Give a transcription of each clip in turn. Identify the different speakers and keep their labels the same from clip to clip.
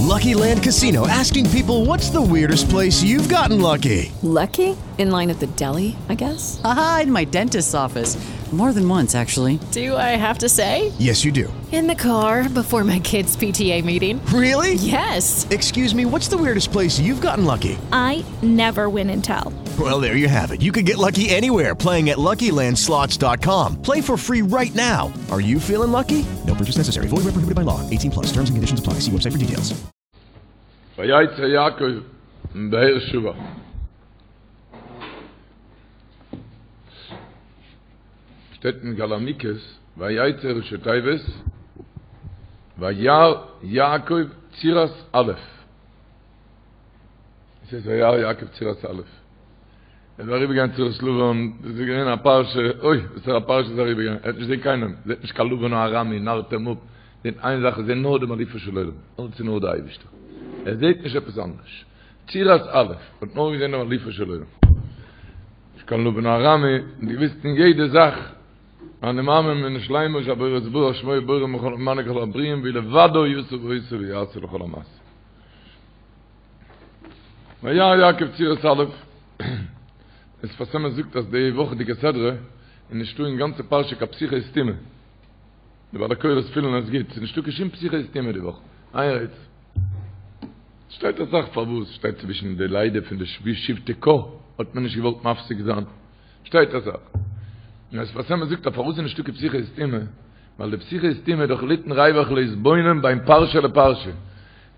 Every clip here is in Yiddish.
Speaker 1: Lucky Land Casino asking people what's the weirdest place you've gotten lucky?
Speaker 2: Lucky? In line at the deli, I guess?
Speaker 3: Aha, in my dentist's office. More than once, actually.
Speaker 2: Do I have to say?
Speaker 1: Yes, you do.
Speaker 2: In the car before my kids' PTA meeting.
Speaker 1: Really?
Speaker 2: Yes.
Speaker 1: Excuse me, what's the weirdest place you've gotten lucky?
Speaker 4: I never win and tell.
Speaker 1: Well, there you have it. You can get lucky anywhere playing at LuckyLandSlots.com. Play for free right now. Are you feeling lucky? No purchase necessary. Void where prohibited by law. 18 plus. Terms and conditions apply. See website for details.
Speaker 5: ויצא יעקב מבאר שבע. שטייט אין מגלה עמוקות, ויצא ראשי תיבות, וירא יעקב צורת א'. עס איז וירא יעקב צורת א'. ער איז אריבערגעגאנגען צורת לבן, דאס איז געווען א פרשה, אוי, וואס פאר א פרשה איז אריבערגעגאנגען, ער האט נישט געזען קיינעם, זעט נישט קיין לבן הארמי, נארט אים אפ, זעט איין זאך, ער זעט נאר דעם אלופו של עולם, אלץ איז נאר דער אייבערשטער, ער זעט נישט עפעס אנדערש, צורת א', האט נאר געזען דעם אלופו של עולם, נישט קיין לבן הארמי, און געוויסט אין יעדע זאך, אני מאמין באמונה שלימה שהבורא יתברך שמו בורא ומנהיג כל הברואים והוא לבדו עשה ועושה ויעשה לכל המעשים. וירא יעקב צורת א', דער שפת אמת זאגט אז די וואכעדיגע סדרה איז נישטא אין גאנצע פרשה קיין פתיחה וסתימה, די בעלי קורא'ס פילן עס גוט, ס'איז נישטא קיין שום פתיחה וסתימה די וואך, איין רעדט. שטייט אסאך פארוואס, שטייט צווישן די לידה פון די שבטי קה האט מען נישט געוואלט מפסיק זיין, שטייט אסאך. און דער שפת אמת זאגט אז פארוואס איז נישטא קיין פתיחה וסתימה, ווייל די פתיחה וסתימה איז דאך ליתן ריווח להתבונן בין פרשה לפרשה.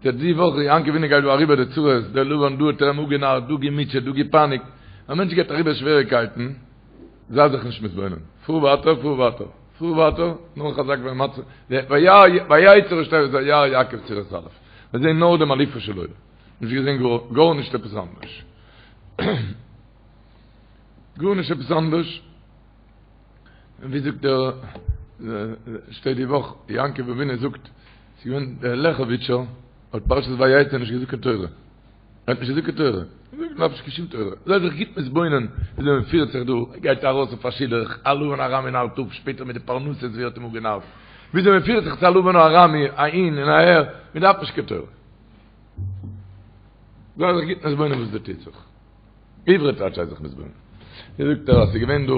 Speaker 5: די די וואך יעקב אבינו גייט דא אריבער די צרות, דער לבן דא האט ער אים אפגענארט, דא געמוטשעט, דא געפייניגט, א מענטש גייט אריבער שוועריקייטן, זיי זיך נישט מתבונן, פאר ווייטער, פאר ווייטער, פאר ווייטער, נאר חזק ואמץ, ויצא ראשי תיבות וירא יעקב צורת א', מיר זעהן נאר דעם אלופו של עולם, נישט געזעהן גארנישט עפעס אנדערש, גארנישט עפעס אנדערש. און ווי זאגט דער שטייט די וואך יעקב אבינו זאגט ס'איז געווען דער לעכעוויטשער האט פרשת ויצא נישט געזאגט קיין תורה ער האט נישט געזאגט קיין תורה זאגט מ'דארף נישט קיין שום תורה זיי זיך גוט מתבונן וויאזוי מען פירט זיך דא גייט ארויס אויף א שידוך א לבן הארמי נארט אפ שפעטער מיט די פרנסות ווי ער האט אים אפגענארט וויאזוי מען פירט זיך צו א לבן הארמי אהין און אהער מען דארף נישט קיין תורה זיי זיך גוט מתבונן וואס דא טוט זיך עברי טייטש זיי זיך מתבונן. ווי זאגט ער אז ס'איז געווען דא,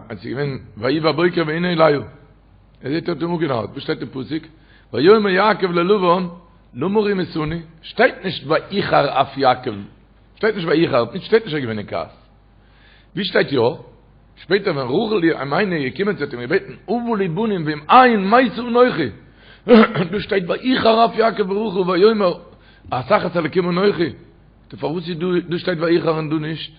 Speaker 5: אז ס'איז געווען ויהי בבוקר והנה לאה. ער זעט ער האט אים אפגענארט. וואס שטייט אין פסוק? ויאמר יעקב ללבן למה רמיתני? שטייט נישט ויחר אף יעקב. שטייט נישט ויחר, שטייט נישט ער איז געווען אין כעס. ווי שטייט יא? שפעטער ווען רחל אמנו איז געקומען זי האט אים געבעטן הבה לי בנים ואם אין מתה אנכי. דא שטייט ויחר אף יעקב ברחל ויאמר התחת אלקים אנכי. טא פארוואס איז דא דא שטייט ויחר און דא נישט?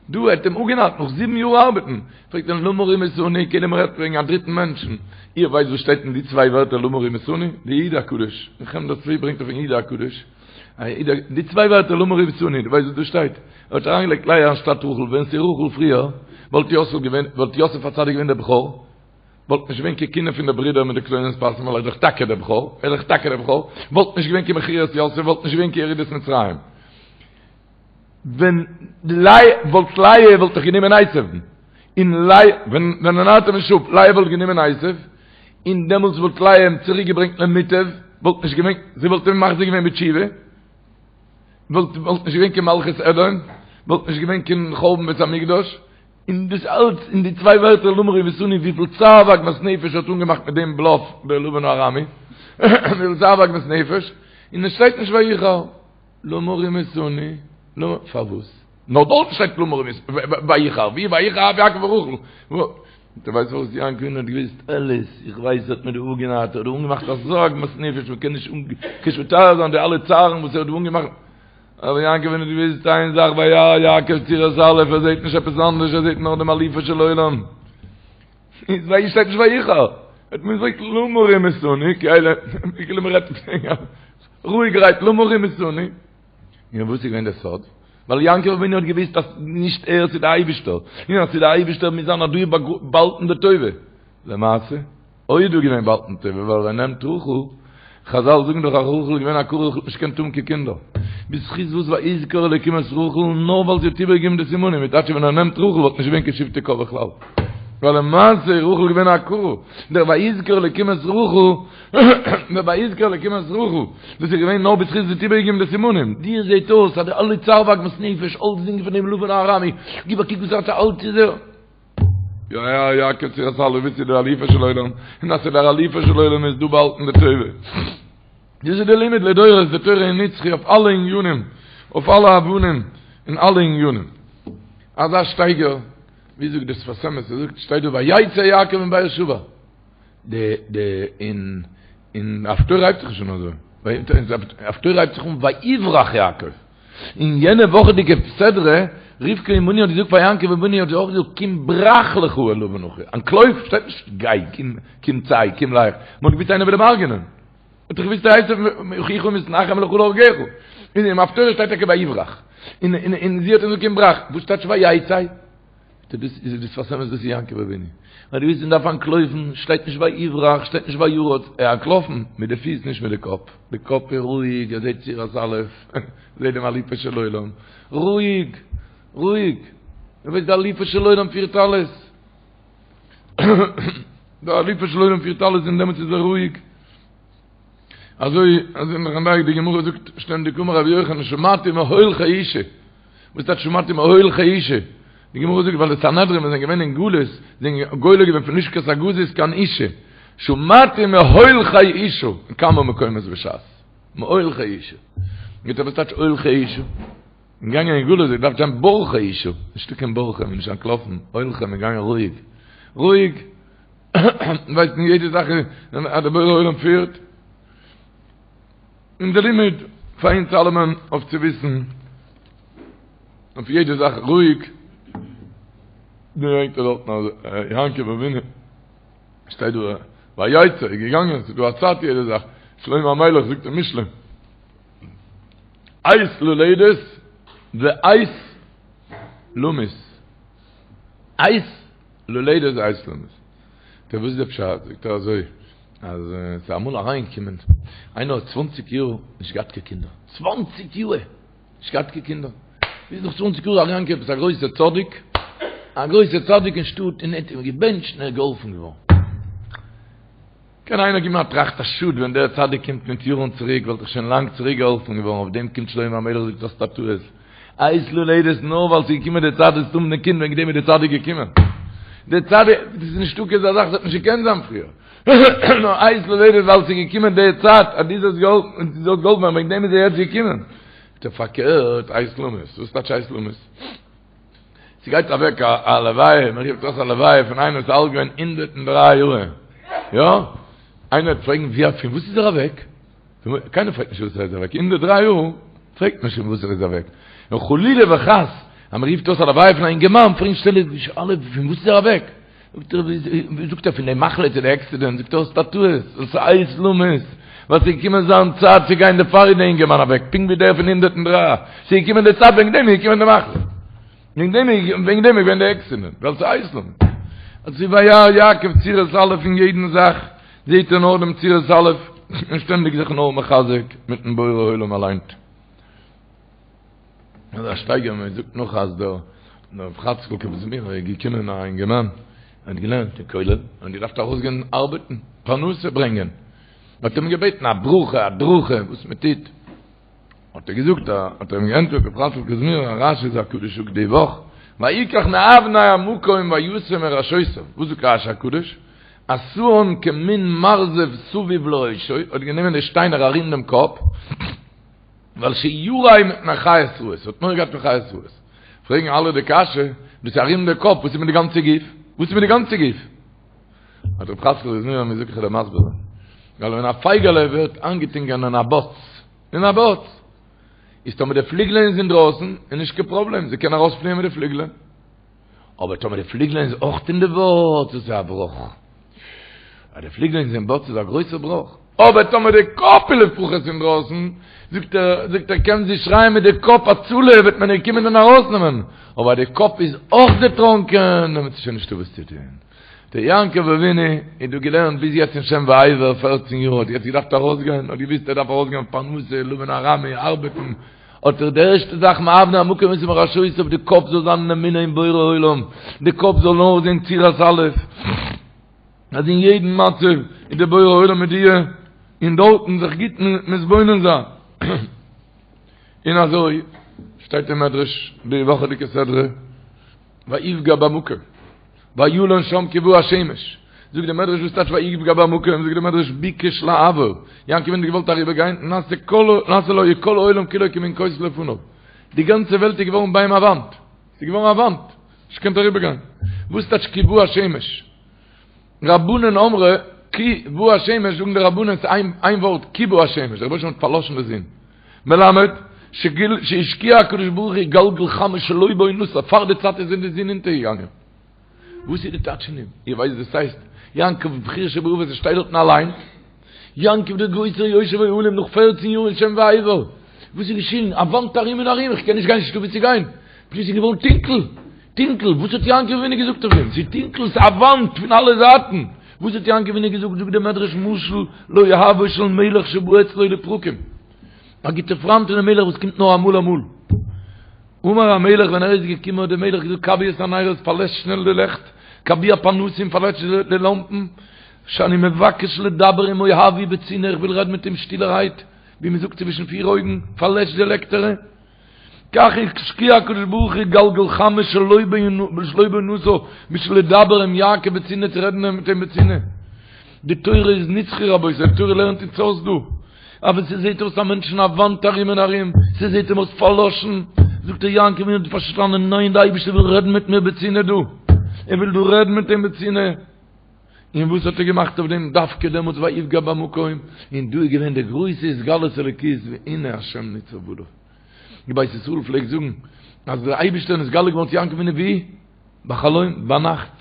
Speaker 5: דא האט אים אפגענארט נאך זיבן יאר ארבעטן, פרעגט ער למה רמיתני, כאילו מען רעדט וועגן א דריטן מענטשן, איר ווייסט וואס שטייט אין די צוויי ווערטער למה רמיתני? די איד הקדוש, אין חמדת צבי ברענגט אויפן איד הקדוש, די צוויי ווערטער למה רמיתני, דו ווייסט וואס דא שטייט? ער האט אריינגעלייגט לאה אנשטאט רחל, ווען ס'איז רחל פריער, וואלט יוסף געווען, וואלט יוסף הצדיק געווען דער בכור, וואלט נישט געווען קיין קנאה פון די ברידער מיט די כתונת פסים ווייל ער איז דאך טאקע דער בכור, ער איז דאך טאקע דער בכור, וואלט נישט געווען קיין מכירת יוסף, וואלט נישט געווען קיין ירידת מצרים. ווען לאה וואלט לאה וואלט דאך גענומען עשו'ן, און לאה ווען ווען ער נארט אים נישט אפ, לאה וואלט גענומען עשו, און דעמאלטס וואלט לאה אים צוריק געברענגט למוטב, וואלט נישט געווען, זי וואלט אים מחזיר געווען בתשובה, וואלט וואלט נישט געווען קיין מלכות אדום, וואלט נישט געווען קיין חורבן בית המקדש. און דאס אלץ אין די צוויי ווערטער למה רמיתני וויפיל צער ועגמת נפש האט אנגעמאכט מיט דעם בלאף דער לבן הארמי, וויפיל צער ועגמת נפש, און עס שטייט נישט ויחר למה רמיתני, למה, פארוואס? נאר דארט שטייט למה רמיתני, ויחר, ווי ויחר אף יעקב ברחל, דו ווייסט פארוואס יעקב אבינו האט געוויסט אלעס, איך ווייס ער האט מיר דא אפגענארט, ער האט דא אנגעמאכט אזא עגמת נפש, מען קען נישט מתאר זיין די אלע צערן וואס ער האט דא אנגעמאכט, אבער יעקב אבינו האט געוואוסט איין זאך וירא יעקב צורת א', ער זעט נישט עפעס אנדערש, ער זעט נאר דעם אלופו של עולם. איז ווייל שטייט נישט ויחר. האט מען געזאגט למה רמיתני, כאילו מען רעדט רואיגערהייט למה רמיתני. און וואס איז געווען דער סוד? ווייל יעקב אבינו האט געוואוסט אז נישט ער ס'איז דער אייבישטער, און אז ס'איז דער אייבישטער מוז זיין אז דא איז באהאלטן די טובה. למעשה? אוי איז דא געווען באהאלטן טובה ווייל ער נעמט רחל, חזל זאגן דאך אז רחל איז געווען עקרה רחל האט נישט געקענט האבן קיין קינדער, בזכות וואס ויזכור אלוקים את רחל נאר ווייל זי האט איבערגעגעבן די סימנים, מיט טייטש ווען ער נעמט רחל וואלט נישט געווען קיין שבטי קה בכלל. ווייל למעשה איז רחל געווען א עקרה, דער ויזכר אלקים את רחל, דער ויזכר אלקים את רחל, דאס איז געווען נאר בזכות זי האט איבערגעגעבן די סימנים, דיר זעט אויס אז די אלע צער ועגמת נפש, אלצדינג פון דעם לבן הארמי, גיב א קוק וואס האט אלץ איז ער. וירא יעקב צורת אלף וואס איז דער אלופו של עולם, און אז ס'איז דער אלופו של עולם איז דא באהאלטן די טובה. דאס איז די לימוד לדורות, די תורה איז נצחי אויף אלע ענינים, אויף אלע אופנים, אין אלע ענינים. אזא שטייגער, ווי זאגט דער שפת אמת, ער זאגט, שטייט דא ויצא יעקב מבאר שבע. די די אין אין הפטורה הייבט זיך נישט אן אזוי. הפטורה הייבט זיך אן ויברח יעקב. אין יענע וואכעדיגע סדרה, רבקה אמנו האט געזאגט פאר יעקב אבינו האט זי אויך געזאגט קום ברח לך אל לבן אחי, אנטלויף, שטייט נישט גיי, קום, קום צא, קום לך, מען האט געוואוסט איינער וויל אים הרג'נען. האט דאך געוואוסט עשו אחיך מתנחם לך להרגך. אין דעם הפטורה שטייט טאקע ויברח. און און און זי האט אים געזאגט קום ברח. וואס טייטש ויצא? דאס איז דאס שפת אמת דאס איז יעקב אבינו. ווייל דו ווילסט מען דארף אנטלויפן, שטייט נישט ויברח, שטייט נישט וירוץ, ער אנטלאפן מיט די פיס נישט מיט די קאפ. די קאפ איז רואיג, ער זעט צורת אלף, זעט דעם אלופו של עולם. רואיג, רואיג. ער ווייסט די אלופו של עולם פירט אלעס. די אלופו של עולם פירט אלעס און דעמאלטס איז ער רואיג. אזוי אזוי נאך אנדערע די גמרא זאגט שטענדיג אמר רבי יוחנן שמעתי מהולכי אושא. וואס טייטש שמעתי מהולכי אושא? די גמרא זאגט ווייל די סנהדרין ווען זיי זענען געווען אין גלות זענען גולה געווען פון לשכת הגזית קיין אושא. שמעתי מהולכי אושא אין כמה מקומות בש"ס. מהולכי אושא. מיט וואס טייטש הולכי אושא? געגאנגען אין גלות, געדארפט זיין בורחי אושא, נישטא קיין בורחי, מען איז נישט אנטלאפן, הולכי, מען געגאנגען רואיג, רואיג, ווייסט אין יעדע זאך אז דער בורא עולם פירט, און די לימוד פאר אונז אלעמען אויף צו וויסן, אויף יעדע זאך רואיג, ברענגט ער דארטן אז יעקב אבינו שטייט דא ויצא איז געגאנגען, ס'איז דא א צייט יעדע זאך, שלמה המלך זאגט אין משלי, עת ללדת ועת למות. עת ללדת ועת למות. טא וואס איז די פשט? זאגט ער אזוי, אז ס'איז אמאל אריינגעקומען איינער האט צוואנציג יאר נישט געהאט קיין קינדער. צוואנציג יאר נישט געהאט קיין קינדער. ביז נאך צוואנציג יאר איז אריינגעקומען עפעס א גרויסע צדיק, א גרויסע צדיק אין שטאט און ער האט אים געבענטשט און ער איז געהאלפן געווארן. קען איינער גיבן א טראכט א שאד ווען דער צדיק קומט מיט יארן צוריק וואלט איך שוין לאנג צוריק געהאלפן געווארן אויף דעם קומט שלמה המלך זאגט האסט א טעות עת ללדת נאר ווייל ס'איז געקומען די צייט וועסטו האבן די קינד וועגן דעם איז די צדיק געקומען די צדיק דאס איז נישטא קיין אזא זאך ס'האט נישט געקענט זיין פריער נאר עת ללדת ווייל ס'איז געקומען די צייט אז דו זאלסט געהאלפן דו זאלסט געהאלפן ווערן וועגן דעם איז ער יעצט געקומען פארקערט עת למות וואס טייטש עת למות? ס'גייט אוועק א לוויה, מען רופט אויס א לוויה פון איינער וואס איז אלט געווען 103 יאר, יא? איינער וועט פרעגן ווי פון וואס איז ער אוועק? קיינער פרעגט נישט וואס ער איז אוועק, 103 יאר פרעגט מען נישט פון וואס ער איז אוועק. נאר חלילה וחס אז מען רופט אויס א לוויה פון א אינגערמאן פרעגן שטענדיג אלע פון וואס איז ער אוועק? זאגט ער, זאגט ער פון די מחלה צו די עקסידענט, זאגט ער האסט א טעות, דאס איז עת למות, ווייל ס'איז געקומען זיין צייט צו גיין דערפאר איז די אינגערמאן אוועק, פונקט ווי דער פון 103, ס'איז געקומען די צייט וועגן דעם איז געקומען די מחלה, וועגן דעם איז וועגן דעם איז געווען די עקסידענט, ווייל ס'איז עת למות. אזוי וירא יעקב צורת אלף אין יעדן זאך זעהט ער נאר דעם צורת אלף, און שטענדיג זיך נאר מחזק מיטן בורא עולם אליין. אזא שטייגער מען זאגט נאך אז דער רב חאצקל קאזמירער איז געקומען א אינגערמאן ער האט געלערנט אין כולל און געדארפט ארויסגיין ארבעטן פרנסה ברענגען מען האט אים געבעטן א ברכה הדרכה וואס מען טוט האט ער געזאגט האט ער אים געענטפערט רב חאצקל קאזמירער א רש"י הקדוש זאגט די וואך ויקח מאבני המקום וישם מראשותיו וואס זאגט רש"י הקדוש עשאן כמין מרזב סביב לראשו האט גענומען די שטיינער ארום דעם קאפ ווייל שירא מפני חיות רעות, האט מורא געהאט פון חיות רעות. פרעגן אלע די קשיא, דאס איז ארום די קאפ, וואס איז מיט די גאנצע גוף? וואס איז מיט די גאנצע גוף? האט רב חאצקל קאזמירער מיר זאגט איך וועל דיר מסביר זיין. ווייל ווען א פייגעלע ווערט איינגעטונקען אין א בוץ, אין א בוץ, איז טאמער די פליגלען איז אינדרויסן, איז נישט קיין פראבלעם, זי קען ארויספליען מיט די פליגלען. אבער טאמער די פליגלען איז אויך אין די בוץ, איז עס א בראך. אז די פליגלען איז אין בוץ איז א גרויסע בראך. אבער טאמער די קאפ איז לפחות אינדרויסן, זאגט ער, זאגט ער, קען זי שרייען מיט די קאפ הצלה וועט מען איר קומען און ארויסנעמען. אבער אז די קאפ איז אויך דערטראנקען, דעמאלטס איז שוין נישטא וואס צו טון. דער יעקב אבינו איז דא געלערנט ביז יעצט אין שם ועבר פערצן יאר, האט יעצט געדארפט ארויסגיין, האט געוואוסט ער דארף ארויסגיין פרנסה, לבן הארמי, ארבעטן. האט ער די ערשטע זאך מאבני המקום ומראשותיו די קאפ זאל זיין אין אמונה אין בורא עולם, די קאפ זאל נאר זען צורת א', אז אין יעדן מצב איז דער בורא עולם מיט דיר, און דארטן זיך גוט מתבונן זיין. און אזוי שטייט אין מדרש די וואכעדיגע סדרה, ויפגע במקום, וילן שם כי בא השמש, זאגט די מדרש וואס טייטש ויפגע במקום, זאגט די מדרש ביקש לעבור, יעקב אבינו האט געוואלט אריבער גיין, נעשה כל נעשה לו כל העולם כולו כמין כותל לפניו, די גאנצע וועלט איז געווארן ביי אים א וואנט, ס'איז געווארן א וואנט, נישט געקענט אריבער גיין, וואס טייטש כי בא השמש? רבנן אמרי כי בא השמש זאגן די רבנן ס'איז איין ווארט כי בא השמש, דער רבונו של עולם האט פארלאשן די זון, מלמד שהשקיע הקדוש ברוך הוא גלגל חמה שלא בעונתה, פאר די צייט איז די זון אונטערגעגאנגען. וואס איז די טייטש פון דעם? איר ווייסט וואס ס'הייסט יעקב בחיר שבאבות ער שטייט דארטן אליין? יעקב דער גרויסער יושב אוהלים נאך פערצן יאר אין שם ועבר, וואס איז געשען? א וואנט ארום און ארום, איך קען נישט גיין, נישטא וואו צו גיין, פלוצלינג איז געווארן טונקל, טונקל, וואס האט יעקב אבינו געזאגט אויף דעם? ס'איז טונקל, ס'איז א וואנט פון אלע זייטן, וואס האט יעקב אבינו געזאגט? זאגט דער מדרש משל לאוהבו של מלך שבא אצלו לפרקים, א גוטע פריינט פונעם מלך וואס קומט נאר אמאל אמאל. אמר המלך ווען ער איז געקומען האט דער מלך געזאגט כבו את הנרות פארלעשט שנעל די לעכט, כבו הפנסים פארלעשט די לאמפן, שאני מבקש לדבר עם אוהבי בצנעה איך וויל רעדן מיט אים שטילערהייט, ווי מען זאגט צווישן פיר אויגן, פארלעשט די לעקטערע. כך השקיע הקדוש ברוך הוא גלגל חמה שלא בעונתה בשביל לדבר עם יעקב בצנעה צו רעדן מיט אים בצנעה. די תורה איז נצחי רבותי, די תורה לערנט אונז אויס דא. אבער ס'זעט אויס א מענטשן א וואנט ארום און ארום, ס'זעט אים אויס פארלאשן, זאגט ער יעקב אבינו האט פארשטאנען, ניין די אייבערשטער וויל רעדן מיט מיר בצנעה דא, ער וויל דא רעדן מיט אים בצנעה. און וואס האט ער געמאכט אויף דעם דווקא דעמאלטס ויפגע במקום, און דא איז געווען די גרויסע התגלות אלוקית והנה השם ניצב עליו. די בית ישראל פלעגט זאגן אז דער אייבערשטער איז נתגלה געווארן צו יעקב אבינו ווי? בחלום, ביינאכט.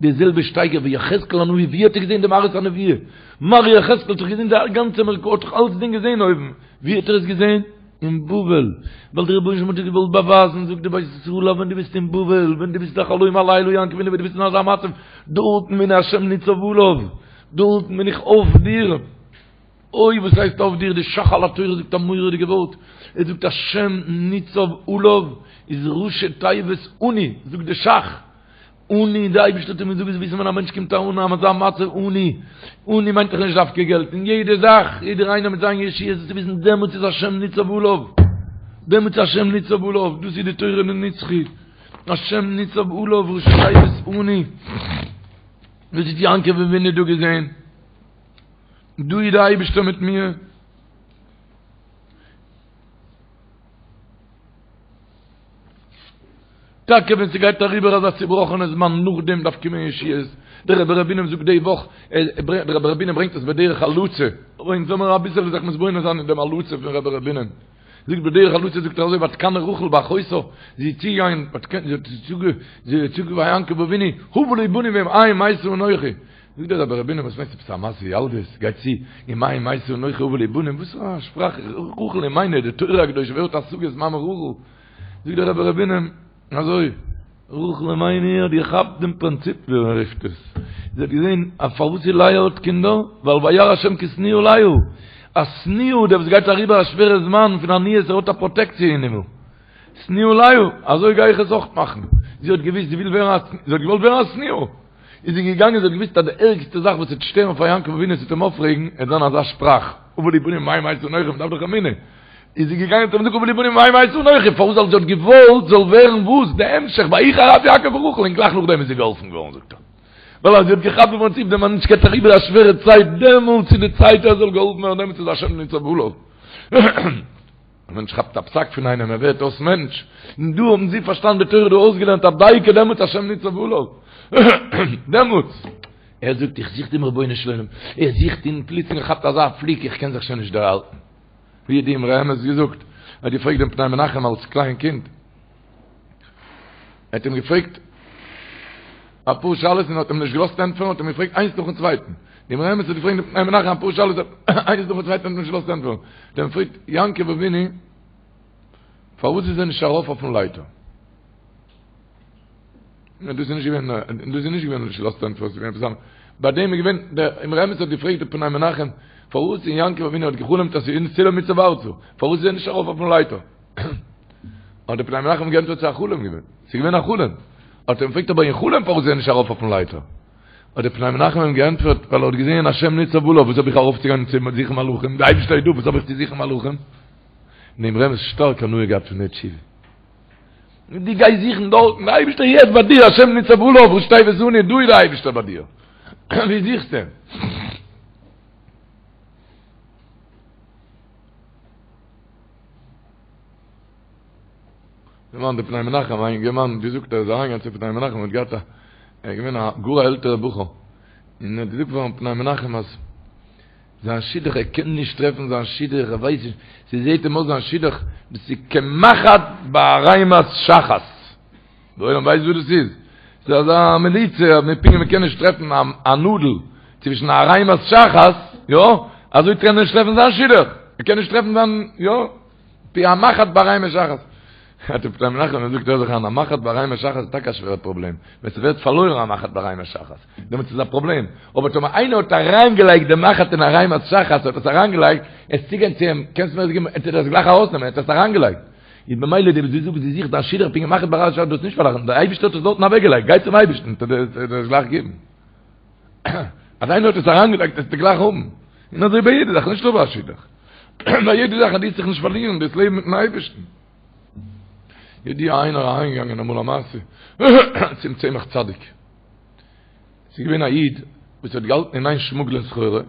Speaker 5: די זעלבע שטייגער ווי יחזקאל הנביא, ווי האט ער געזען די מראות הנבואה? מראה יחזקאל האט דאך געזען די גאנצע מרכבה, האט דאך אלצדינג געזען אויבן, ווי האט ער עס געזען? אין בבל, ווייל דער רבונו של עולם האט דיר געוואלט באווייזן, זאגט די בית ישראל, אז ווען דו ביסט אין בבל, ווען דו ביסט א חלום הלילה יעקב אבינו, ווען דו ביסט אין אזא מצב, דארטן והנה השם ניצב עליו, דארטן בין איך אויף דיר. אוי וואס הייסט אויף דיר, די ש"ך על התורה זאגט א מורא'דיגע ווארט, ער זאגט השם ניצב עליו איז ראשי תיבות עני, זאגט די ש"ך, עני, די אייבערשטער האט אים געזאגט זאלסט וויסן ווען א מענטש קומט אן אין אזא מצב עני, עני מיינט דאך נישט דווקא געלט, אין יעדע זאך, יעדער איינער מיט זיין ישועה, זאלסטו וויסן דעמאלטס איז השם ניצב עליו, דעמאלטס איז השם ניצב עליו, דאס איז די תורה נצחי, השם ניצב עליו ראשי תיבות עני, דאס האט יעקב אבינו דא געזען. דא איז די אייבערשטער מיט מיר. טאקע ווען ס'גייט אריבער אזא צובראכענע זמן נאכדעם דארף קומען ישועות, דער רבי ר' בונם זאגט די וואך, דער רבי ר' בונם ברענגט עס בדרך הלצה, אבער אונז זאל מיר אביסעלע זיך מתבונן זיין אין דעם הלצה פון רבי ר' בונם, זאגט בדרך הלצה זאגט ער אזוי ותקנא רחל באחותה, זי איז צוגעגאנגען, זי האט צוגעגאנגען ביי יעקב אבינו, הבה לי בנים ואם אין מתה אנכי, זאגט דער רבי ר' בונם וואס מיינסטו עפעס א מעשה ילדות, גייט צו אם אין מתה אנכי הבה לי בנים, וואס פאר א שפראך, רחל אמנו, די תורה הקדושה ווער האט השגות מאמע רחל, זאגט דער רבי ר' בונם אזוי, רחל אמנו האט געכאפט דעם פרינציפ ווי מען רופט עס, זי האט געזען אז פארוואס איז לאה האט קינדער, ווייל וירא השם כי שנואה לאה, א שנואה דער וואס גייט אריבער א שווערע זמן פון עניות ער האט א פראטעקציע אין הימל, שנואה לאה, אזוי גיי איך עס אויך מאכן, זי האט געוואוסט זי וויל ווערן א, זי האט געוואלט ווערן א שנואה. איז זי געגאנגען זי האט געוואוסט אז די ערגסטע זאך וואס וועט שטערן פאר יעקב אבינו עס וועט אים אויפרעגן עט זיין אזא שפראך הבה לי בנים אם אין מתה אנכי מ'דארף דאך אמונה איז זי געגאנגען האט אים געזאגט הבה לי בנים אם אין מתה אנכי פארוואס ווייל זי האט געוואלט זאל ווערן וואס די המשך ויחר אף יעקב ברחל און גלייך נאכדעם איז זי געהאלפן געווארן זאגט ער ווייל אז זי האט געכאפט די פרינציפ די מענטש גייט אריבער א שווערע צייט דעמאלטס איז די צייט ער זאל געהאלפן ווערן דעמאלטס איז השם ניצב עליו. א מענטש כאפט א פסק פון איינעם ער ווערט אויס מענטש, און דא האבן זיי פארשטאנען די תורה דא אויסגעלערנט אז דייקא דעמאלטס השם ניצב עליו, דעמאלטס, ער זאגט איך זוך דעם רבונו של עולם, ער זוכט און פלוצלינג כאפט אזא פליק איך קען זיך שוין נישט דערהאלטן, ווי האט די אמרי אמת געזאגט, ער האט געפרעגט דעם פני מנחם אלס קליין קינד, ער האט אים געפרעגט אפאר שאלות און האט אים נישט געלאזט ענטפערן, האט אים געפרעגט איינס נאכן צווייטן, די אמרי אמת האט געפרעגט דעם פני מנחם אפאר שאלות איינס נאכן צווייטן האט אים נישט געלאזט ענטפערן, האט אים געפרעגט יעקב אבינו פארוואס איז ער נישט ארויף אויפן לייטער? דאס איז נישט געווען, דאס איז נישט געווען נישט געלאזט ענטפערן, ס'איז געווען עפעס אנדערש. ביי דעם איז געווען, דער אמרי אמת האט געפרעגט דעם פני מנחם. פארוואס און יעקב אבינו האט געחלומט אז ס'איז סולם מוצב ארצה, פארוואס איז ער נישט ארויף אויפן לייטער? האט דער פני מנחם געענטפערט ס'איז א חלום געווען, ס'איז געווען א חלום. האט ער אים געפרעגט אבער אין חלום פארוואס איז ער נישט ארויף אויפן לייטער? האט דער פני מנחם אים געענטפערט ווייל ער האט געזען השם ניצב עליו, וואס האב איך ארויפצוגיין צו זוכן מלאכים, די אייבערשטער איז דא, וואס האב איך צו זוכן מלאכים? דעם רבינ'ס שטארק הנאה געהאט פון די תשובה. דו גייסט זוכן דארטן, די אייבערשטער איז יעצט ביי דיר, השם ניצב עליו, ראשי תיבות אני, דא איז די אייבערשטער ביי דיר. ווי זוכסטו אים? דערמאנט די פני מנחם, א אינגערמאן האט געזאגט ער איז אריינגעגאנגען צום פני מנחם האט געהאט א, ער איז געווען א גאר א עלטערע בחור, און ער האט געזאגט פארן פני מנחם אז זיין שידוך ער קען נישט טרעפן זיין שידוך ער ווייסט נישט, ס'זעהט אים אויס זיין שידוך דאס איז כמחט בערימת שחת, די עולם ווייסט וואס דאס איז? ס'איז אזא מליצה אז מ'פונקט ווי מ'קען נישט טרעפן א נאדל צווישן א ערימת שחת, יא, אזוי קען ער נישט טרעפן זיין שידוך, ער קען נישט טרעפן זיין, יא. ווי א מחט בערימת שחת. האט דער פני מנחם געזאגט הער זיך איין, א מחט בערימת שחת איז טאקע א שווערע פראבלעם, ווען ס'ווערט פארלוירן א מחט בערימת שחת, דעמאלטס איז א פראבלעם, אבער טאמער איינער האט אריינגעלייגט די מחט אין ערימת שחת, האט עס אריינגעלייגט, עס צוגיין צו אים, קענסט מיר עס געבן, ער טוט עס גלייך ארויסנעמען, ער האט עס אריינגעלייגט. איז במילא די וואס דו זאגסט דו זוכסט דיין שידוך פונקט ווי מחט בערימת שחת, דאס נישט פארלאכן, דער אייבערשטער האט עס דארטן אוועקגעלייגט, גיי צום אייבערשטן, טוט ער דיר עס גלייך געבן. אז איינער האט עס אריינגעלייגט וועסטו גלייך האבן. און אזוי ביי יעדע זאך, נישט נאר ביי א שידוך. ביי יעדע זאך אז דו וועסט זיך נישט פארלירן דאס לעבן מיטן אייבערשטן. ידוע איינער אריינגעגאנגען אמאל א מעשה צום צמח צדיק. ס'איז געווען א איד וואס האט געהאלטן אין איין שמוגלען סחורה, און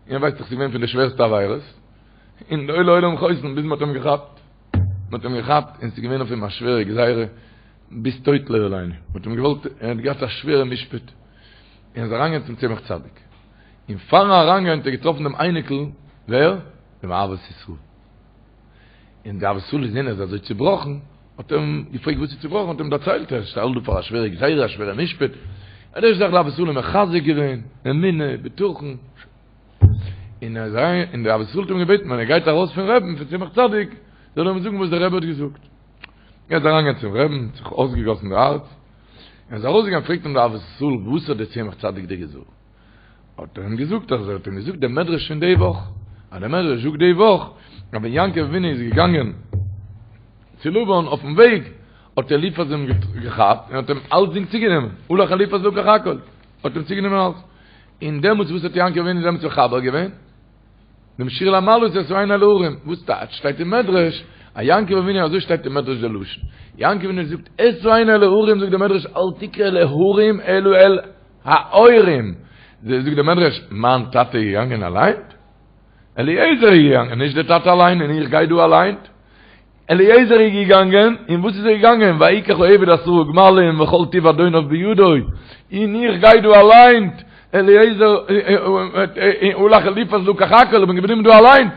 Speaker 5: ער ווייסט דאך ס'איז געווען פון די שווערסטע עבירות, און לא לעולם חוסן ביז מ'האט אים געכאפט. מ'האט אים געכאפט און ס'איז געווען אויף אים א שווערע גזירה ביז טויט לא עלינו. מ'האט אים געוואלט, ער האט געהאט א שווערע משפט. און איז אריינגעגאנגען צום צמח צדיק. און פארן אריינגיין האט ער געטראפן דעם אייניקל, ווער? דעם אהבת ישראל. און דער אהבת ישראל געזען ער איז אזוי צובראכן, האט ער אים געפרעגט וואס איז צובראכן, האט ער אים דערציילט ער שטייט דא פאר א שווערע גזירה, א שווערע משפט. האט ער זיך דער אהבת ישראל אים מחזק געווען, אמונה, בטחון. און ער איז אריין, און דער אהבת ישראל האט אים געבעטן ווען ער גייט ארויס פון רבי'ן, פון צמח צדיק, זאל ער אים זאגן וואס דער רבי האט געזאגט. ער איז אריינגעגאנגען צום רבי'ן, זיך אויסגעגאסן די הארץ, ער איז ארויסגעגאנגען פרעגט אים דער אהבת ישראל וואס האט דער צמח צדיק דיר געזאגט? האט ער אים געזאגט אז ער האט אים געזאגט דעם מדרש פון די וואך, אז דער מדרש זאגט די וואך אז ווען יעקב אבינו איז געגאנגען צו לבן אויפן וועג האט אליפז אים געכאפט און האט אים אלצדינג צוגענומען, הלך אליפז לקח הכל, האט אים צוגענומען אלץ, און דעמאלטס וואס האט יעקב אבינו דעמאלטס מחבר געווען? דעם שיר למעלות אשא עיני אל ההרים, וואס טייטש שטייט אין מדרש, אז יעקב אבינו אזוי שטייט אין מדרש די לשון, יעקב אבינו זאגט אשא עיני אל ההרים זאגט דער מדרש אל תקרא אל ההרים אלא אל ההורים, זאגט דער מדרש מיין טאטע איז געגאנגען אליין? אליעזר איז געגאנגען נישט דער טאטע אליין און איך גיי דא אליין? אליעזר איז געגאנגען, און וואס איז ער געגאנגען? ויקח העבד עשרה גמלים וכל טוב אדוניו בידו, און איך גיי דא אליין, אליעזר, הלך אליפז לקח הכל, איך בין געבליבן דא אליין.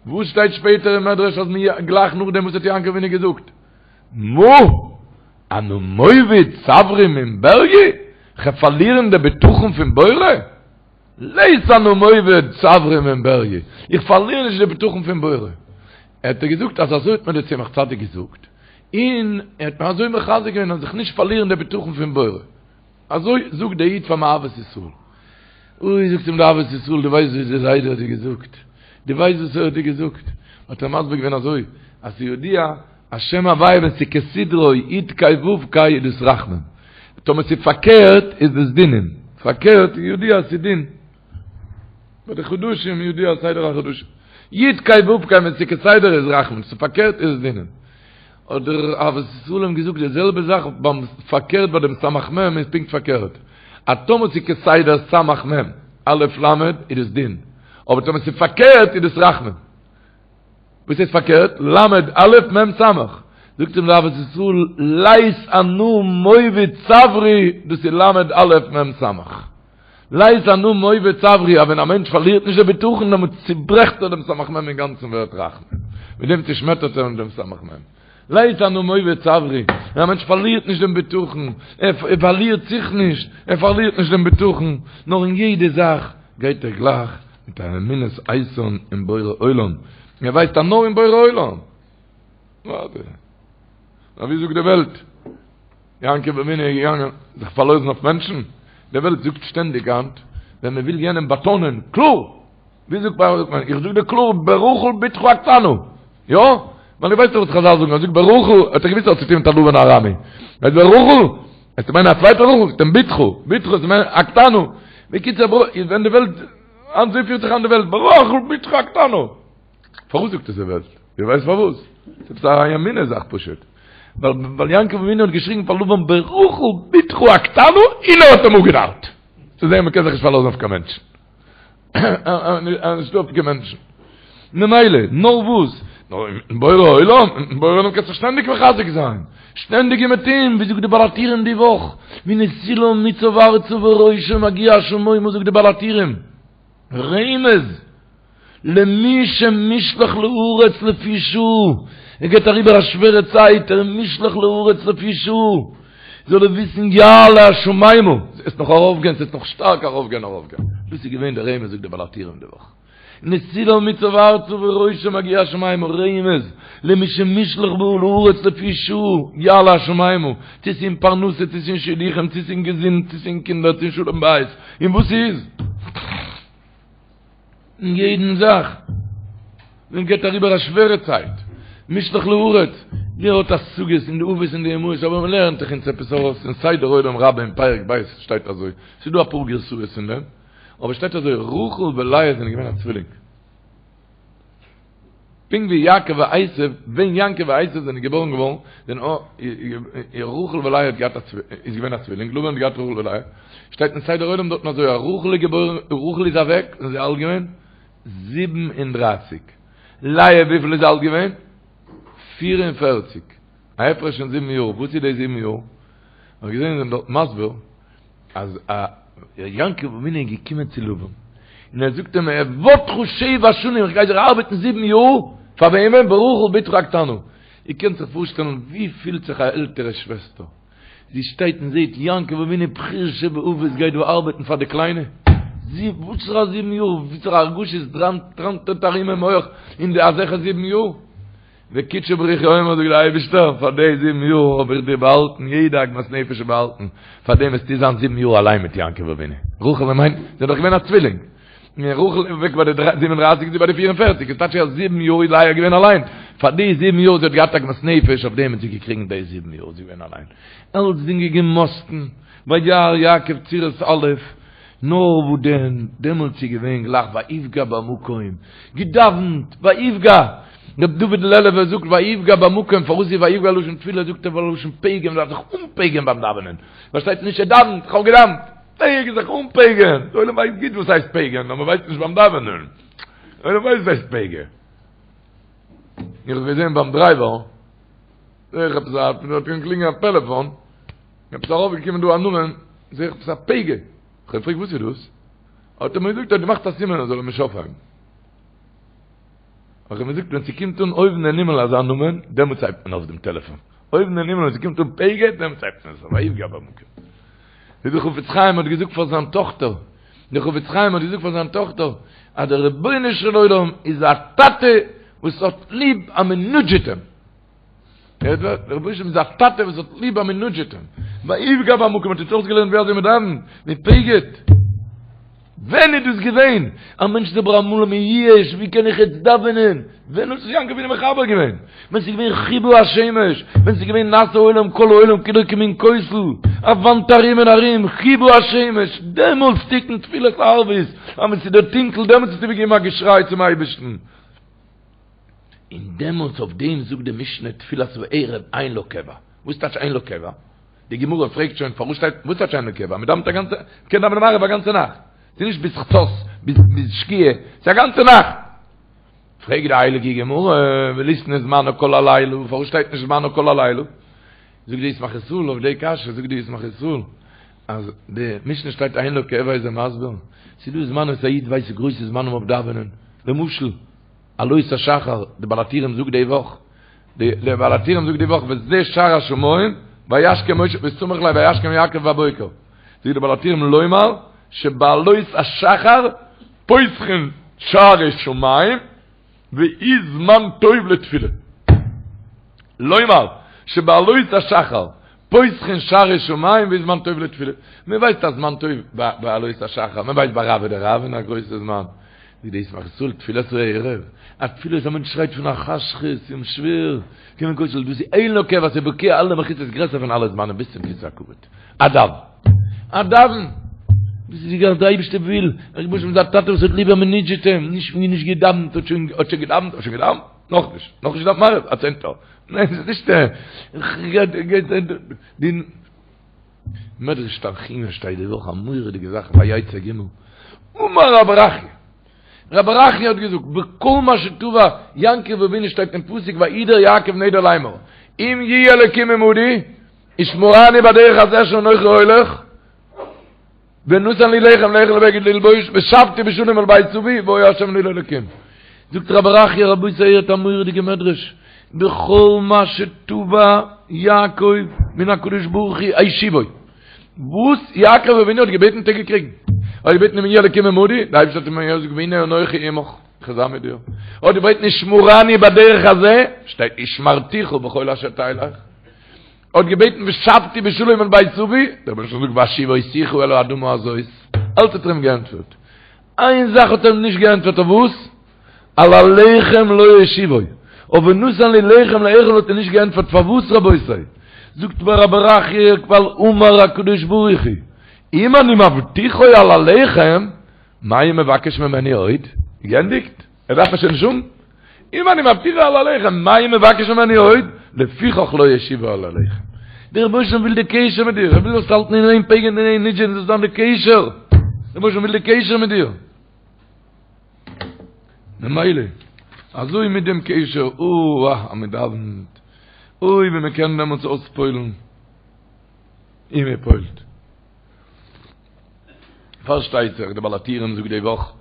Speaker 5: וואס שטייט שפעטער אין מדרש אז מיר גלייך נאכדעם וואס האט יעקב אבינו געזאגט? מה? אנא מוביד סברי מן בריי? כ'וועל פארלירן די בטחון פון בורא? לית אנא מוביד סברי מן בריי, איך פארליר נישט די בטחון פון בורא. האט ער געזאגט אז אזוי האט מיר דער צמח צדיק געזאגט, און ער האט מיר אזוי מחזק געווען אז איך נישט פארלירן די בטחון פון בורא. אזוי זאגט דער איד פארן אהבת ישראל. אוי זאגט אים דער אהבת ישראל, דו ווייסט וואס דער זיידע האט דיר געזאגט? דו ווייסט וואס ער האט דיר געזאגט? האט ער מסביר געווען אזוי, אז ס'ידוע אז שם הוויה ווען ס'איז כסדרו י' ק' ו' ק' איז דאס רחמים, טאמער ס'איז פארקערט איז דאס דינים, פארקערט איז ידוע אז ס'איז דין, ביי די חדשים ידוע סדר החדשים, י' ק' ו' ק' ווען ס'איז כסדר איז רחמים, ס'איז פארקערט איז דינים. האט דער אהבת ישראל אים געזאגט די זעלבע זאך ביים פארקערט ביי דעם סמך מם איז פונקט פארקערט, אז טאמער ס'איז כסדר סמך מם א' ל' איז דאס דין, אבער טאמער ס'איז פארקערט איז דאס רחמים. וואס הייסט פארקערט? למד א' מ' סמך. זאגט אים דער אהבת ישראל, לית אנא מוביד סברי, דאס איז למד א' מ' סמך. לית אנא מוביד סברי, אז ווען א מענטש פארלירט נישט די בטחון, דעמאלט צוברעכט ער דעם סמך מ' אינגאנצן ווערט רחמים. מיט דעם צושמעטערט ער אים דעם סמך מ'. לית אנא מוביד סברי, ווען א מענטש פארלירט נישט דעם בטחון, ער פארלירט זיך נישט, ער פארלירט נישט דעם בטחון, נאר אין יעדע זאך גייט ער גלייך מיט א אמונת איתן אין בורא עולם, ער ווייסט אז נאר אין בורא עולם. ווארט. נאר ווי זאגט די וועלט? יעקב אבינו איז געגאנגען זיך פארלאזן אויף מענטשן? די וועלט זאגט שטענדיג היינט, ווען מען וויל יענעם באטאנען, קלאר! ווי זאגט מען, איך זאג דיר קלאר ברחל בתך הקטנה, יא? ווייל איך ווייס דאך וואס חזל זאגן, ער זאגט ברחל, האט ער געוויסט אז האט צוטון מיט א לבן הארמי. ער זאגט ברחל, וועסטו מיינען א צווייטע רחל, זאגט אים בתך, בתך איז מיינט הקטנה. בקיצור, ווען די וועלט, אזוי פירט זיך היינט די וועלט, ברחל בתך הקטנה. פארוואס זאגט עס די וועלט? איר ווייסט פארוואס? ס'איז עפעס א אמונה זאך פשוט. ווייל יעקב אבינו האט געשריגן פאר לבן ברחל בתך הקטנה און ער האט אים אפגענארט. צו זען מ'קען זיך נישט פארלאזן אויף קיין מענטשן. נישטא אויף קיין מענטשן. ממילא, נאר וואס? נאר מיטן בורא עולם, מיטן בורא עולם קענסטו שטענדיג מחזק זיין. שטענדיג און מיט אים, ווי זאגט די בעל הטורים די וואך, מנסילה מוצב ארצה וראשו מגיע השמימה זאגט די בעל הטורים. רמז! למי שמושלך לארץ לפי שעה, ער גייט אריבער א שווערע צייט, ער איז מושלך לארץ לפי שעה, זאל ער וויסן יעלה השמימה, ס'וועט נאך ארויפגיין, ס'וועט נאך שטארק ארויפגיין ארויפגיין, דאס איז געווען דער רמז זאגט דער בעל הטורים די וואך, נסילה מוצב ארצה וראשו מגיע השמימה, רמז, למי שמושלך לארץ לפי שעה, יעלה השמימה, צו ס'איז אין פרנסה, צו ס'איז אין שידוכים, צו ס'איז אין געזונט, צו ס'איז אין קינדער, צו אין שלום בית, און וואס ס'איז. אין יעדן זאך, מען גייט אריבער א שווערע צייט, מושלך לארץ, ווער האט השגות אין די אבות און די אמהות, אבער מען לערנט דאך אונז עפעס ארויס אין סדר עולם רבה אין פרק ב' שטייט אזוי, ס'איז דא אפאר גרסאות אין דעם, אבער שטייט אזוי, רחל ולאה זענען געווען א צווילינג. פונקט ווי יעקב ועשו, ווען יעקב ועשו זענען געבארן געווארן, זענען רחל ולאה האט געהאט א איז געווען א צווילינג, לבן האט געהאט רחל ולאה, שטייט אין סדר עולם דארטן אזוי אז רחל איז געבוירן, רחל איז אוועק, ווען זי איז אלט געווען 37, לאה וויפיל איז אלט געווען? 44, א הפרש פון זיבן יאר, וואס איז די זיבן יאר? האב איך געזען זיי זענען דארט מסביר אז א יעקב אבינו איז געקומען צו לבן און ער זאגט אים אעבדך שבע שנים איך גיי דיר ארבעטן זיבן יאר פאר וועמען? ברחל בתך הקטנה. איר קענט זיך פארשטעלן ווי פילט זיך א עלטערע שוועסטער זי שטייט און זעט יעקב אבינו בחיר שבאבות גייט דא ארבעטן פאר די קליינע זי וואסערע זיבן יאר וואסערע הרגשות טראנטעט ארום אין מח אין די אזעלכע זיבן יאר וקודשא בריך הוא אומר זאגט דער אייבערשטער, פאר די זיבן יאר האב איך דיר באהאלטן, יעדע עגמת נפש איז באהאלטן, פאר דעם וועסטו זיין זיבן יאר אליין מיט יעקב אבינו. רחל און מיין, זי איז דאך געווען א צווילינג. און רחל איז אוועק ביי די 37, זי ביי די 44, איז טייטש אז זיבן יאר איז לאה געווען אליין. פאר די זיבן יאר זי האט געהאט עגמת נפש, אויף דעם האט זי געקריגן די זיבן יאר זי געווען אליין. אלצדינג געמאסטן, וירא יעקב צורת א', נאר וואו דען, דעמאלטס איז געווען גלייך ויפגע במקום, געדאווענט, ויפגע, ר' דוד לעלובער זאגט ויפגע במקום, פארוואס איז ויפגע לשון תפילה, זאגט ער ווייל לשון פגם, מ'דארף זיך אנפגע'ן ביים דאווענען, פארשטייט נישט ער דאווענט, איך האב געדאווענט, פגע זיך אנפגע'ן, די עולם ווייסט גוט וואס הייסט פגע'ן, נאר מ'ווייסט נישט ביים דאווענען, די עולם ווייסט וואס הייסט פגע. איך האב געזען ביים דרייווער, זעה איך עפעס א, האט געקלינגען א טעלעפאן, עפעס ארויפגעקומען דא א נאמען, זעה איך עפעס א פגע, איך האב געפרעגט וואס איז דאס? האט ער מיר געזאגט ער האט געמאכט א סימן ער זאל אים נישט אויפהייבן. האב איך אים געזאגט ווען ס'קומט אן אויבן אין הימל אזא נאמען, דעמאלטס הייבט מען אויף דעם טעלעפאן. אויבן אין הימל ווען ס'קומט אן פגע, דעמאלטס הייבט מען עס אויף, ויפגע במקום. ווי דער חפץ חיים האט געזאגט פאר זיין טאכטער, דער חפץ חיים האט געזאגט פאר זיין טאכטער, אז דער רבונו של עולם איז א טאטע וואס האט ליב אז מ'נודזשעט אים. דער רבונו של עולם איז א טאטע וואס האט ליב אז מ'נודזשעט אים. ויפגע במקום האט אונז אויסגעלערנט ווי אזוי מ'דאווענט, מ'פגע'ט. ווען איז דאס געווען? א מענטש איז אבער אמאל מייאש, ווי קען איך יעצט דאווענען? ווען האט זיך יעקב אבינו מחבר געווען? ווען ס'איז געווען כיבה השמש, ווען ס'איז געווען נעשה עולם כל העולם כולו כמין כותל, א וואנט ארום און ארום, כיבה השמש, דעמאלטס תיקון תפילת ערבית, אז ווען ס'איז דיר טונקל דעמאלטס האסטו געגעבן א געשריי צום אייבערשטן. און דעמאלטס אויף דעם זאגט די משנה תפילת הערב אין לה קבע. וואס טייטש אין לה קבע? די גמרא פרעגט שוין פארוואס שטייט וואס טייטש אין לה קבע? מען דאווענט א גאנצע, מען קען דאווענען מעריב א גאנצע נאכט. ס'איז נישט ביז חצות, ביז ביז שקיעה, ס'איז א גאנצע נאכט. פרעגט די הייליגע גמרא, וליתני זמנה כל הלילה, פארוואס שטייט נישט זמנה כל הלילה? זאגט די ישמח ישראל אויף די קשיא, זאגט די ישמח ישראל, אז די משנה שטייט אין לה קבע איז ער מסביר, ס'איז דא זמנים וואס א איד ווייסט גרויסע זמנים אויף דאווענען, למשל, עלות השחר, די בעל הטורים זאגט די וואך, די בעל הטורים זאגט די וואך וזה שער השמים, וישכם משה וסמיך ליה וישכם יעקב בבוקר, זאגט די בעל הטורים לומר שבעלות השחר פותחין שערי שמים והוא זמן טוב לתפילה. לומר שבעלות השחר פותחין שערי שמים והוא זמן טוב לתפילה. מען ווייסט א זמן טוב בעלות השחר, מען ווייסט ביי רעוא דרעוין א גרויסע זמן. ווי די ישמח ישראל תפילת הערב, א תפילה וואס א מענטש שרייט פון א חשכות און שווער, קומען כותל דאס איז אין לו קבע ס'איז בוקע אלע מחיצות גרעסער פון אלע זמנים ביז צום כסא הכבוד. א דאוון. א דאוון. דאס איז ווי דער אייבערשטער וויל, דער רבונו של עולם איז א טאטע וואס האט ליב אז מען מוטשעט אים, נישט ווי נישט געדאוונט האט שוין האט שוין געדאוונט האט שוין געדאוונט? נאכנישט, נאכנישט געדאוונט מעריב, א צענטער. ניין ס'איז נישט די מדרש תנחומא שטייט די וואך א מורא'דיגע זאך ויצא ג' אמר רב ברכיה רב ברכיה האט געזאגט בכל מה שתבע יעקב אבינו שטייט אין פסוק וידר יעקב נדר לאמור אם יהיה אלקים עמדי ושמרני בדרך הזה אשר אנכי הולך ונתן לי לחם לאכול ובגד ללבוש ושבתי בשלום אל בית אבי והיה השם לי לאלקים. זאגט רבי ברכיה רבותי הערט א מורא'דיגע מדרש, בכל מה שתבע יעקב מן הקדוש ברוך הוא השיבו, וואס יעקב אבינו האט געבעטן האט ער געקריגן, ער האט געבעטן אם יהיה אלקים עמדי, דער אייבערשטער האט אים געזאגט והנה אנכי עמך, איך וועל זיין מיט דיר, ער האט געבעטן ושמרני בדרך הזה, שטייט ושמרתיך בכל אשר תלך. האט געבעטן ושבתי בשלום אל בית אבי, דער רבונו של עולם זאגט והשיבותיך אל האדמה הזאת, אלץ האט ער אים געענטפערט, איין זאך האט ער אים נישט געענטפערט אויף וואס? על הלחם לא השיבו, אויף ונתן לי לחם לאכול האט ער נישט געענטפערט, פארוואס רבותי? זאגט רבי ברכיה ווייל אמר הקדוש ברוך הוא אם אני מבטיחו על הלחם מה הוא מבקש ממני עוד? געענדיגט? ער דארף מיר שוין נישט האבן? אם אני מבטיחו על הלחם, מה הוא מבקש ממני עוד? לפיכך לא השיבו על הלחם. דער רבונו של עולם וויל די קשר מיט דיר, ער וויל זאלסט האלטן אין איין פייגען אין איין נודזשען זאל זיין די קשר. דער רבונו של עולם וויל די קשר מיט דיר. ממילא, אזוי מיט דעם קשר, אוי אז מען דאווענט, אוי ווי מען קען דעמאלטס אויספועל'ן, און מען פועל'ט. פארשטייט זיך די בעל הטורים זאגט די וואך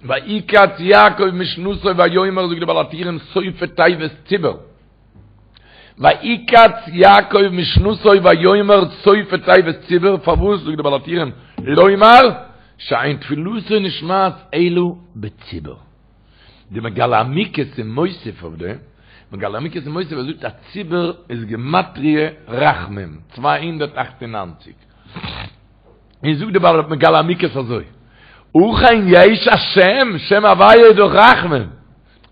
Speaker 5: ויקץ יעקב משנתו ויאמר זאגט די בעל הטורים סופי תיבות ציבור ויקץ יעקב משנתו ויאמר סופי תיבות ציבור פארוואס זאגט די בעל הטורים לומר שאין תפילתו נשמעת אלא בציבור די מגלה עמוקות איז מוסיף אויף דעם מגלה עמוקות איז מוסיף ער זאגט א ציבור איז גמטריא רחמים 298 און זאגט די בעל מגלה עמוקות אזוי, אכן יש השם, שם הוויה איז דאך רחמים.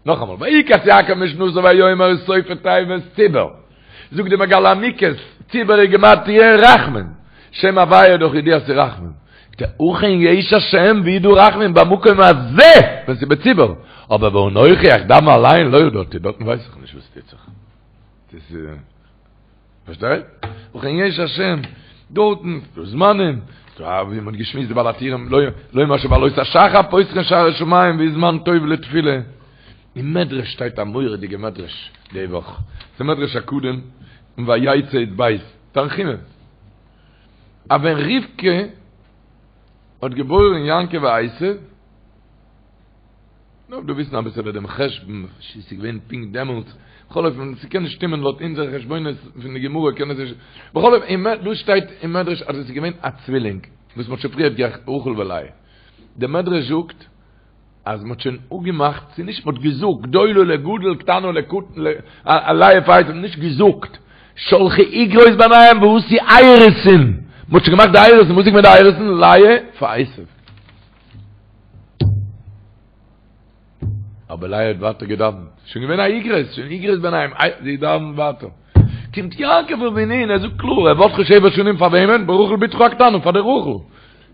Speaker 5: נאכאמאל, ויקץ יעקב משנתו ויאמר סופי תיבות ציבור. זאגט די מגלה עמוקות, ציבור איז גמטריא רחמים. שם הוויה איז דאך ידוע ס'איז רחמים. אכן יש השם ווי איז דא רחמים במקום הזה, ווען ס'איז בציבור. אבער ואנכי איך דאוון אליין לא ידעתי, דארטן ווייס איך נישט וואס טוט זיך. פארשטייט? אכן יש השם, דארטן, ס'דא זמנים, ס'דא ווי מ'האט געשמועסט די בעל הטורים, לומר שבעלות השחר פותחין שערי שמים והוא זמן טוב לתפילה. אין מדרש שטייט א מורא'דיגע מדרש די וואך, ס'איז מדרש הקודם אין ויצא י"ב, תנחומא, אז ווען רבקה האט געבוירן יעקב ועשו, דארף דא וויסן אביסעלע דעם חשבון, צו ס'איז געווען פונקט דעמאלטס, בכל אופן ס'קען נישט שטימען לויט אונזערע חשבונות פון די גמרא קען עס נישט, בכל אופן דא שטייט אין מדרש אז עס איז געווען א צווילינג וואס מ'האט שוין פריערט גערעכט רחל ולאה, דער מדרש זאגט אז מ'האט שוין אפגעמאכט, ס'איז נישט מ'האט געזאגט גדולה לגדול קטנה לקטן, לאה פאר עשו, נישט געזאגט, שלחו איגרות ביניהם ועשו אירוסין, מ'האט שוין געמאכט די אירוסין, וואס איז געווען די אירוסין? לאה פאר עשו. אבער לאה האט ווייטער געדאווענט, שוין געווען א איגרות, שוין איגרות ביניהם, זי דאווענט ווייטער. קומט יעקב אבינו און ער זאגט קלאר, אעבדך שבע שנים פאר וועמען? ברחל בתך הקטנה, פאר די רחל.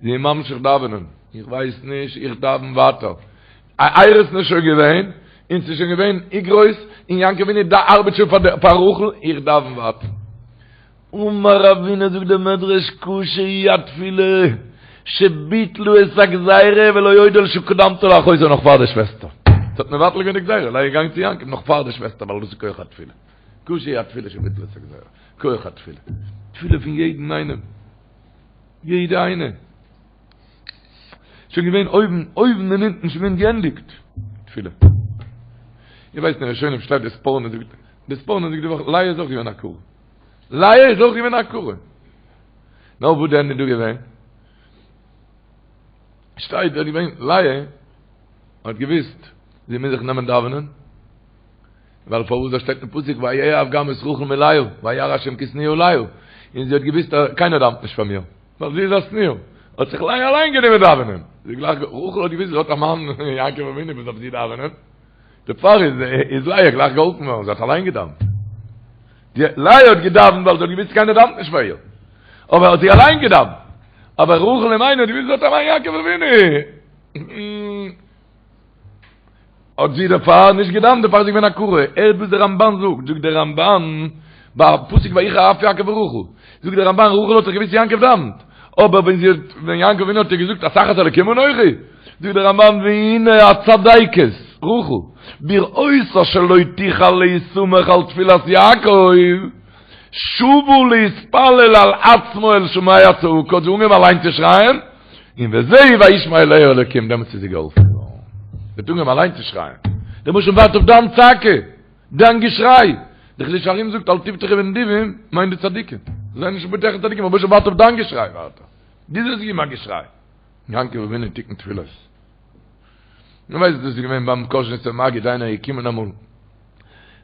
Speaker 5: זי איז ממשיך דאווענען, איך ווייס נישט, איך דאווען ווייטער. א אירוסין איז שוין געווען, און ס'איז שוין געווען איגרות, און יעקב אבינו ארבעט שוין פאר רחל, איך דאווען ווייטער. אמר רבינא זאגט דער מדרש קשה היא התפילה שביטלו את הגזירה ולא עוד אלא שקדמתה לאחותה נאך פאר די שוועסטער. ס'האט מבטל געווען די גזירה, לאה איז געגאנגען צו יעקב נאך פאר די שוועסטער ווייל דאס איז כח התפילה. קשה היא התפילה שביטלו את הגזירה. כח התפילה. תפילה פון יעדן איינעם. יעדע איינע. שוין געווען אויבן, אויבן און אונטן שוין געווען געענדיגט. תפילה. איר ווייסט אין ראשונים שטייט די ספורנו זאגט, די ספורנו זאגט די וואך לאה איז אויך געווען א עקרה. לאה איז אויך געווען א עקרה. נאר וואס דען איז דא געווען? שטייט דארט געווען לאה האט געוויסט זי מוז זיך נעמען דאווענען, ווייל פארוואס דא שטייט אין פסוק ויאהב גם את רחל מלאה וירא השם כי שנואה לאה, און זי האט געוויסט אז קיינער דאווענט נישט פאר מיר, ווייל זי איז א שנואה. האט זיך לאה אליין גענומען דאווענען. זי גלייך, רחל האט געוואוסט זי האט א מאן יעקב אבינו וואס דארף זי דאווענען. דערפאר איז איז לאה גלייך געהאלפן געווארן, זי האט אליין געדאווענט. די לאה האט געדאווענט ווייל זי האט געוואוסט קיינער דאווענט נישט פאר איר. אבער האט זי אליין געדאווענט. אבער רחל אמנו האט געוואוסט זי האט א מאן יעקב אבינו. האט זי דערפאר נישט געדאווענט, דערפאר איז זי געווען עקרה. הערט וואס דער רמבן זאגט, זאגט דער רמבן, ביי פסוק ויחר אף יעקב ברחל, זאגט דער רמבן, רחל האט דאך געוואוסט יעקב דאווענט, אבער ווען זי האט, ווען יעקב אבינו האט איר געזאגט התחת אלקים אנכי, זאגט דער רמבן, והנה הצדיקת, רחל, בראותה שלא תוכל להסמך על תפילת יעקב, שבה להתפלל על עצמה אל שומע צעקה, האט זי אנגעהויבן אליין צו שרייען, און וזהו וישמע אליה אלקים, דעמאלטס איז זי געהאלפן געווארן. זי האט אנגעהויבן אליין צו שרייען. דער רבוש"ע ווארט אויף דיין צעקה, דיין געשריי. דער חידושי הרי"ם זאגט אל תבטחו בנדיבים, מיינט די צדיקים. זיי נישט בוטח אין צדיקים, רבוש"ע ווארט אויף דיין געשריי, ווארט ער. דו זאלסט געבן א געשריי. יעקב אבינו תיקן תפילות. נו ווייסט דאס איז געווען ביים קאזשניצער מגיד איינער איז געקומען אמאל ער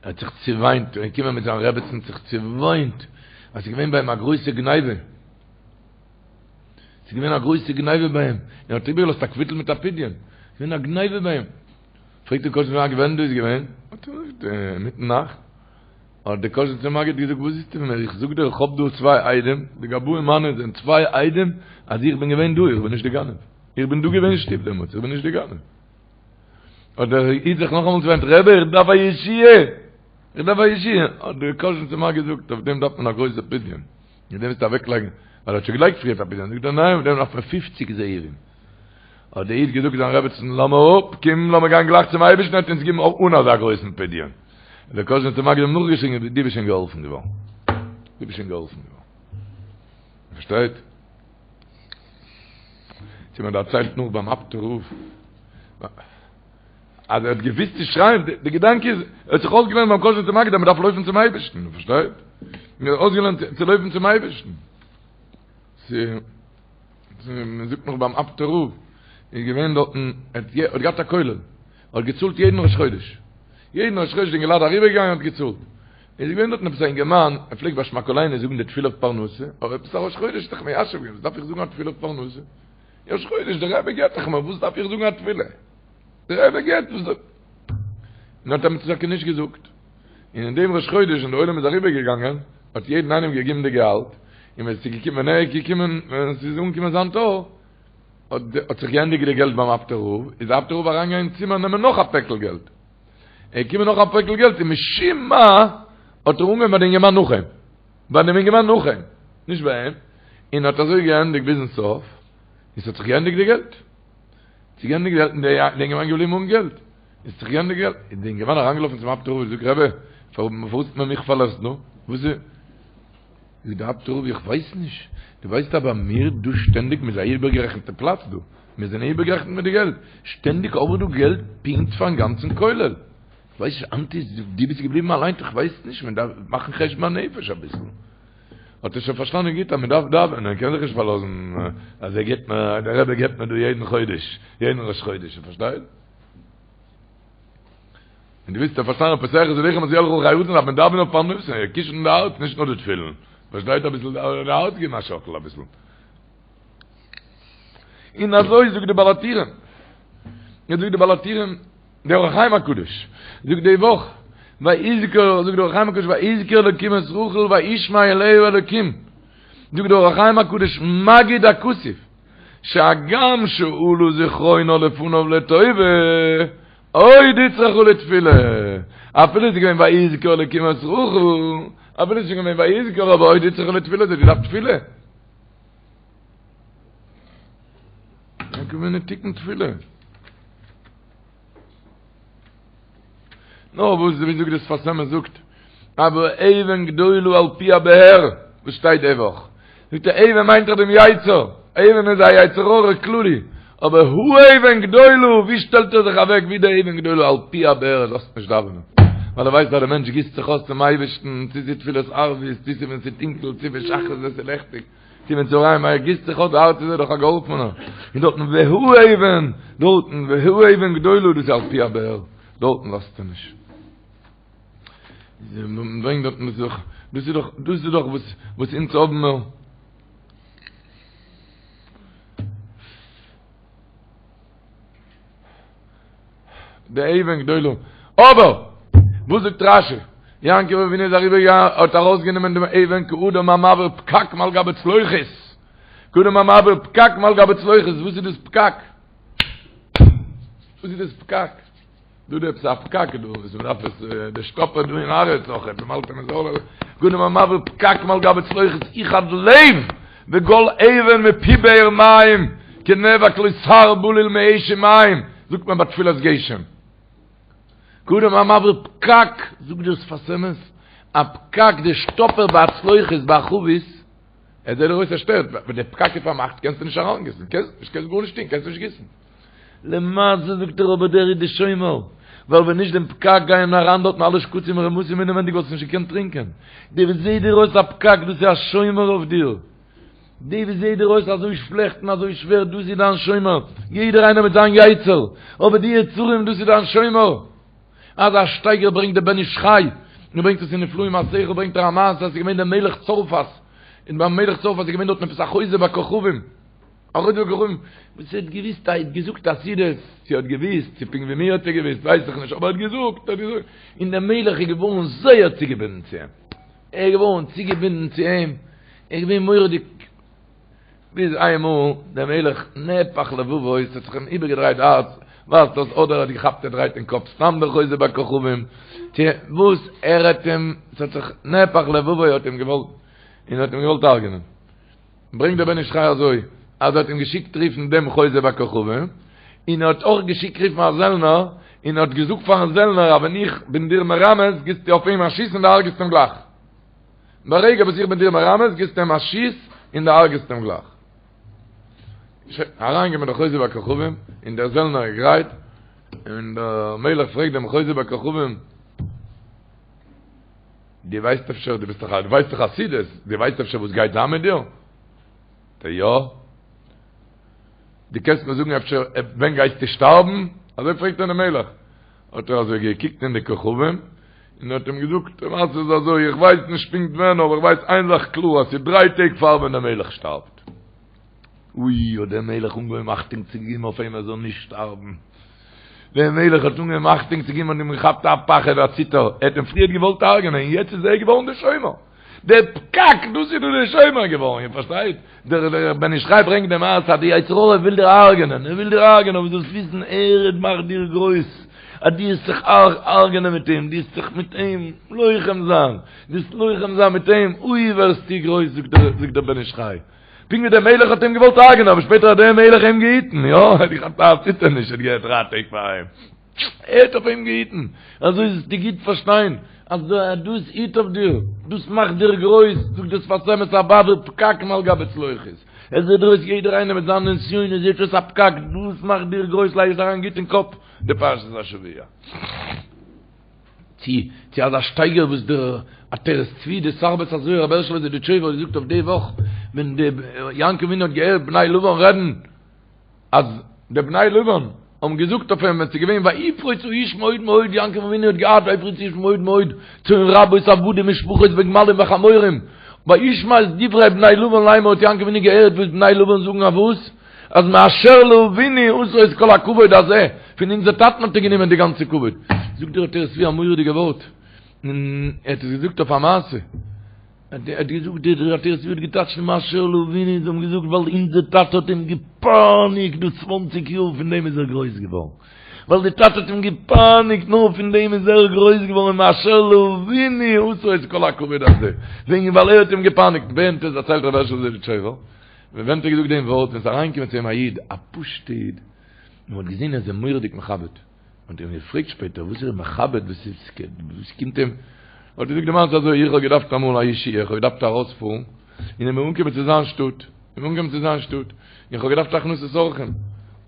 Speaker 5: האט זיך צעוויינט ער איז געקומען מיט זיין רעבעצן זיך צעוויינט אז ס'איז געווען ביי אים א גרויסע גניבה ס'איז געווען א גרויסע גניבה ביי אים ער האט איבערגעלאזט א קוויטל מיט א פדיון ס'איז געווען א גניבה ביי אים פרעגט דער קאזשניצער מגיד ווען דאס איז געווען האט ער געזאגט אינמיטן נאכט האט דער קאזשניצער מגיד געזאגט וואס ווילסטו פון מיר איך זאג דיר איך האב דא צוויי עדים די גבאים מיינע זענען צוויי עדים אז איך בין געווען דא איך בין נישט די גנב איך בין דא געווען אין שטוב דעמאלטס, איך בין נישט די גנב. האט דער איד זיך נאכאמאל צעוויינט, רבי איך דארף א ישועה! איך דארף א ישועה! האט דער קאזשניצער מגיד געזאגט, אויף דעם דארף מען א גרויסע פדיון, מיט דעם וועסטו אוועקלייגן, ווייל ער האט שוין געלייגט פריערט א פדיון, זאגט ער ניין, אויף דעם דארף מען פופציג זהובים. האט דער איד געזאגט זיין רעבעצן, לאז מיר אפ, קום לאמיר גיין גלייך צום אייבערשטן, ער וועט אונז געבן אן אזא גרויסן פדיון. האט דער קאזשניצער מגיד אים נאכגעשריגן, דו ביסט שוין געהאלפן געווארן. דו ביסט שוין געהאלפן געווארן. פארשטייט? צו מען דערציילט נאך ביים אפטער רב אז ער האט געוויסט צו שרייען, די געדאנק איז, ער האט זיך אויסגעלערנט ביים קאזשניצער מגיד אז מען דארף לויפן צום אייבערשטן, פארשטייט? מען האט אויסגעלערנט צו לויפן צום אייבערשטן. צו מען זאגט נאך ביים אפטער רב איז געווען דארטן, ער האט געהאט א כולל, ער האט געצאלט יעדן ראש חודש, יעדן ראש חודש די אינגעלייט אריבערגעגאנגען האט געצאלט. איז געווען דארטן עפעס א אינגערמאן, ער פלעגט ביי שמע קולינו זאגן די תפילה אויף פרנסה, אבער עפעס א ראש חודש האט זיך מיישב געווען, וואס דארף איך זאגן א תפילה אויף פרנסה? ראש חודש, דער רבי געבט דאך מיר, וואס דארף איך זאגן א תפילה? דער רבי געבט, וואס דארף. און האט אים טאקע נישט געזאגט. און אין דעם ראש חודש ווען דער עולם איז אריבער געגאנגען, האט יעדן איינעם געגעבן די געהאלט, און ווען עס איז געקומען, ווען ער איז געקומען, ווען עס איז אנגעקומען זיין תור, האט זיך געענדיגט די געלט ביים אפטער רב, איז דער אפטער רב אריינגעגאנגען אין צימער נעמען נאך א פעקל געלט. ער איז געקומען נאך א פעקל געלט און משום מה האט ער אנגעהויבן ביי די אינגערמאן נאך אים, ביי דעם אינגערמאן נאך אים, נישט ביי אים, און האט אזוי געענדיגט ביזן סוף, און ס'האט זיך געענדיגט די געלט. ס'איז געענדיגט די געלט און די אינגערמאן געבליבן אן געלט. עס האט זיך געענדיגט געלט, איז די אינגערמאן אריינגעלאפן צום אפטער רב און געזאגט, רבי, פארוואס האט מען מיך פארלאזט דא? וואס איז? זאגט דער אפטער רב, איך ווייס נישט, דו ווייסט אז ביי מיר דא שטענדיג, מ'איז א איבערגערעכנטע פלאץ דא, מיר זענען איבערגערעכנט מיט די געלט, שטענדיג האב איך דא געלט פונקט פארן גאנצן כולל, איך ווייס נישט, היינט איז דו ביסט געבליבן אליין, איך ווייס נישט, מען דארף מאכן חשבון הנפש אביסל. האט ער שוין פארשטאנען גוט אז מען דארף דאווענען, מען קען זיך נישט פארלאזן אז ער געבט מיר, דער רבי געבט מיר דא יעדן חודש, יעדן ראש חודש, איר פארשטייט? און דו ווילסט פארשטיין פותח את ידך ומשביע לכל חי רצון דארף מען דאווענען אויף פרנסה, קישן די הארץ נישט נאר די תפילין, פארשטייט אביסל די הארץ געבן א שאקל אביסל. און אזוי זאגט די בעל הטורים, און זאגט די בעל הטורים, דער אור החיים הקדוש זאגט די וואך, ויזכור, זאגט דער אור החיים הקדוש, ויזכור אלקים את רחל וישמע אליה אלקים, זאגט דער אור החיים הקדוש, מגיד הכתוב, שהגם שעלה זכרונה לפניו לטובה, עוד הוצרכה לתפילה, אפילו ס'איז געווען ויזכור אלקים את רחל, אפילו ס'איז שוין געווען ויזכור אבער עוד הוצרכה לתפילה, זי האט געדארפט תפילה. געווען א תיקון תפילה. נאר וואס ווי זאגט דער שפת אמת זאגט אבער אבן גדולה על פי הבאר וואס שטייט די וואך זאגט ער אבן מיינט דאך דעם יצר אבן איז א יצר הרע כללי אבער האבן גדולה ווי שטעלט ער זיך אוועק ווי דער אבן גדולה על פי הבאר ער לאזט נישט דאווענען ווייל ער ווייסט אז דער מענטש גיסט זיך אויס צום אייבערשטן צו ס'איז תפילת ערבית צו ס'איז ווען ס'איז טונקל צו ווען שחרית ווען ס'איז לעכטיג צו ווען צהריים ער גיסט זיך אויס די הארץ איז ער דאך א געהאלפענער און דארטן והאבן דארטן והאבן גדולה דאס איז על פי הבאר דארטן לאזט ער נישט ברענגט דארטן דאס איז דאך דאס איז דאך דאס איז דאך וואס וואס אונז האבן מיר. די אבן גדולה. אבער! וואס זאגט רשי? יעקב אבינו איז אריבער געגאנגען האט ארויסגענומען דעם אבן כאדם המעביר פקק מעל גבי צלוחית. כאדם המעביר פקק מעל גבי צלוחית. וואס איז דאס פקק? וואס איז דאס פקק? דא דא עפעס א פקק דא וואס מ'דארף עס די שטאפער דא אין הארץ אויך עפעס מ'האלט אים זאל כאדם המעביר פקק מעל גבי צלוחית יחד לב וגול אבן מפי באר מים כנאבק לו סהר בליל מאש ומים זאגט מען ביי תפילת גשם כאדם המעביר פקק זאגט דער שפת אמת א פקק די שטאפער ביי א צלוחית ביי א חבית ער זעט דיר אויס ער שטערט ווען די פקק איז פארמאכט קענסטו נישט אריינגיסן קענסט נישט קענסט גארנישט טון קענסט נישט גיסן למעשה זאגט ער אבער דער איז די שומר, ווייל ווען נישט דעם פקק גייען אריין דארטן אלע שקצים און רמסים אינעווענדיג וואלסטו נישט געקענט טרינקען, די וואס זעהט דיר אויס א פקק דאס איז א שומר אויף דיר, די וואס זעהט דיר אויס אזוי שלעכט און אזוי שווער דאס איז דיין שומר, יעדער איינער מיט זיין יצר, אבער די יצרים דאס איז דיין שומר. אזא שטייגער ברענגט דער בן איש חי, און ברענגט עס אין נפלאים מעשיך ברענגט ער א מעשה אז ס'איז געווען דער מלך צרפת, און ביים מלך צרפת איז געווען דארטן עפעס א חוזה בכוכבים, א חוזה בכוכבים, וואס ער האט געוויסט, ער האט געזאגט עתידות, צו ער האט געוויסט, צו פונקט ווי מיר האט ער געוויסט, ווייס איך נישט, אבער ער האט געזאגט, ער האט געזאגט, און דער מלך איז געווארן זייער צוגעבינדן צו אים, ער איז געווארן צוגעבינדן צו אים, ער איז געווען מורא'דיג, ביז איינמאל דער מלך נהפך לבבו, עס האט זיך אים איבערגעדרייט די הארץ, ווייזט אויס אדער ער האט געכאפט ער דרייט אין קאפ סתם דער חוזה בכוכבים, צו וואס ער האט אים, עס האט זיך נהפך לבבו האט אים געוואלט, און האט אים געוואלט הרג'נען. ברענגט דער בן איש חי אזוי, אז ער האט אים געשיקט רופן דעם חוזה בכוכבים, און ער האט אויך געשיקט רופן א זעלנער, און ער האט געזאגט פארן זעלנער אז ווען איך בין דיר מרמז גיבסטו אויף אים א שיס און דו הרג'סט אים גלייך. ברגע וואס איך בין דיר מרמז גיבסטו אים א שיס און דו הרג'סט אים גלייך. שוין, אריינגעקומען דער חוזה בכוכבים, און דער זעלנער איז גרייט, און דער מלך פרעגט דעם חוזה בכוכבים, דו ווייסט אפשר, דו ביסט דאך א, דו ווייסט דאך עתידות, דו ווייסט אפשר וואס גייט זיין מיט דיר? זאגט ער, יא. דו קענסט מיר זאגן אפשר ווען גייסטו שטארבן? אזוי פרעגט אים דער מלך. האט ער אזוי געקוקט אין די כוכבים, און האט אים געזאגט, די מעשה איז אזוי, איך ווייס נישט פונקט ווען, אבער איך ווייס איין זאך קלאר, אז ס'איז דריי טעג פאר ווען דער מלך שטארבט. אוי, האט דער מלך אנגעהויבן אכטונג צו געבן אויף אים ער זאל נישט שטארבן. דער מלך האט אנגעהויבן אכטונג צו געבן האט אים געכאפט א פחד א ציטער, ער האט אים פריערט געוואלט הרג'נען און יעצט איז ער געווארן דער שומר. דער פקק, דאס איז דא דער שומר געווארן, איר פארשטייט? דער בן איש חי ברענגט די מעשה אז די יצר הרע וויל דיר הרג'נען, ער וויל דיר הרג'נען, אבער זאלסט וויסן ער מאכט דיר גרויס, אז דו וועסט זיך הרג'נען מיט אים, דו וועסט זיך מיט אים לוחם זיין, דו וועסט לוחם זיין מיט אים, אוי ווערסטו גרויס, זאגט דער בן איש חי. פונקט ווי דער מלך האט אים געוואלט הרג'נען, אבער שפעטער האט דער מלך אים געהיטן, יא, ער האט געכאפט א ציטערניש, ער האט געהערט דריי טעג פאר אים, ער האט אויף אים געהיטן, אזוי זאלסטו גוט פארשטיין, אז דאס היט אויף דיר, דאס מאכט דיר גרויס, זאגט דער שפת אמת המעביר פקק מעל גבי צלוחית, עס זעט דיר אויס יעדער איינער מיט זיינע נסיונות זעט אויס א פקק, דאס מאכט דיר גרויס, לייג עס אריין גוט אין קאפ די פרשת השבוע. צו צו אזא שטייגער וואס דער עטרת צבי דער שר בית הזוהר רבי הערשעלע זידיטשויבער האט געזאגט אויף די וואך ווען די יעקב אבינו האט געהערט בני לבן רעדן אז די בני לבן האבן געזאגט אויף אים ווען ס'איז געווען ויפרוץ האיש מאוד מאוד יעקב אבינו האט געהאט ויפרוץ האיש מאוד מאוד צאן רבות עבדים ושפחות וגמלים וחמורים וישמע את דברי בני לבן לאמר האט יעקב אבינו געהערט וואס בני לבן זאגן אויף וואס אז מאשר לאבינו עשה את כל הכבוד הזה, פון אונזער טאטן האט ער גענומען די גאנצע כבוד. זאגט דער עטרת צבי א מורא'דיגע ווארט, און ער האט עס געזאגט אויף א מעשה, ער האט געזאגט, דער עטרת צבי האט געטייטשט מאשר לאבינו, זיי האבן געזאגט ווייל אונזער טאטע האט אים געפייניגט דא צוואנציג יאר, פון דעם איז ער גרויס געווארן. ווייל די טאטע האט אים געפייניגט, נאר פון דעם איז ער גרויס געווארן, מאשר לאבינו עשה את כל הכבוד הזה, וועגן ווייל ער האט אים געפייניגט, ווען האט עס דערציילט רבי הערשל זידיטשויבער? ווען האט ער געזאגט דעם ווארט, ווען ס'איז אריינגעקומען צו אים א איד, א פשוט'ע איד, און מ'האט געזען ער איז אים מורא'דיג מכבד, מ'האט אים געפרעגט שפעטער וואס איז ער מכבד, וואס איז, וואס קומט אים, האט ער געזאגט די מעשה אזוי, איך האב געדארפט אמאל א ישועה, איך האב געדארפט ארויספארן, און איך בין אנגעקומען צו זיין שטאט, איך בין אנגעקומען צו זיין שטאט, און איך האב געדארפט הכנסת אורחים,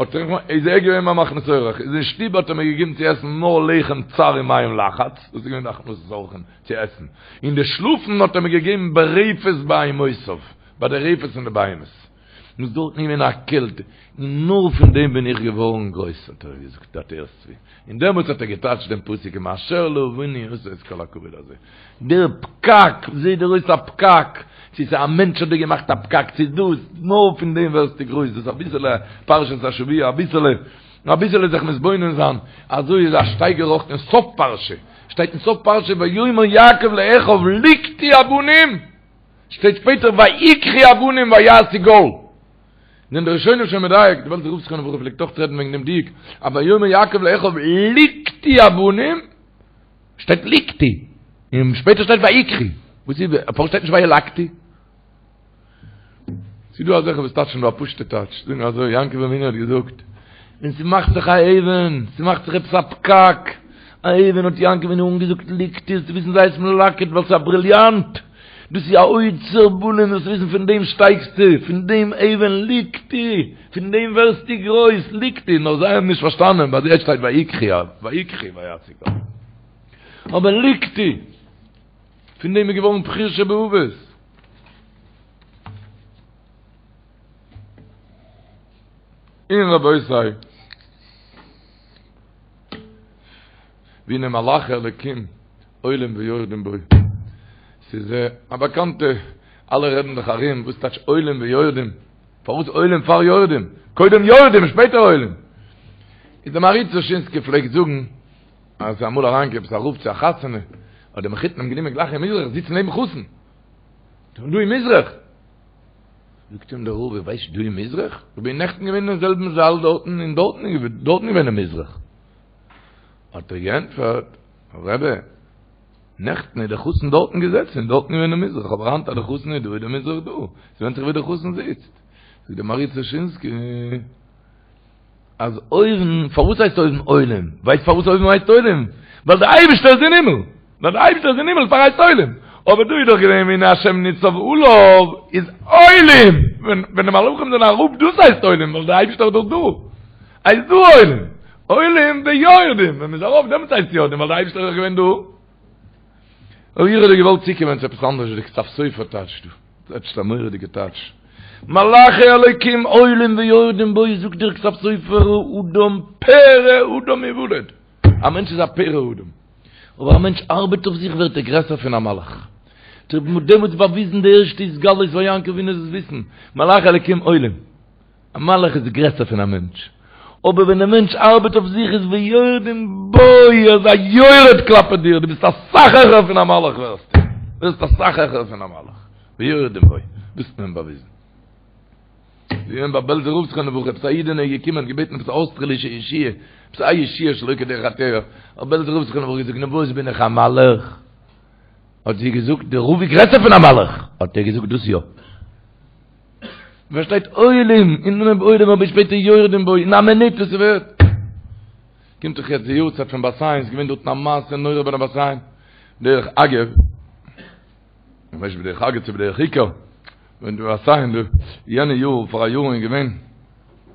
Speaker 5: האט ער, איז ער געווען מיין מכניס אורח, איז אין שטוב האט ער מיר געגעבן צו עסן נאר לחם צר ומים לחץ, דאס איז געווען די הכנסת אורחים צו עסן, און די שלאפן האט ער מיר געגעבן ברפת בהמותיו. ביי די רפת פון די בהמות, איז דארטן געווען א קעלט, און נאר פון דעם בין איך געווארן גרויס, האט ער געזאגט דער עטרת צבי, און דעמאלטס האט ער געטייטשט דעם פסוק מאשר לאבינו עשה את כל הכבוד הזה, דער פקק, זעט דיר אויס א פקק, צו ס'איז א מענטש האט דיר געמאכט א פקק, צו דאס, נאר פון דעם ווערסטו גרויס, דאס אביסעלע פרשת השבוע, אביסעלע. נאר אביסעלע זיך מתבונן זיין, אזוי איז א שטייגער אויך אין סוף פרשה, שטייט אין סוף פרשה ויאמר יעקב לאחיו לקטו אבנים, שטייט שפעטער ויקחו אבנים ויעשו גל. זענען די ראשונים שוין מדייק, די בעלזער רב זכרונו לברכה פלעגט אויך רעדן וועגן דעם דיוק, אז ויאמר יעקב לאחיו לקטו אבנים, שטייט לקטו, און שפעטער שטייט ויקחו, וואס איז, פארוואס שטייט נישט וילקטו? ס'איז דא אזעלכע וואס טייטשן דא א פשוט'ע טייטש, זאגן אזוי, יעקב אבינו האט געזאגט, ווען ס'מאכט זיך א אבן, ס'מאכט זיך עפעס א פקק, א אבן האט יעקב אבינו אנגעזאגט לקטו, זאלסטו וויסן זיי עס מלקט ווייל ס'איז א בריליאנט, דאס איז א אוצר בלום, זאלסט וויסן פון דעם שטייגסטו, פון דעם אבן לקטו, פון דעם ווערסטו גרויס, לקטו, נאר זיי האבן נישט פארשטאנען, ביי זיי שטייט ויקחו, ויקחו ויעשו גל. אבער לקטו, פון דעם איז געווארן בחיר שבאבות. און רבותי, והנה מלאכי אלקים עולים ויורדים בו. ס'איז א באקאנטע, אלע רעדן זיך ארום, וואס טייטש עולים ויורדים? פארוואס עולים פאר יורדים? קודם יורדים שפעטער עולים. איז דער מהרי"ץ דושינסקי פלעגט זאגן, אז ס'איז אמאל אריינגעקומען עפעס א רב צו א חתונה, האט דער מחותן אים גענומען גלייך אין מזרח זיצן נעבן חתן. דא אין מזרח. זאגט אים דער רב, איר ווייסט דא אין מזרח? איך בין נעכטן געווען אין זעלבן זאל דארטן און דארטן איז דארטן געווען אין מזרח. האט ער געענטפערט, רבי, נעכטן איז דער חתן דארטן געזעצן און דארטן געווען אין מזרח, אבער היינט אז דער חתן איז דא איז דער מזרח דא. ס'ווענדט זיך ווי דער חתן זיצט. זאגט דער מהרי"ץ דושינסקי, אז אויבן, פארוואס הייסט אויבן עולים? ווייסט פארוואס אויבן הייסט עולים? ווייל דער אייבערשטער איז אין הימל! ווייל דער אייבערשטער איז אין הימל דערפאר הייסט עולים! אבער דא איז דאך געווען והנה השם ניצב עליו איז עולים! ווען די מלאכים זענען אראפ דאס הייסט עולים ווייל דער אייבערשטער איז דאך דא! הייסט דא עולים! עולים ויורדים! ווען מ'איז ארויף דעמאלטס הייסט יורדים ווייל דער אייבערשטער איז דאך געווען דא! אבער איך האב דא געוואלט צוקומען צו עפעס אנדערש ווי די כתב סופר טייטשט דא. טייטשט א מורא'דיגע טייטש. מלאכי אלוקים עולים ויורדים בו זאגט דער כתב סופר אדם פרא אדם יולד. א מענטש איז א פרא אדם. אבער א מענטש ארבעט אויף זיך ווערט ער גרעסער פון א מלאך. מ'האט דעמאלטס באוויזן די ערשטע התגלות פאר יעקב אבינו זאלסט וויסן, מלאכי אלוקים עולים. א מלאך איז גרעסער פון א מענטש, אבער ווען דער מענטש ארבעט אויף זיך איז ויורדים בו, ער איז א יורד כלפי דיר, דו ביסט אסאך העכער פון א מלאך ווערסטו, ווערסט אסאך העכער פון א מלאך, ויורדים בו, דאס האט מען באוויזן. ווי געווען ביי בעלזער רב זכרונו לברכה, עפעס א אידענע איז געקומען און געבעטן עפעס א אויסטערלישע ישועה, עפעס א ישועה שלא כדרך הטבע, האט בעלזער רב זכרונו לברכה געזאגט, נו וואס בין איך א מלאך? האט זי געזאגט, דער רב איז גרעסער פון א מלאך, האט ער געזאגט, דאס יא. פארשטייט עולים אין אנהויב עולים אבער שפעטער יורדים בו אין א מינוט וואס ס'ווערט קומט דאך יעצט די יארצייט פון בת עין ס'איז געווען דארטן א מעשה נורא ביי די בת עין דרך אגב איך ווייס נישט בדרך אגב צו בדרך עיקר ווען די בת עין די יענע יאר פאר א יאר איז געווען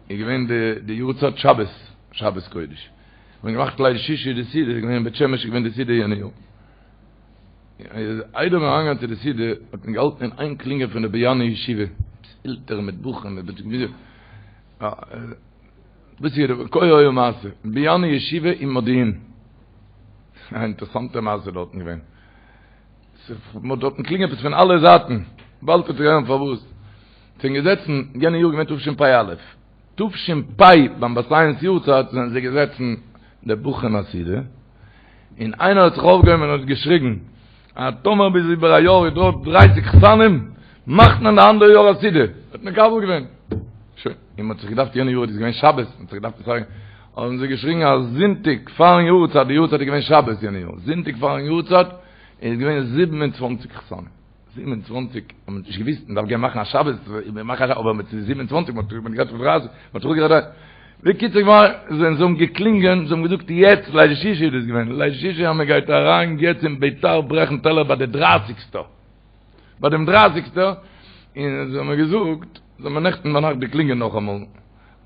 Speaker 5: איז געווען די די יארצייט שבת שבת קודש מ'האט געמאכט ליל שישי די סעודה איז געווען אין בית שמש איז געווען די סעודה יענע יאר איידער מיר אריינגעגאנגען צו די סעודה האט מען געהאלטן אין איין קלינגען פון די באיאנער ישיבה, עפעס עלטערן מיט בחורים מיט וואס איז כה היה מעשה, באיאנער ישיבה אין מודיעין, א אינטערעסאנטע מעשה דארטן געווען, מען האט דארטן קלינגען עפעס פון אלע זייטן, באלד וועט איר הערן פארוואס, זענען געזעצן, יענע יאר געווען תשפ"א, תש"פ ביים בת עין'ס יארצייט זענען זיי געזעצן די בחורים א סעודה, און איינער האט זיך אויפגעהויבן און האט געשריגן אז טאמער ביז איבער א יאר איז דא דרייסיג חתנים מאכט מען די אנדערע יאר א סעודה, האט מקבל געווען. שוין, און מ'האט זיך געדארפט יענע יאר איז געווען שבת, מ'האט זיך געדארפט צוזאגן, האבן זיי געשריגן אז זונטאג פארן יארצייט, די יארצייט איז געווען שבת יענע יאר, זונטאג פארן יארצייט איז געווען 27 חתנים. 27, האט מען נישט געוויסט, מען דארף גיין מאכן א שבת, מען מאכט א שבת, אבער מיט 27, מען האט גערעדט פון דרייסיג, מען האט גערעדט, בקיצור געוואר, זיי האבן געקלינגען, זיי האבן געזאגט יעצט, ליל שישי איז דאס געווען, ליל שישי אז מען גייט אריין יעצט אין ביתר ברעכן טעלער ביי די דרייסיגסטע, ביי דעם דרייסיגסטע, און זיי האבן געזאגט, זיי האבן נעכטן ביינאכט געקלינגען נאכאמאל,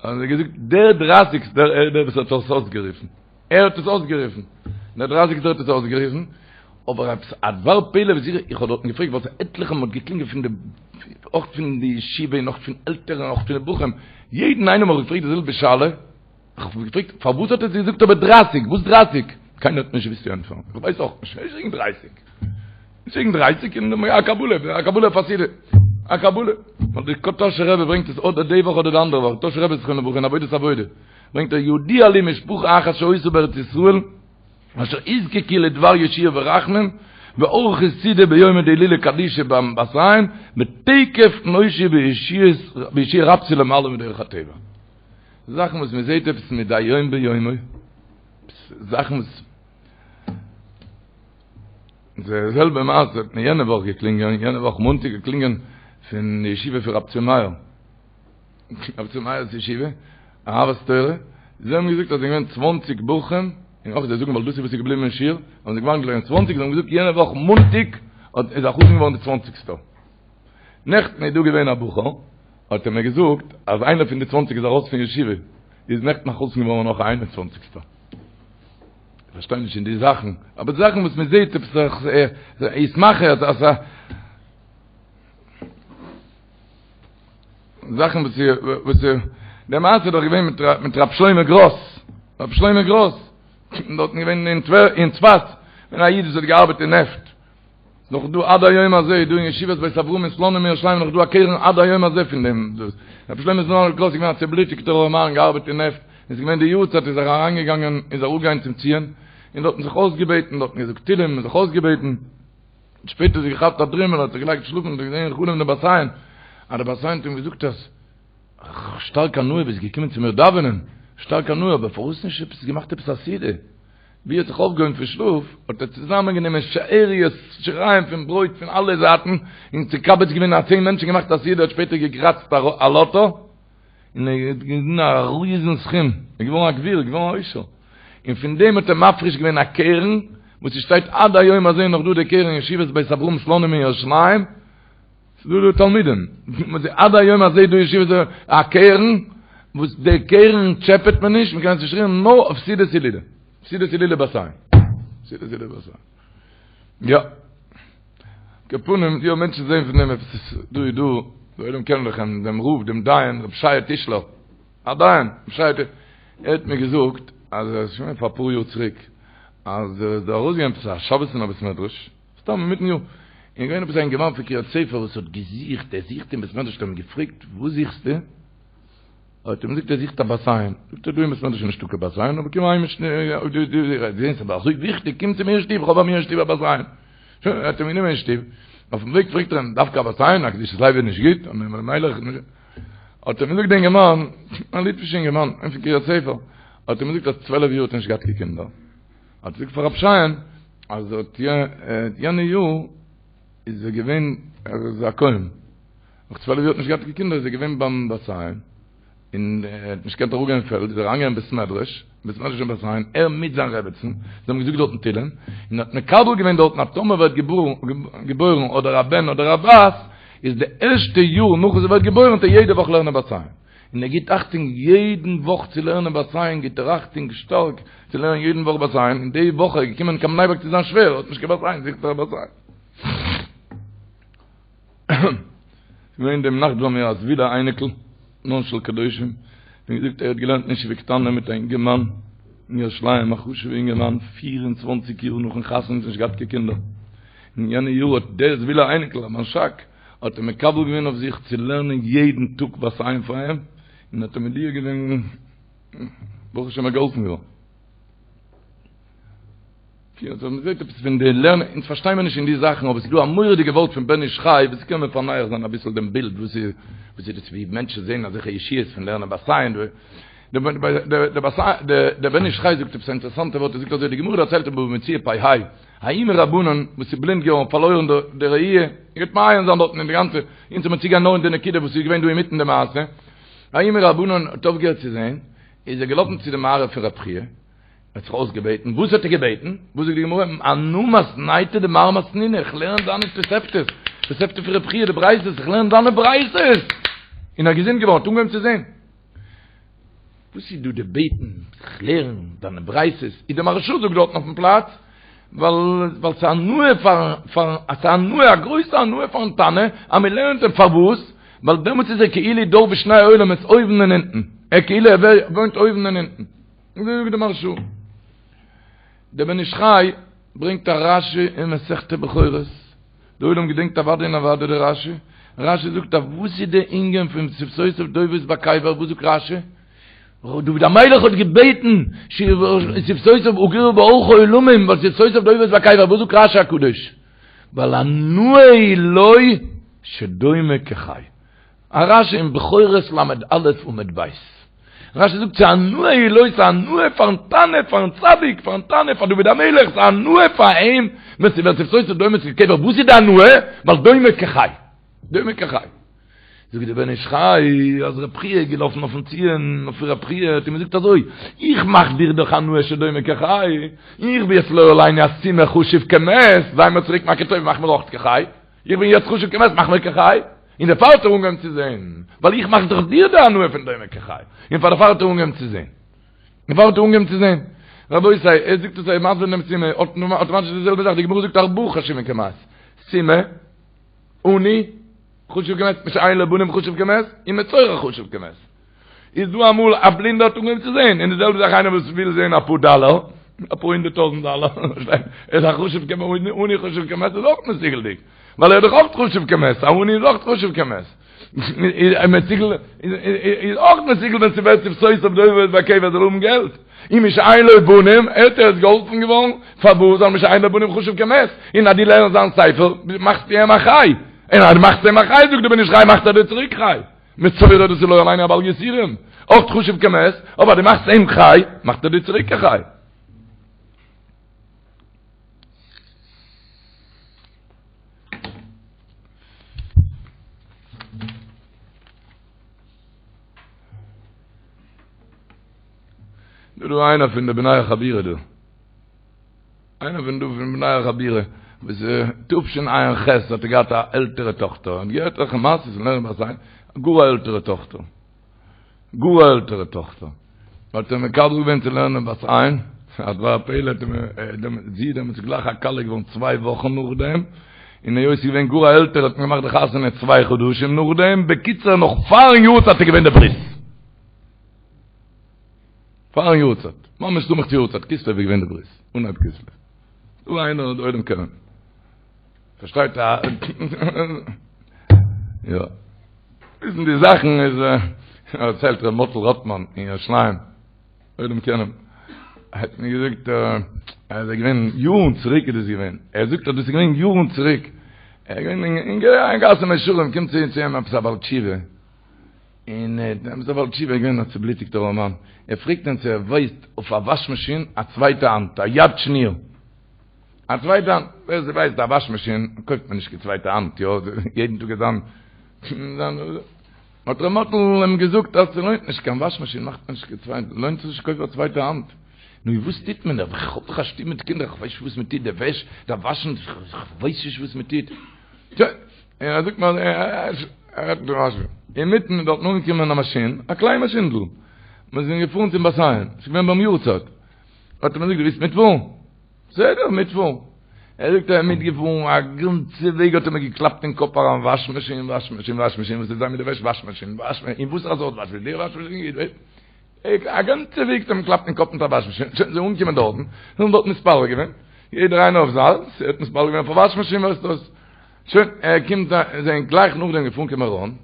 Speaker 5: האבן זיי געזאגט, דער דרייסיגסטער, ער איז דער וואס האט עס אויסגערופן. ער האט עס אויסגערופן, דער דרייסיגסטער האט עס אויסגערופן, אבער עפעס א דבר פלא וואס איך איך האב דארטן געפרעגט ווייל עטליכע מאל האט געקלינגען פון די אויך פון די ישיבה און אויך פון עלטערן און אויך פון די בחורים, יעדן איינעם האב איך געפרעגט די זעלבע שאלה, איך האב געפרעגט פארוואס האט ער געזאגט אבער דרייסיג, וואס דרייסיג? קיינער האט נישט געוואוסט צו ענטפערן, איך ווייס אויך נישט, נישט וועגן דרייסיג, נישט וועגן דרייסיג, און א קבלה, א קבלה אויף א סעודה, א קבלה, ווייל די טאהשער רבי ברענגט עס אדער די וואך אדער די אנדערע וואך, טאהשער רבי זכרונו לברכה אין עבודת עבודה. ברענגט ער ידוע לי משפחה אחת שהיתה בארץ ישראל אשר הוזקקו לדבר ישועה ורחמים וערכו סעודה ביומא דהילולא קדישא ביים בת עין ותיכף נושעו בישועה רבתי למעלה מדרך הטבע. זאכן וואס מען זעט עפעס מדי יום ביומו, זאכן וואס די זעלבע מעשה האט מיר יענע וואך געקלינגען, יענע וואך מאנטאג געקלינגען פון די ישיבה פון רב צבי מאיר, רב צבי מאיר'ס ישיבה, אהבת תורה, זיי האבן געזאגט אז זענען געווען צוואנציג בחורים, און אויך זיי זאגן ווייל דאס איז וואס איז געבליבן אין שיעור, האבן זיי געוואנדן געווען צוואנציג, זיי האבן געזאגט יענע וואך מאנטאג איז א חתן געווארן די צוואנציגסטער. נעכטן איז דא געווען א בחור, האט ער מיר געזאגט אז איינער פון די צוואנציג איז ארויס פון ישיבה, איז נעכטן א חתן געווארן נאך א איין און צוואנציגסטער. איך פארשטיי נישט אין די זאכן, אבער די זאכן וואס מען זעט עפעס איז מאכער אז א זאכן וואס וואס די מעשה איז דאך געווען מיט מיט רב שלמה גראס, רב שלמה גראס, דארטן געווען אין אין צפת, ווען א איד וואס האט געארבעט אין נעפט, נאך דא עד היום הזה איז דא אין ישיבת בית אברהם אין סלאנים אין ירושלים נאך דא א קרן עד היום הזה פון דעם דאס רבי שלמה זלמן גראס איז געווען א צעבלוטיגטער ארעמאן געארבעט אין נעפט איז געווען די יארצייט איז ער אריינגעגאנגען איז ער אראפגעגאנגען צום ציון און דארטן זיך אויסגעבעטן דארטן געזאגט תהילים און זיך אויסגעבעטן שפעטער זיך געכאפט א דרימל האט זיך געלייגט שלאפן און געזען אין חלום די בת עין אז די בת עין האט אים געזאגט אז שטארק הנאה ביסט געקומען צו מיר דאווענען שטארק הנאה אבער פארוואס נישט עפעס געמאכט עפעס א סעודה ווי ער האט זיך אויפגעהויבן פון שלאף, האט ער צוזאמען גענומען שאריות שיריים פון ברויט פון אלע זייטן, און מקבץ געווען א צען מענטשן געמאכט א סעודה, האט שפעטער געקראצט א לאטא, און ער האט געוואונען א ריזן סכום, ער איז געווארן א גביר, געווארן א עושר, און פון דעם האט ער מפריש געווען א קרן, וואס עס שטייט עד היום הזה נאך דא די קרן אין ישיבת בית אברהם סלאנים אין ירושלים, ס'איז דא דא תלמידים, עד היום הזה דא ישיבה א קרן, וואס די קרן טשעפעט מען נישט, מ'קען עס נישט רירן נאר אויף סעודת הילולא, סעודת הילולא בת עין, סעודת הילולא בת עין. יא. על כל פנים, יא מענטשן זעהן פון דעם עפעס, דא איז דא, די עולם קענען דאך אים, דעם רב, דעם דיין, רב שייע טישלער, א דיין, רב שייע טישלער, ער האט מיר געזאגט, אז ער איז שוין פאר אפאר יאר צוריק, אז ער איז דא ארויסגעגאנגען עפעס א שבת אין א בית מדרש, סתם אינמיטן יאר, און געווען עפעס א אינגערמאן פון קרית ספר וואס האט געזוכט, ער זוכט אין בית מדרש, האט ער אים געפרעגט וואס זוכסטו? האט ער אים געזאגט ער זוכט א בת עין, זאגט ער דא אין בית מדרש איז נישטא קיין בת עין, אבער קום אהיים אין שטוב, אויב דו זעסט ס'איז אזוי וויכטיג, קום צו מיר אין שטוב, איך האב ביי מיר אין שטוב א בת עין. שוין, ער האט אים גענומען אין שטוב, אויפן וועג פרעגט ער אים, דווקא א בת עין, א קדושת לוי איז נישט גוט? האט אים געזאגט די אינגערמאן, א ליטווישע אינגערמאן, פון קרית ספר, האט אים געזאגט אז צוועלף יאר האט ער נישט געהאט קיין קינדער, האט געזאגט פאר רב שייע'ן אז האט יענע יאר איז ער געווען ער איז א כהן נאך צוועלף יאר האט נישט געהאט קיין קינדער איז ער געווען ביים בת עין און ער האט נישט געקענט אראפגיין אין פעלד איז ער אריינגעגאנגען אין בית מדרש בית מדרש אין בת עין ער מיט זיין רעבעצן זיי האבן געזאגט דארטן תהילים און האט מקבל געווען דארטן אז טאמער ווערט געבוירן אדער א בן אדער א בת איז די ערשטע יאר נאך וואס ער ווערט געבוירן וועט ער יעדע וואך לערנען בת עין און ער גיט אכטונג יעדן וואך צו לערנען בת עין, גיט ער אכטונג שטארק צו לערנען יעדן וואך בת עין, און די וואך איז ער געקומען קיין בני ברק צו זיין שווער, האט נישט קיין בת עין, זוכט ער א בת עין. געווען דעם נאכט ביי מיר א זווילער אייניקל, בנן של קדושים, ווי געזאגט ער האט געלערנט אין ישיבה קטנה מיט א אינגערמאן אין ירושלים, א חשוב'ע אינגערמאן, פיר און צוואנציג יאר נאכן חתונה נישט געהאט קיין קינדער, אין יענע יאר האט דער זווילער אייניקל, א מנשק, האט ער מקבל געווען אויף זיך צו לערנען יעדן טאג בת עין פאר אים, און האט אים מודיע געווען, ברוך השם ער איז געהאלפן געווארן. אז מען זעט עפעס פון די לערנען, אונז פארשטיי מיר נישט אין די זאכן, אבער עס איז דא א מורא'דיגע ווארט פון בן איש חי, וואס קען מען פענח זיין אביסל דעם בילד, וואס איז וואס איז דאס ווי מענטשן זעען אזעלכע ישועות פון לערנען בת עין, דער בן איש חי זאגט עפעס א אינטערעסאנטע ווארט, ער זאגט אזוי, די גמרא דערציילט אין בבא מציעא פ"ה, ההוא מרבנן וואס איז בלינד געווארן פארלוירן די ראי', איר גייט מעיין זיין דארטן אין די גאנצע, אונז האמיר צוגיין נאר אין די נקודה וואס איז געווען דא אינמיטן די מעשה, ההוא מרבנן האט אויפגעהערט צו זען, איז ער געלאפן צו די מערה פון רב חייא, האט זיך אויסגעבעטן, וואס האט ער געבעטן? וואס זאגט די גמרא, אנא מתניתא דמר מתנינא, איך לערן דיינע תוספתות, תוספתא פון רב חייא, די ברייתות, איך לערן דיינע ברייתות! און ער איז געזונט געווארן, האט אנגעהויבן צו זען. וואס איז דא די בעטן, איך לערן דיינע ברייתות, איז די מהרשא זאגט דארטן אויפן פלאץ, ווייל ווייל ס'איז הנאה פארן פארן ס'איז הנאה א גרויסע הנאה פארן תנא אז מען לערנט אים, פארוואס? ווייל דעמאלטס איז ער כאילו דר בשני עולמות אויבן און אונטן, ער כאילו ער וואוינט אויבן און אונטן, אזוי זאגט די מהרשא. דער בן איש חי ברענגט א רשי אין מסכת בכורות, די עולם געדענקט אוודאי און אוודאי די רשי, רשי זאגט אז וואס איז די ענין פון שפתותיו דובבות בקבר, וואס זאגט רשי? דוד המלך האט געבעטן שפתותיו אגורה בארכה עולמים ווייל שפתותיו דובבות בקבר, וואס זאגט רשי הקדוש? ווייל הנאה היא לו שדומה כחי. א רשי אין בכורות ל"א עמוד ב'. רשי זאגט ס'הנאה היא לו, ס'איז הנאה פארן תנא, פארן צדיק, פארן תנא, פאר דוד המלך, ס'איז הנאה פאר אים ווען ס'ווערט שפתותיו דומות כקבר, וואס איז די הנאה? ווייל דומה כחי. דומה כחי. זאגט דער בן איש חי אז רב חייא איז געלאפן אויפן ציון אויף רב חייא האט אים געזאגט אזוי, איך מאך דיר דאך הנאה שדומה כחי, איך בין יעצט לא עלינו א סומא חשוב כמת, זיי מיר צוריק מכיר טוב מאך מיר אויך כחי, איך בין יעצט חשוב כמת מאך מיר כחי, און דערפאר האט ער אנגעהויבן צו זען, ווייל איך מאך דאך דיר די הנאה פון דומה כחי, און פאר דערפאר האט ער אנגעהויבן צו זען. דערפאר האט ער אנגעהויבן צו זען. רבותי, ער זאגט עס ער איז מסביר דעם סומא, אויטאמאטיש די זעלבע זאך, די גמרא זאגט ארבעה חשובין כמת, סומא, עני, חשוב כמת, מי שאין לו בנים חשוב כמת, און מצורע חשוב כמת. איז דא אמאל א בלינדער האט אנגעהויבן צו זען, און די זעלבע זאך איינער וואס וויל זען אפאר דאלער, אפאר הונדערט טויזנט דאלער, ער איז א חשוב כמת, עני חשוב כמת איז אויך מסוגל'דיג, ווייל ער איז דאך אויך חשוב כמת, א עני איז אויך חשוב כמת. מסוגל איז אויך מסוגל ווען ס'ווערט שפתותיו דובבות בקבר זאל האבן געלט. און מי שאין לו בנים, ער איז געהאלפן געווארן, פארוואס ווייל מי שאין לו בנים חשוב כמת, און אז דו לערנסט זיין ספר, מאכסטו אים א חי, און אז דו מאכסט אים א חי, זאגט דער בן איש חי, מאכט ער דיר צוריק חי. מצורע דאס איז לא עלינו א בעל יסורים, אויך חשוב כמת, אבער אז דו מאכסט אים חי, מאכט ער דיר צוריק א חי. דא דא איינער פון די בני החבירה דא. איינער פון דא פון בני החבירה וואס תשע"ח האט ער געהאט א עלטערע טאכטער, האט געהערט אויך מעשיות פון לערנען בת עין, גאר א עלטערע טאכטער, גאר א עלטערע טאכטער, האט ער מקבל געווען צו לערנען בת עין, א דבר הפלא האט אים זי איז דעמאלטס גלייך א כלה געווארן צוויי וואכן נאכדעם, און היות ס'איז געווען גאר א עלטערע האט מען געמאכט די חתונה צוויי חדשים נאכדעם, בקיצור נאך פארן יארצייט איז געווען די ברית. פארן יארצייט, ממש סמוך צו יארצייט, כסלו איז געווען די ברית, אנהייב כסלו. דא איינער די עולם קענען. פארשטייט א יא. וויסן די זאכן איז דערציילט ר' מאטל ראטמאן אין ירושלים. עולם קענען. האט מיר געזאגט אז ער איז געווען יארן צוריק איז דאס געווען. ער זאגט אז דאס איז געווען יארן צוריק. ער איז געווען אין גאס מאה שערים קומט צו אים עפעס א בעל תשובה. און דער בעל תשובה איז געווען א צובלוטיגטער ארעמאן, ער פרעגט אים צו ער ווייסט אויף א וואש מאשין א צווייטע האנט, א יד שניה, א צווייטע האנט, ווער ס'ווייסט א וואש מאשין קויפט מען נישט קיין צווייטע האנט, יא, יעדן טאג איז זיין, האט ר' מאטל אים געזאגט אז ס'לוינט נישט, קיין וואש מאשין מאכט מען נישט קיין צווייטע, לוינט זיך נישט קויפן א צווייטע האנט, נו וואס טוט מען, איך האב דאך א שטוב מיט קינדער, איך ווייס נישט וואס מען טוט, די וועש דארף וואשן, איך ווייס נישט וואס מען טוט, און ער זאגט מיר ער רעדט מיט דעם משהו. אינמיטן איז דארטן אנגעקומען א מאשין, א קליין מאשינדל. מיר זענען געפארן צום בת עין, ס'איז געווען ביים יארצייט. האט ער מיר געזאגט, דו ווילסט מיטפארן? בסדר, מיטפארן. ער זאגט ער איז מיטגעפארן, א גאנצע וועג האט ער מיר געקלאפט אין קאפ אריין, וואש מאשין, וואש מאשין, וואש מאשין, וואס וועט זיין מיט די וועש, וואש מאשין, וואש מאשין, און וואסערע סארט וואש מאשין, די וואש מאשין, א גאנצע וועג האט ער מיר געקלאפט אין קאפ מיט א וואש מאשין, שוין זיי אנגעקומען דארטן, זיי האבן דארט מתפלל געווען, יעדער איינער אויף זיינס, ער האט מתפלל געווען אויף א וואש מאשין, ווייסט וואס. שוין, ער קומט, זיי זענען גלייך נאכדעם געפארן קיין מירון,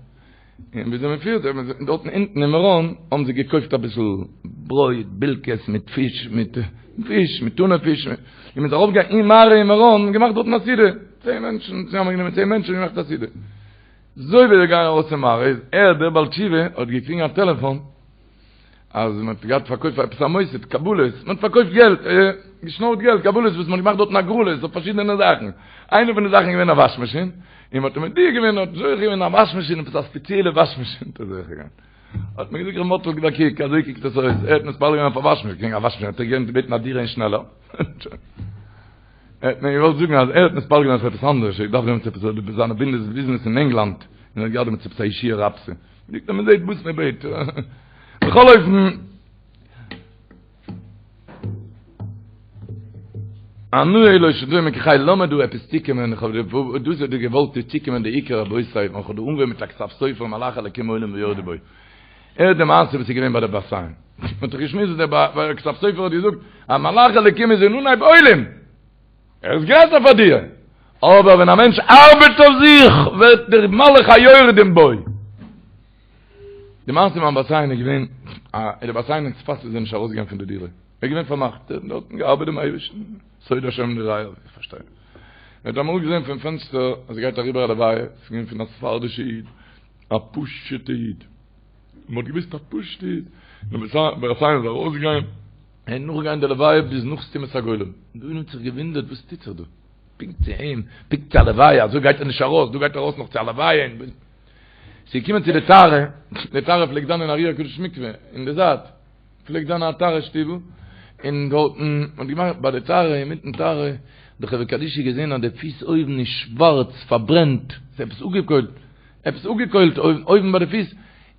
Speaker 5: און וויאזוי מען פירט זיך, דארטן אונטן אין מירון האבן זיי געקויפט אביסל ברויט, בילקעס מיט פיש, מיט פיש, מיט טונא פיש, און מען איז ארויפגעגאנגען אין מערה אין מירון און געמאכט דארטן א סעודה, צען מענטשן, צוזאמענגענומען צען מענטשן און געמאכט א סעודה. אזוי ווי זיי גייען ארויס פון מערה איז ער, דער בעל תשובה, האט געקריגן א טעלעפאן, אז מען האט געהאט פארקויפט פאר עפעס א מוסד קבלות, מען האט פארקויפט געלט, געשנארט געלט, קבלות וואס מען האט געמאכט דארטן הגרלות אויף פארשידענע זאכן, איינע פון די זאכן איז געווען א וואש מאשין, און מען האט אים מודיע געווען, האט זוכה געווען א וואש מאשין, עפעס א ספעציעלע וואש מאשין האט ער זוכה געווען. האט מיר געזאגט ר' מאטל גיב א קוק, אזוי קוקט עס אויס, ער האט מתפלל געווען אויף א וואש מאשין, קעגן א וואש מאשין האט ער געקענט בעטן א דירה אין שנעלער. ער האט מיר געוואלט זאגן אז ער האט מתפלל געווען אויף עפעס אנדערש, ער דארף דעמאלטס עפעס זיינע ביזנעס אין ענגלאנד, און ער האט געהאט דעמאלטס עפעס א ישועה רבתי. זאגט ער מען זעט וואס מען בעט. בכל אופן, הנאה היא לו שדומה כחי, לאמיר דא עפעס צוקומען, איך האב דאס האט דא געוואלט צוקומען די עיקר רבותי, ווען איך האב דא אנגעהויבן מיט א כתב סופר מלאכי אלקים עולים ויורדים בו. הערט די מעשה וואס איז געווען ביי די בת עין. מען האט דאך געשמועסט וואס דער כתב סופר האט געזאגט, אז מלאכי אלקים איז אין אנהייב עולים. ער איז גרעסער פאר דיר. אבער ווען א מענטש ארבעט אויף זיך, ווערט דער מלאך היורדים בו. די מעשה ביים בת עין איז געווען, א די בת עין אין צפת איז ער נישט ארויסגעגאנגען פון די דירה, ער איז געווען פארמאכט, ער האט דארטן געארבעט דעם אייבערשטן, סוד השם ליראיו, איך פארשטיי. ער האט אמאל געזען פון פענסטער אז עס גייט אריבער א לוויה, עס איז געווען פון א ספרדישע איד, א פשוטע איד, מען האט געוואוסט א פשוטע איד, די בת עין איז ארויסגעגאנגען, ער איז נאכגעגאנגען די לוויה ביז נאך סתימת הגולל, די עולם האט זיך געוואונדערט וואס טוט זיך דא, פונקט צו אים, פונקט צו א לוויה, אזוי גייט ער נישט ארויס, דא גייט ער ארויס נאך צו א לוויה, ס'איז געקומען צו די טהרה, די טהרה פלעגט זיין אין אר"י הקדוש מקווה, אין די זייט, פלעגט זיין א טהרה שטיבל, און דארטן האט געמאכט ביי די טהרה, אינמיטן טהרה, האט די חברה קדישא געזען אז די פיס אויבן איז שווארץ, פארברענט, ס'איז עפעס אפגעקוילט, עפעס אפגעקוילט אויבן ביי די פיס,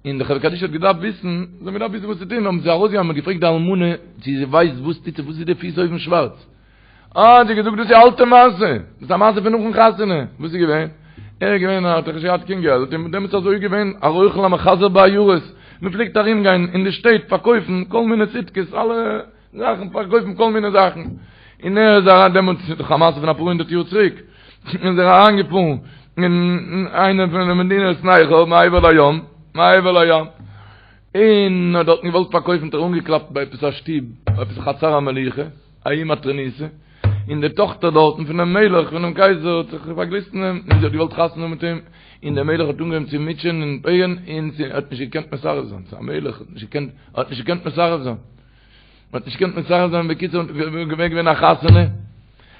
Speaker 5: און די חברה קדישא האט געדארפט וויסן, זיי האבן געדארפט וויסן וואס צו טון, האבן זיי ארויסגעגאנגען און געפרעגט די אלמנה צו זי ווייסט וואס טוט זיך, וואס איז די פיס אויבן שווארץ? אה, האט זי געזאגט, דאס איז א אלטע מעשה, דאס איז א מעשה פון נאכן חתונה, וואס איז געווען? ער איז געווען, ער האט דאך נישט געהאט קיין געלט, און דעמאלטס איז אזוי געווען, א רוכל המחזר בעיירות, מען פלעגט ארום גיין אין די שטעט פארקויפן כל מיני ציטקעס, אלע זאכן, פארקויפן כל מיני זאכן, און ער איז אריין, דעמאלטס איז דאך א מעשה פון אפאר הונדערט יאר צוריק, איז ער אריין געפארן אין איינע פון די מדינות נכר, מעבר לים, מעבר לים, און האט דארטן געוואלט פארקויפן, האט ער אנגעקלאפט ביי עפעס א שטוב, עפעס א חצר המלוכה, ההיא מטרוניתא, און די טאכטער דארטן פונעם מלך, פונעם קייזער, האט זיך פארגליסט אין אים, און זי האט געוואלט חתונה האבן מיט אים, און דער מלך האט אנגעהויבן צו מוטשען און פייניגן, און זי האט נישט געקענט מסרב זיין, ס'איז א מלך, האט נישט געקענט, האט נישט געקענט מסרב זיין, האט נישט געקענט מסרב זיין, בקיצור, געווען געווען א חתונה,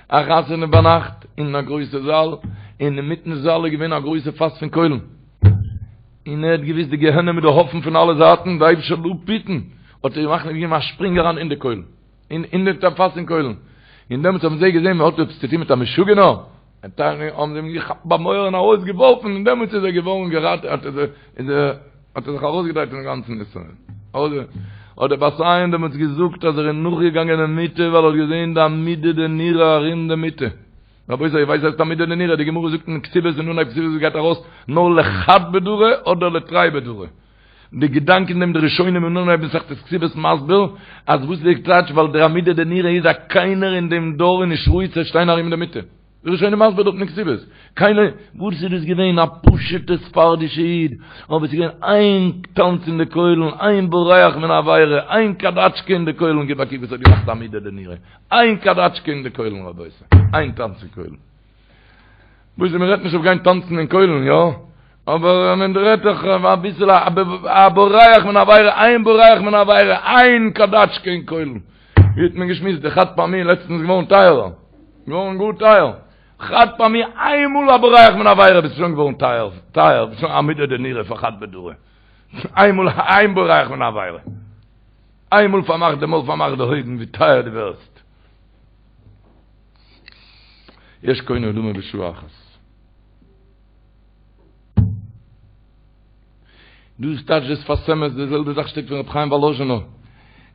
Speaker 5: א חתונה ביינאכט, אין א גרויסע זאל, און אינמיטן זאל איז געווען א גרויסע פאס פון קוילן, און ער האט געוואוסט די גיהנום איז דא אפן פון אלע זייטן, די אייבערשטער זאל אפהיטן, האט ער געמאכט געגעבן א שפרינג אריין אין די קוילן. אין אין די פאס פון קוילן. און דעמאלטס האבן זיי געזען מען האט עפעס צו טון מיט א משוגענער, האבן זיי אים געכאפט ביים אויער און ארויסגעווארפן, און דעמאלטס איז ער געווארן געראטעוועט, האט ער איז ער האט ער זיך ארויסגעדרייט פונעם גאנצן נסיון. האט דער בת עין דעמאלטס געזאגט אז ער איז נאכגעגאנגען די מיטה ווייל ער האט געזען די עמודא דנורא ארום די מיטה. רבותי איר ווייסט וואס הייסט עמודא דנורא? די גמרא זאגט אין כתובות אין אנהייב כתובות גייט ארויס נאר לחד בדרא אדער לתרי בדרא. די געדאנק אין דעם די ראשונים אין אנהייב מסכת כתובות מסביר אז וואס איז די טייטש ווייל דער עמודא דנורא איז אז קיינער אין דעם דור איז נישט ראוי צו שטיין ארום די מיטה. די ראשונים מסביר דארט אין כתובות קיינער וואס איז דאס געווען א פשוטע ספרדישע איד אבער עס איז געווען איין טאנץ אין די קוילן איין בורח מן העבירה איין קאדאטשקע אין די קוילן גיב א קוק וואס האט געמאכט עמודא דנורא איין קאדאטשקע אין די קוילן רבותי איין טאנץ אין קוילן. וואס איז מ'רעדט נישט אויף גיין טאנצן אין קוילן יא? אבער מען רעדט דאך אביסל א בורח מן העבירה, איין בורח מן העבירה, איין קאדאטשקע אין קוילן. ווי האט מען געשמועסט די חד פעמי לעצטנס געווארן טייערער, געווארן גאר טייער. חד פעמי איינמאל א בורח מן העבירה ביסט שוין געווארן טייער, טייער, ביסט שוין עמודא דנורא פאר חד בדרא. איינמאל איין בורח מן העבירה. איינמאל פארמאך די מויל פארמאך די אויגן ווי טייער דו ווערסט. יש קונה עולמו בשעה אחת. דאס טייטש דער שפת אמת, די זעלבע זאך שטייט פון רבי חיים וואלאזשינער.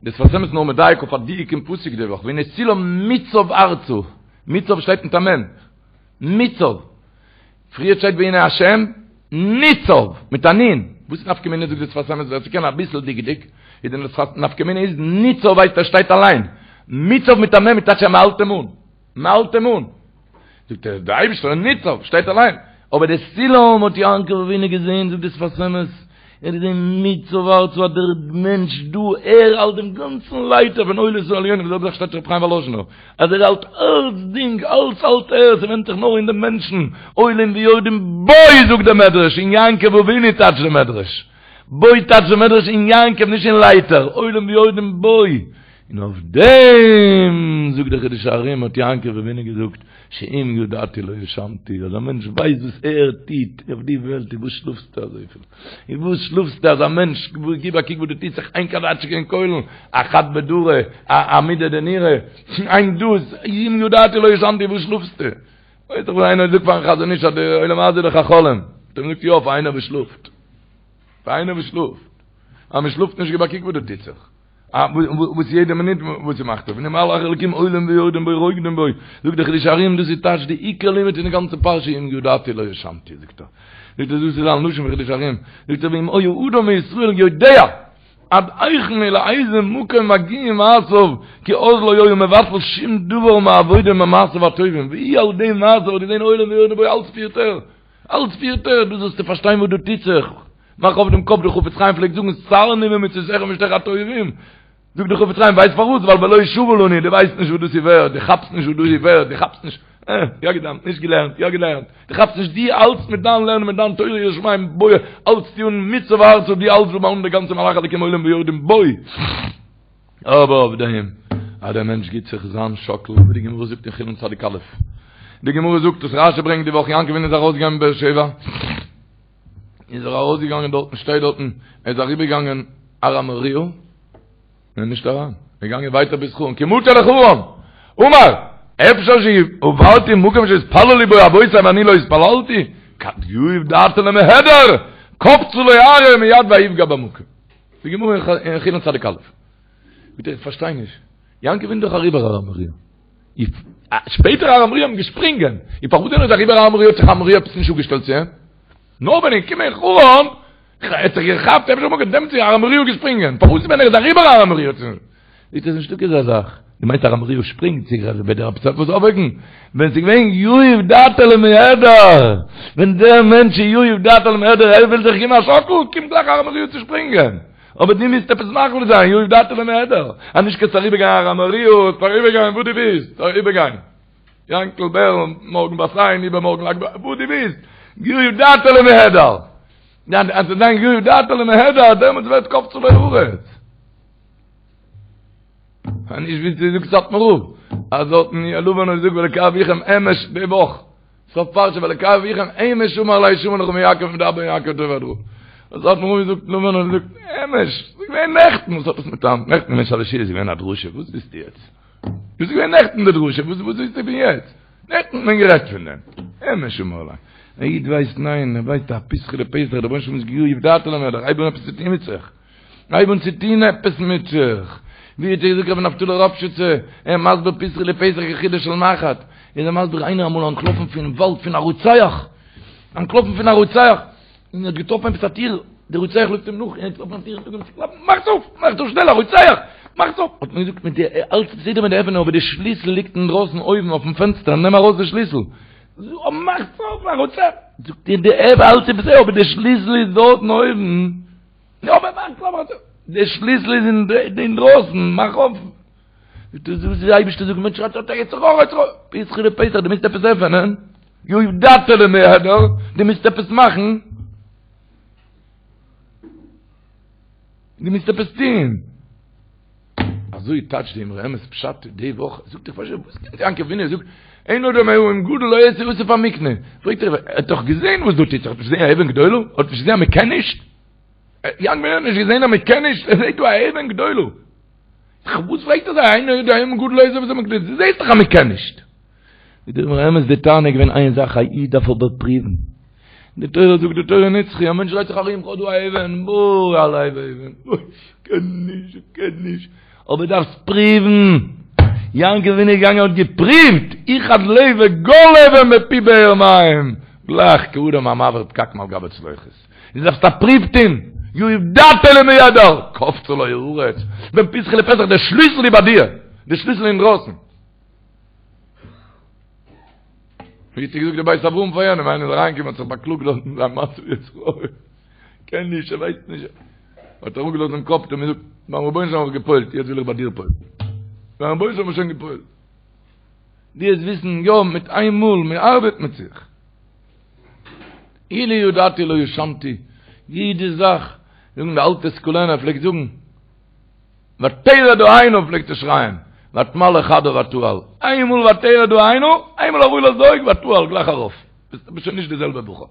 Speaker 5: דער שפת אמת איז נאר מדייק אויף א דיוק אין פסוק די וואך, והנה סולם מוצב ארצה, מוצב שטייט מיט א מ', מוצב. פריער שטייט והנה השם ניצב, מיט א נ'. וואס איז נפקא מינה זאגט דער שפת אמת ווער ס'קען אביסל דקדוק, איז די נפקא מינה איז ניצב הייסט ער שטייט אליין, מוצב מיט א מ' איז טייטש אז מ'האלט אים אן. מ'האלט אים אן. זאגט ער, דער אייבערשטער איז ניצב, שטייט אליין. אבער די סולם האט יעקב אבינו געזען, זאגט די שפת אמת, ער האט געזען מוצב ארצה אז דער מענטש דא, ער האלט דעם גאנצן לייטער פון עולמות עליונים, די זעלבע זאך שטייט רבי חיים וואלאזשינער, אז ער האלט אלצדינג, אלץ האלט ער, ס'ווענדט זיך נאר אין דעם מענטשן, עולים ויורדים בו, זאגט דער מדרש, אין יעקב אבינו טייטשט דער מדרש. בו טייטשט דער מדרש אין יעקב נישט אין לייטער, עולים ויורדים בו. און אויף דעם זאגט דער חידושי הרי"ם האט יעקב אבינו געזאגט שאם ידעתי לא ישנתי, אז א מענטש ווייסט וואס ער טוט אויף די וועלט, איז וואס שלאפסטו אזויפיל? איז וואס שלאפסטו אז א מענטש, גיב א קוק וואס דא טוט זיך, איין קאדאטשקע אין כולל, א חד בדרא, א עמודא דנורא, איין דאס, אם ידעתי לא ישנתי, וואס שלאפסטו? ווייסט דאך ווען איינער זאגט פארן חזון איש אז די עולם הזה איז דאך א חלום, האט ער אים געזאגט יא פאר איינער וואס שלאפט, פאר איינער וואס שלאפט, אז מען שלאפט נישט גיב א קוק וואס דא טוט זיך. וואס יעדע מינוט וואס ס'מאכט אויף, והנה מלאכי אלקים עולים ויורדים בו רוקדים בו, זאגט דער חידושי הרי"ם דאס איז טייטש די עיקר לימוד פון די גאנצע פרשה אם ידעתי לא ישנתי זאגט ער, זאגט ער דאס איז א לשון פון חידושי הרי"ם, זאגט ער ואם היה אדם מישראל יודע עד היכן ולאיזה מקום מגיעים מעשיו כי אז לא היה מבטל שום דבר מעבודה ממעשיו הטובים והוא על ידי מעשיו האט געזען עולים ויורדים בו אלץ פירט ער, אלץ פירט ער, דאס זאלסטו פארשטיין וואס דא טוט זיך. מאך אויף דעם קאפ, דער חפץ חיים פלעגט זאגן סרני ממצותיך ומשתיך הטובים, זאגט דער חפץ חיים ווייסט פארוואס? ווייל ולא שווה לנו, דו ווייסט נישט וואס דאס איז ווערד, דו כאפסט נישט וואס דאס איז ווערד, דו כאפסט נישט, אה, יא געדאווענט, נישט געלערנט, יא געלערנט, דו כאפסט נישט, דו האלטסט מיט דיין לערנען מיט דיין תורה יראת שמים, בוא, האלטסטו אן מוצב ארצה, דו האלטסט דא אן די גאנצע מלאכי אלקים עולים ויורדים, בוא. אבער אויף דעם אז דער מענטש גיט זיך זיין שאקל, ווי די גמרא זאגט אין חולין צדיק א', די גמרא זאגט וואס רשי ברענגט די וואך, יעקב אבינו איז ארויסגעגאנגען מבאר שבע, איז ער ארויסגעגאנגען דארטן, שטייט דארטן, ער איז אריבערגעגאנגען הר המוריה, און נישט אריין, ער איז געגאנגען ווייטער ביז חרן, כי מטא לחרן, אמר, אפשר שעברתי מקום שהתפללו בו אבותי ואני לא התפללתי, כד יהיב דעתיה למיהדר, קפצה לו ארעא מיד ויפגע במקום. די גמרא אין חולין צדיק א'. ביטע איך פארשטיי נישט. יעקב אבינו איז דאך אריבער הר המוריה. שפעטער הר המוריה האבן געשפרינגען. און פארוואס ווען ער איז אריבער הר המוריה האט זיך הר המוריה עפעס נישט אפגעשטעלט צו אים? נאר ווען ער איז געקומען אין חרן, האט זיך געכאפט אפשר מארגן דעמאלטס איז הר המוריה געשפרינגען. פארוואס ווען ער איז אריבער הר המוריה האט זיך זאגט ער נישטא אזא זאך. דו מיינסט הר המוריה שפרינגט זיך אז וועט דער עפעס עפעס אויפוועקן? ווען ס'איז געווען יהיב דעתיה למיהדר, ווען דער מענטש איז יהיב דעתיה למיהדר, ער וויל זיך געבן א שאקל, קומט גלייך הר המוריה צו שפרינגען. אבער דו מוזט עפעס מחליט זיין, יהיב דעתיה למיהדר, אז נישט קענסטו אריבערגיין הר המוריה, אריבערגיין וואו דו ווילסט, אריבערגיין. יענקל בער, מארגן בת עין, איבערמארגן לג בעומר, וואו דו ווילסט, יהיב דעתיה למיהדר. אז ס'וועט זיין יהיב דעתיה למיהדר, דעמאלטס ווערט קפצה לו הארץ. נישט ווי ס'זאגט סאטמאר רב, אז דארטן לבן האט געזאגט ואלקי אביכם אמש די וואך, סוף פרשה ואלקי אביכם אמש אמר אלי שמור לך מיעקב ומדבר יעקב טוב עד רע. האט סאטמאר רב געזאגט לבן האט געזאגט אמש, ס'איז געווען נעכטן, וואס האט עס מיט היינט? נעכטן געווען שלש סעודות איז געווען א דרשה, וואס ווילסטו יעצט? דאס איז געווען נעכטן די דרשה, וואס ווילסטו פון יעצט? נעכטן האט מען גערעדט פון דעם. אמש אמר אלי. א איד ווייסט ניין, ער ווייסט א פתחא דפתח, דער רבונו של עולם איז יהיב דעתיה למיהדר, הייב אן עפעס צו טון מיט זיך. הייב אן צו טון עפעס מיט זיך. ווי האט געזאגט רבי נפתלי ראפשיצער, ער איז מסביר פתחא דפתח כחודה של מחט, איז ער מסביר איינער אמאל אנטלאפן פון וואלד פון א רוצח, אנטלאפן פון א רוצח, און האט געטראפן עפעס א טיר, דער רוצח לויפט אים נאך, און ער האט געטראפן א טיר, און אנגעהויבן צו קלאפן, מאכטס אויף! מאכטס אויף שנעל, א רוצח! מאכטס אויף! האט מען געזאגט מיט די, אלץ בסדר מיט די עפענען, אבער די שליסל ליגט אינדרויסן אויבן אויפן פענסטער, נעם ארויס די שליסל. מאכטס אויף, א רוצח! זאגט ער, די עפ, אלץ איז בסדר, אבער די שליסל איזדארטן אויבן. יא אבער מאך אויף די שליסל איז אינדרויסן מאך אויף דאס איז די אייבערשטער זאגט מענטש שרייט אוי יצר הרע יצר הרע פתחא דפתח דו מוזט עפעס עפענען יהיב דעתיה למיהדר דו מוזט עפעס מאכן דו מוזט עפעס טוהן אזוי טייטשט די אמרי אמת פשט די וואך זאגט איך פארשטיי וואס קען יעקב אבינו זאגט אין אדם אבן גדולה לא אעשה אסיף המקנה פרעגט ער ער האט דאך געזען וואס דא טוט זיך האט נישט געזען א אבן גדולה האט נישט געזען אז מען קען נישט יעקב אבינו האט נישט געזען אז מען קען נישט ער זעט דא א אבן גדולה וואס פרעגט ער זיי אין אדם אבן גדולה לא אעשה אסיף המקנה דו זעסט דאך אז מען קען נישט זאגט דער אמרי אמת די טענה איז געווען איין זאך א איד דארף אבער פריוון די תורה זאגט די תורה נצחי א מענטש דרייט זיך ארום כ'האב דא א אבן בוי א לב אבן בוי כ'קען נישט כ'קען נישט אבער דארפסט פריוון יעקב אבינו איז געגאנגען האט געפריווט איחד ליה וגל אבן מפי באר מים גלייך כאדם המעביר פקק מעל גבי צלוחית דו דארפסט א פריוו טון יהיב דעתיה למיהדר קפצה לו הארץ ווען פתחא דפתח דער שליסל איז ביי דיר דער שליסל אינדרויסן ווי האט געזאגט דער בית אברהם פאר יענעם, איינער איז אריינגעקומען האט זיך באקלאגט דארט אין זיין מצב יצר הרע, קען נישט, ער ווייסט נישט, האט ער אראפגעלאזט דעם קאפ, האט ער אים געזאגט, ביים רבונו של עולם האב איך געפועלט, יעצט וויל איך ביי דיר פועל'ן, ביים רבונו של עולם האב איך שוין געפועלט, דו וועסט וויסן, יא, מיט איין מאל, מען ארבעט מיט זיך, אילו ידעתי לא ישנתי, יעדע זאך, זאגן די אלטע סקולענער פלעגט זאגן, ותרד העינה פלעגט ער שרייען, ותמלא חדה ותעל, איינמאל ותרד העינה, איינמאל אראפגעלאזט די אויגן ותעל גלייך ארויף, ביסט שוין נישט די זעלבע בחור.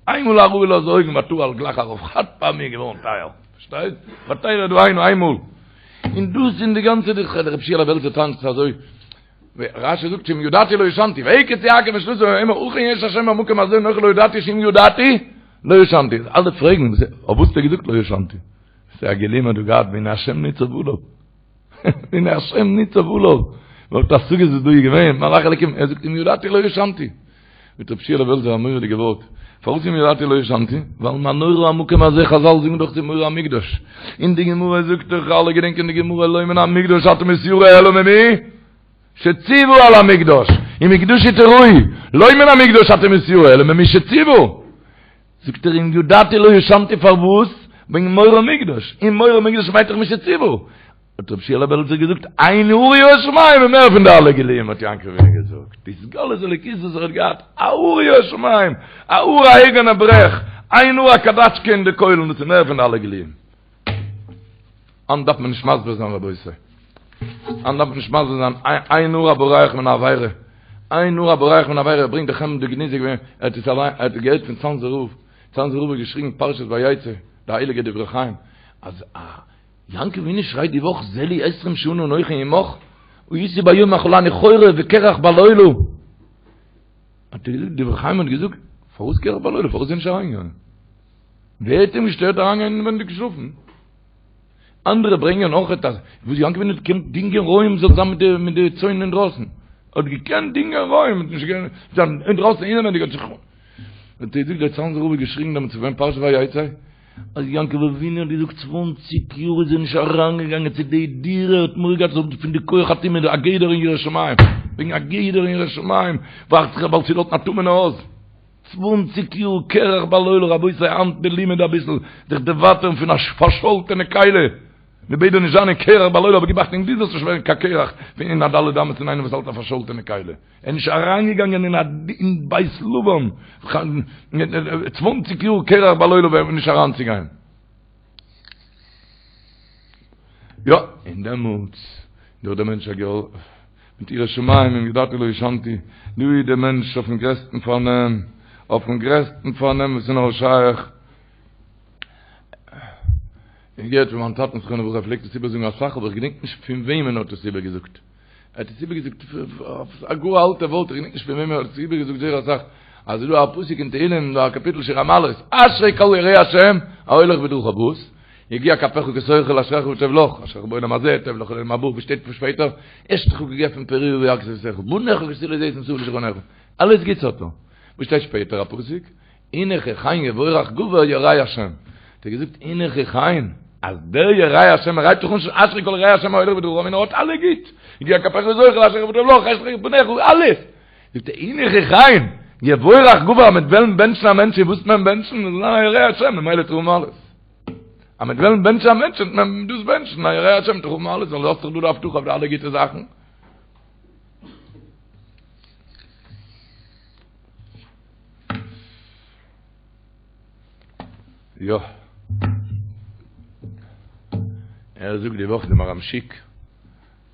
Speaker 5: איינמאל אראפגעלאזט די אויגן ותעל גלייך ארויף, חד פעמי געווארן טייער, פארשטייסט? ותרד העינה איינמאל. און דאס אין די גאנצע די רב שיעלע בעלזער טאנצט אזוי, רשי זאגט שאם ידעתי לא ישנתי, ויקץ יעקב משנתו ויאמר אכן יש השם במקום הזה אנכי לא ידעתי שאם ידעתי לא ישנתי. אלע פרעגן, אויף וואס האט ער געזאגט לא ישנתי? ס'איז א גילוי מ'האט דא געהאט והנה השם ניצב עליו. והנה השם ניצב עליו. וואלט השגות וואס דא איז געווען, מלאך אלקים, ער זאגט אם ידעתי לא ישנתי. מיט רב שיעלע בעלזער א מורא'דיגע ווארט. פארוואס אם ידעתי לא ישנתי? ווייל מה נורא המקום הזה, חזל זאגן דאך ס'איז מורא המקדש. און די גמרא זאגט דאך, אלע געדענקען די גמרא, לא מן המקדש אתה מתיירא אלא ממי? שציוה על המקדש. ומקדשי תיראו. לא מן המקדש אתה מתיירא אלא ממי שציוה. זאגט ער אם ידעתי לא ישנתי פארוואס? וועגן מורא מקדש, און מורא מקדש מיינט דאך מי שציוה. האט רבי שיעלע בעלזער געזאגט, איין הארה יראת שמים איז מער פון די אלע גילויים האט יעקב אבינו געזאגט, די התגלות אלוקות וואס ער האט געהאט, א הארה יראת שמים, א הארה א אייגענע ברעך, איין האר א קאדאטשקע אין די קוילן, דאס איז מער פון די אלע גילויים. היינט דארף מען נישט מסביר זיין רבותי. היינט דארף מען נישט מסביר זיין, איין האר הבורח מן העבירה, איין האר הבורח מן העבירה, ברענגט די חמדה גנוזה געווען, ער האט עס אליין, ער האט עס געהערט פון צאנזער רב, צאנזער רב האט געשריגן פרשת ויצא, די הייליגע דברי חיים, אז א יעקב אבינו שרייט די וואך זה לי עשרים שנה אנכי עמך, הייתי ביום אכלני חורב וקרח בלילה. האט ער געזאגט, דברי חיים האט געזאגט, פארוואס קרח בלילה, פארוואס איז ער נישט אריינגעגאנגען? ווער האט אים געשטערט אריינגיין אינווענדיג שלאפן? אנדערע ברענגען אויך אז וואס יעקב אבינו האט געקענט דינגען רועים זאל זיין מיט די מיט די צאן אינדרויסן, ער האט געקענט דינגען רועים, האט נישט געקענט זיין אינדרויסן אינעווענדיג האט זיך האט ער געזאגט דער צאנזער רב האט געשריגן דעמאלטס ווען פרשת ויצא אז יעקב אבינו האט געזאגט צוואנציג יאר איז ער נישט אריינגעגאנגען צו די דירה ער האט מורא געהאט זאל פון די כח הטומאה א גדר אין יראת שמים וועגן א גדר אין יראת שמים ווארט זיך באלד צו דארטן א טמא'נע הויז צוואנציג יאר קרח בלילה רבותי היינט די לימוד אביסל זיך דערווייטערן פון א פארשאלטענע כלי מ'בעט דיר נישט זיין אין קרח בלילה אבער גיב אכטונג דו זאלסט נישט ווערן קיין קרח פון אין א ד' אמות פון איינעם וואס האלט א פארשאלטענע כלי. ער איז נישט אריינגעגאנגען אין א אין בית לבן צוואנציג יאר קרח בלילה ווען נישט אריינצוגיין. יא, און דעמאלטס דאך דער מענטש א געל מיט יראת שמים אם ידעתי לא ישנתי, דא איז דער מענטש אויפן גרעסטן פארנעם, אויפן גרעסטן פארנעם וואס איז נאר שייך. איך געהערט פון מיין טאטן זכרונו לברכה ער פלעגט עס איבערזאגן אסאך אבער איך געדענק נישט פון וועמען ער האט עס איבערגעזאגט. ער האט עס איבערגעזאגט א גאר אלטע ווארט, איך געדענק נישט פון וועם ער האט עס איבערגעזאגט זייער אסאך, אז ס'איז דא א פסוק אין תהילים, דא א קאפיטל שיר המעלות, אשרי כל ירא השם, ההולך בדרכיו וואס? יגיע כפיך כי תאכל אשריך וטוב לך, אשריך בעולם הזה, טוב לך לעולם הבא, וואס שטייט שפעטער? אשתך כגפן פוריה בירכתי ביתך, בניך כשתילי זיתים סביב לשולחנך, אלעס גוטס האט ער. וואס שטייט שפעטער א פסוק? הנה כי כן יבורך גבר ירא השם. האט ער געזאגט הנה כי כן, אז דער ירא השם ער הייבט דאך אן אשרי כל ירא השם ההולך בדרכיו און ער האט אלע גוט, יגיע כפיך כי תאכל אשריך וטוב לך אשתך בניך אלעס. זאגט ער הנה כי כן יבורך גבר אז מ'וועט וועלן בענטשן א מענטש וואס וועט מען בענטשן? זאל זיין א ירא השם ממילא וועט ער האבן אלעס. אז מ'וועט וועלן בענטשן א מענטש וועט מען דאס בענטשן א ירא השם וועט ער האבן אלעס ווייל דו האסט דאך דא די הבטחה אויף די אלע גוטע זאכן. יא. ער זאגט די וואך די מהר"ם שיק,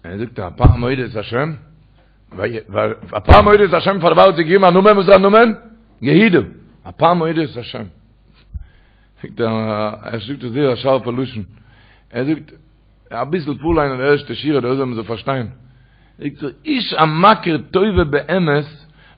Speaker 5: ער זאגט הפעם אודה את השם, הפעם אודה את השם פאר דערפאר האט זי געגעבן א נאמען, וואס איז א נאמען? יהודה. הפעם אודה את השם. זאגט ער, ער זאגט עס זייער א שארפע לשון. ער זאגט, אביסל פארליינען די ערשטע שורה דא זאל מען זאל פארשטיין. זאגט ער, איש המכיר טובה באמת,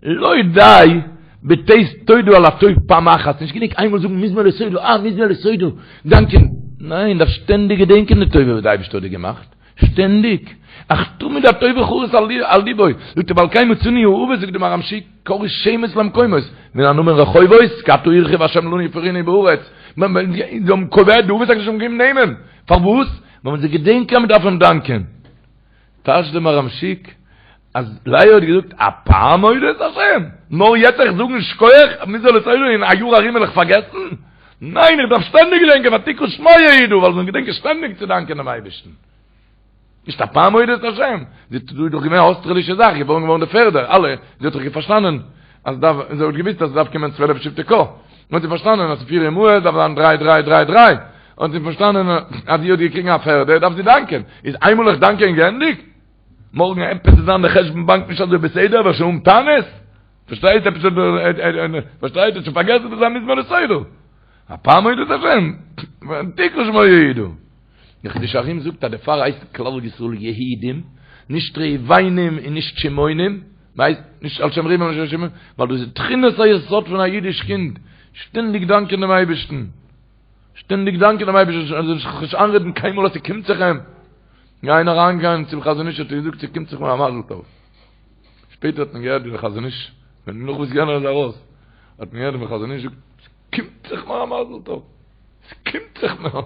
Speaker 5: לא די בתת תודה על הטוב פעם אחת, נישט גענוג איינמאל זאגן מזמור לתודה, אה מזמור לתודה, דאנקען, ניין, דארף שטענדיג געדענקען די טובה וואס די אייבערשטער האט דיר געמאכט, שטענדיג, אך תמיד הטובה חרות על ליבו, זאגט ער ועל כן מצינו האבות, זאגט די מהר"ם שיק, קראו שמות למקומות, מן הנאמן רחובות, כי עתה הרחיב השם לנו ופרינו בארץ, זיי האבן קובע די אבות הקדושים האבן געגעבן נעמען, פארוואס? ווייל מען זאל געדענקען אז מען דארף אים דאנקען. טייטשט די מהר"ם שיק אז לאה האט געזאגט הפעם אודה את השם, נאר יעצט איך זאגן שכוח מזמור לתודה אין א יאר ארום וועל איך פארגעסן? ניין איך דארף שטענדיג געדענקען ותקרא שמו יהודה ווייל זאלן געדענקען שטענדיג צו דאנקען דעם אייבערשטן. נישט הפעם אודה את השם, זי דא איז דאך געווען א אויסטערלישע זאך, געבוירן געווארן די פערדע, אלע, זי האט דאך פארשטאנען אז דארף, זי האט געוויסט אז עס דארף קומען צוועלף שבטי קה, האט זי פארשטאנען אז פיר אמהות דארף זיין דריי דריי דריי דריי, האט זי פארשטאנען אז זי האט געקריגן א פערדע דארף זי דאנקען, איז איינמאל איך דאנקען געענדיגט? מארגן עפעס איז זיין די חשבון באנק נישט אזוי בסדר וועל שוין האבן טענות? פארשטייט עפעס פארשטייט האט שוין פארגעסן דאס איז א מזמור לתודה הפעם אודה את השם ותקרא שמו יהודה די חידושי הרי"ם זאגט אז דערפאר הייסט כלל ישראל יהודים נישט ראובנים און נישט שמעונים מ'הייסט נישט על שם ראובן און נישט על שם שמעון ווייל דאס איז תכונת היסוד פון א אידיש קינד שטענדיג דאנקען דעם אייבערשטן שטענדיג דאנקען דעם אייבערשטן ער זאל זיך נישט איינרעדן קיינמאל אז ס'קומט זיך אים. איינער אריינגעגאנגען צום חזון איש האט ער געזאגט ס'קומט זיך מיר א מזל טוב. שפעטער האט מען געהערט ווי דער חזון איש, ווען נאך וואס יענער איז ארויס, האט מען געהערט ווי דער חזון איש זאגט ס'קומט זיך מיר א מזל טוב. ס'קומט זיך מיר.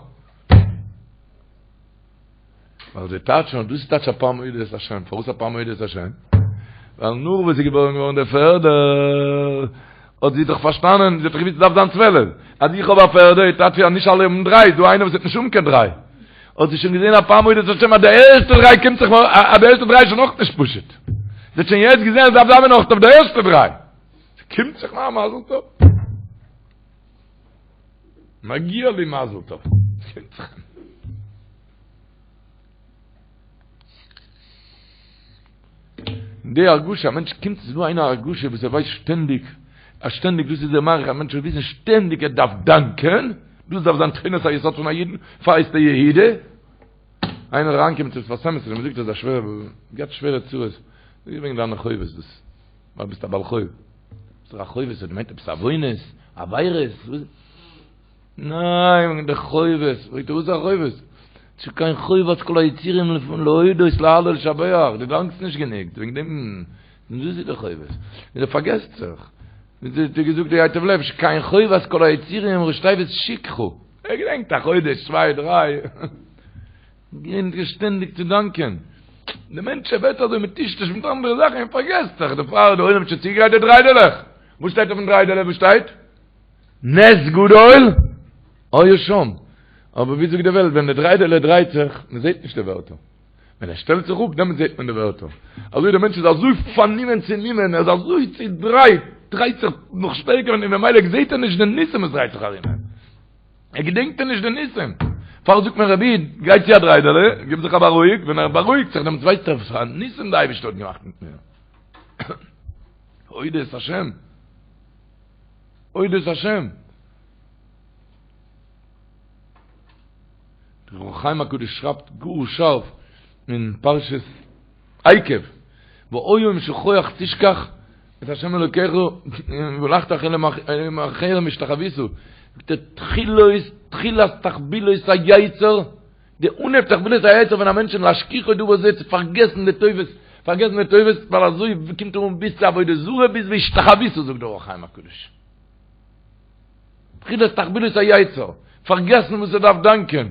Speaker 5: ווייל זיי טייטשן אז דאס איז טייטש הפעם אודה את השם. פארוואס הפעם אודה את השם? ווייל נאך וואס איז געבוירן געווארן דער פערדער. האט זי דאך פארשטאנען, זי האט דאך געוואוסט ס'דארף זיין 12, אז איך האב א פערדע, איז טייטש אז נישט אלע האבן דריי, איז דא איינער וואס וועט נישט האבן קיין דריי. האט זי שוין געזען הפעם אודה את השם אז די ערשטע דריי קומט זיך מיר, אז די ערשטע דריי איז שוין אויך נישט פשוט. זי האט שוין יעצט געזען אז ס'דארף זיין אויך אויף די ערשטע דריי. ס'קומט זיך מיר א מזל טוב. מגיע לי מזל טוב. ס'קומט זיך מיר. די הרגשה, א מענטש קומט ס'איז דא איינער א הרגשה וואס ער ווייסט שטענדיג, אז שטענדיג דאס איז דער מערכת, א מענטש זאל וויסן שטענדיג ער דארף דאנקען, דאס דארף זיין תכונת היסוד פון א אידן, פאר הייסט ער יהודה. איינער אריינגעקומען צום שפת אמת און אים געזאגט אז א שווערע, געהאט שווערע צרות, זאג איך וועגן דיינע חובות דאס, ווייל ביסט א בעל חוב. זאגט ער א חובות האט געמיינט עפעס עוונות, עבירות, וואס? ניין, וועגן די חובות, פרעגט ער וואס איז א חובות? שכן חובת כל היצורים להודות להלל ולשבח, דו דאנקסט נישט גענוג, וועגן דעם, דאס איז די חובות, און ער פארגעסט זיך, ווי האט געזאגט די ייטב לב, שכן חובת כל היצורים ראשי תיבות שכחה, ער געדענקט א חודש צוויי דריי, געדענק שטענדיג צו דאנקען, די מענטש ווערט אזוי מטושטש מיט אנדערע זאכן און פארגעסט זיך, דערפאר די עולם האט שוין צוגעגרייט די דריידעלעך, וואס שטייט אויפן דריידעלע, וואס שטייט? נס גדול היה שם. אבער ווי זאגט די וועלט, ווען די דריידעלע דרייט זיך, מען זעט נישט די ווערטער. ווען ער שטעלט זיך אפ, דעמאלט זעט מען די ווערטער. אזוי דער מענטש איז אזוי פארנומען צונומען, ער איז אזוי צודרייט, דרייט זיך נאך שטערקער און ממילא זעט ער נישט די ניסים וואס דרייט זיך ארום אים. ער געדענקט נישט די ניסים. פאר זאגט מען רבי, גיי צו א דריידעלע, גיב זיך א בארואיג, ווען ער בארואיגט זיך, דעמאלט ווייסט ער וואס פאר א ניסים די אייבערשטער האט געמאכט מיט מיר. הודו את השם. הודו את השם. דער אור החיים הקדוש שרייבט גאר שארף אין פרשת עקב, והיה אם שכוח תשכח את השם אלוקיך והלכת אחרי אלהים אחרים והשתחוית, זאגט ער תחילת תחילת תחבולות היצר, די אנהייב תחבולות היצר פון א מענטשן להשכיחו דבר זה צו פארגעסן די טובות, פארגעסן די טובות, ווייל אזוי קומט ער אן ביז צו עבודה זרה ביז והשתחוית זאגט דער אור החיים הקדוש. תחילת תחבולות היצר, פארגעסן וואס ער דארף דאנקען.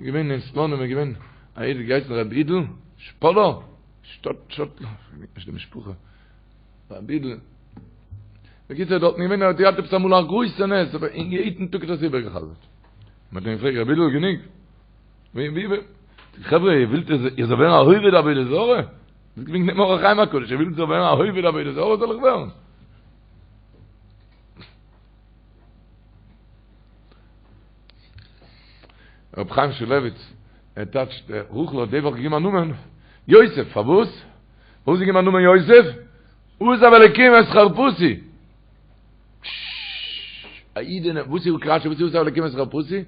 Speaker 5: געווען אין סלאנים איז געווען א איד געהייסן רבי אידל שפאלא, שטאט שטאט, נישט די משפחה. רבי אידל. בקיצור דארטן געווען ער האט געהאט עפעס אמאל א גרויסע נס אבער אין יעדן טאג האט ער עס איבערגעחזרט. מען האט אים געפרעגט רבי אידל גענוג. ווי ווי ווי חברה איר ווילט איך זאל ווערן א עובד עבודה זרה? דאס געווען דעם אור החיים הקדוש איר ווילט איך זאל ווערן א עובד עבודה זרה זאל איך ווערן? רב חיים שולביץ ער טייטשט רחל האט די וואך געגעבן א נאמען יוסף פארוואס? פארוואס געגעבן א נאמען יוסף? עזב אלקים את חרפתי. א אידענע, וואס איז רשי, וואס איז עזב אלקים את חרפתי?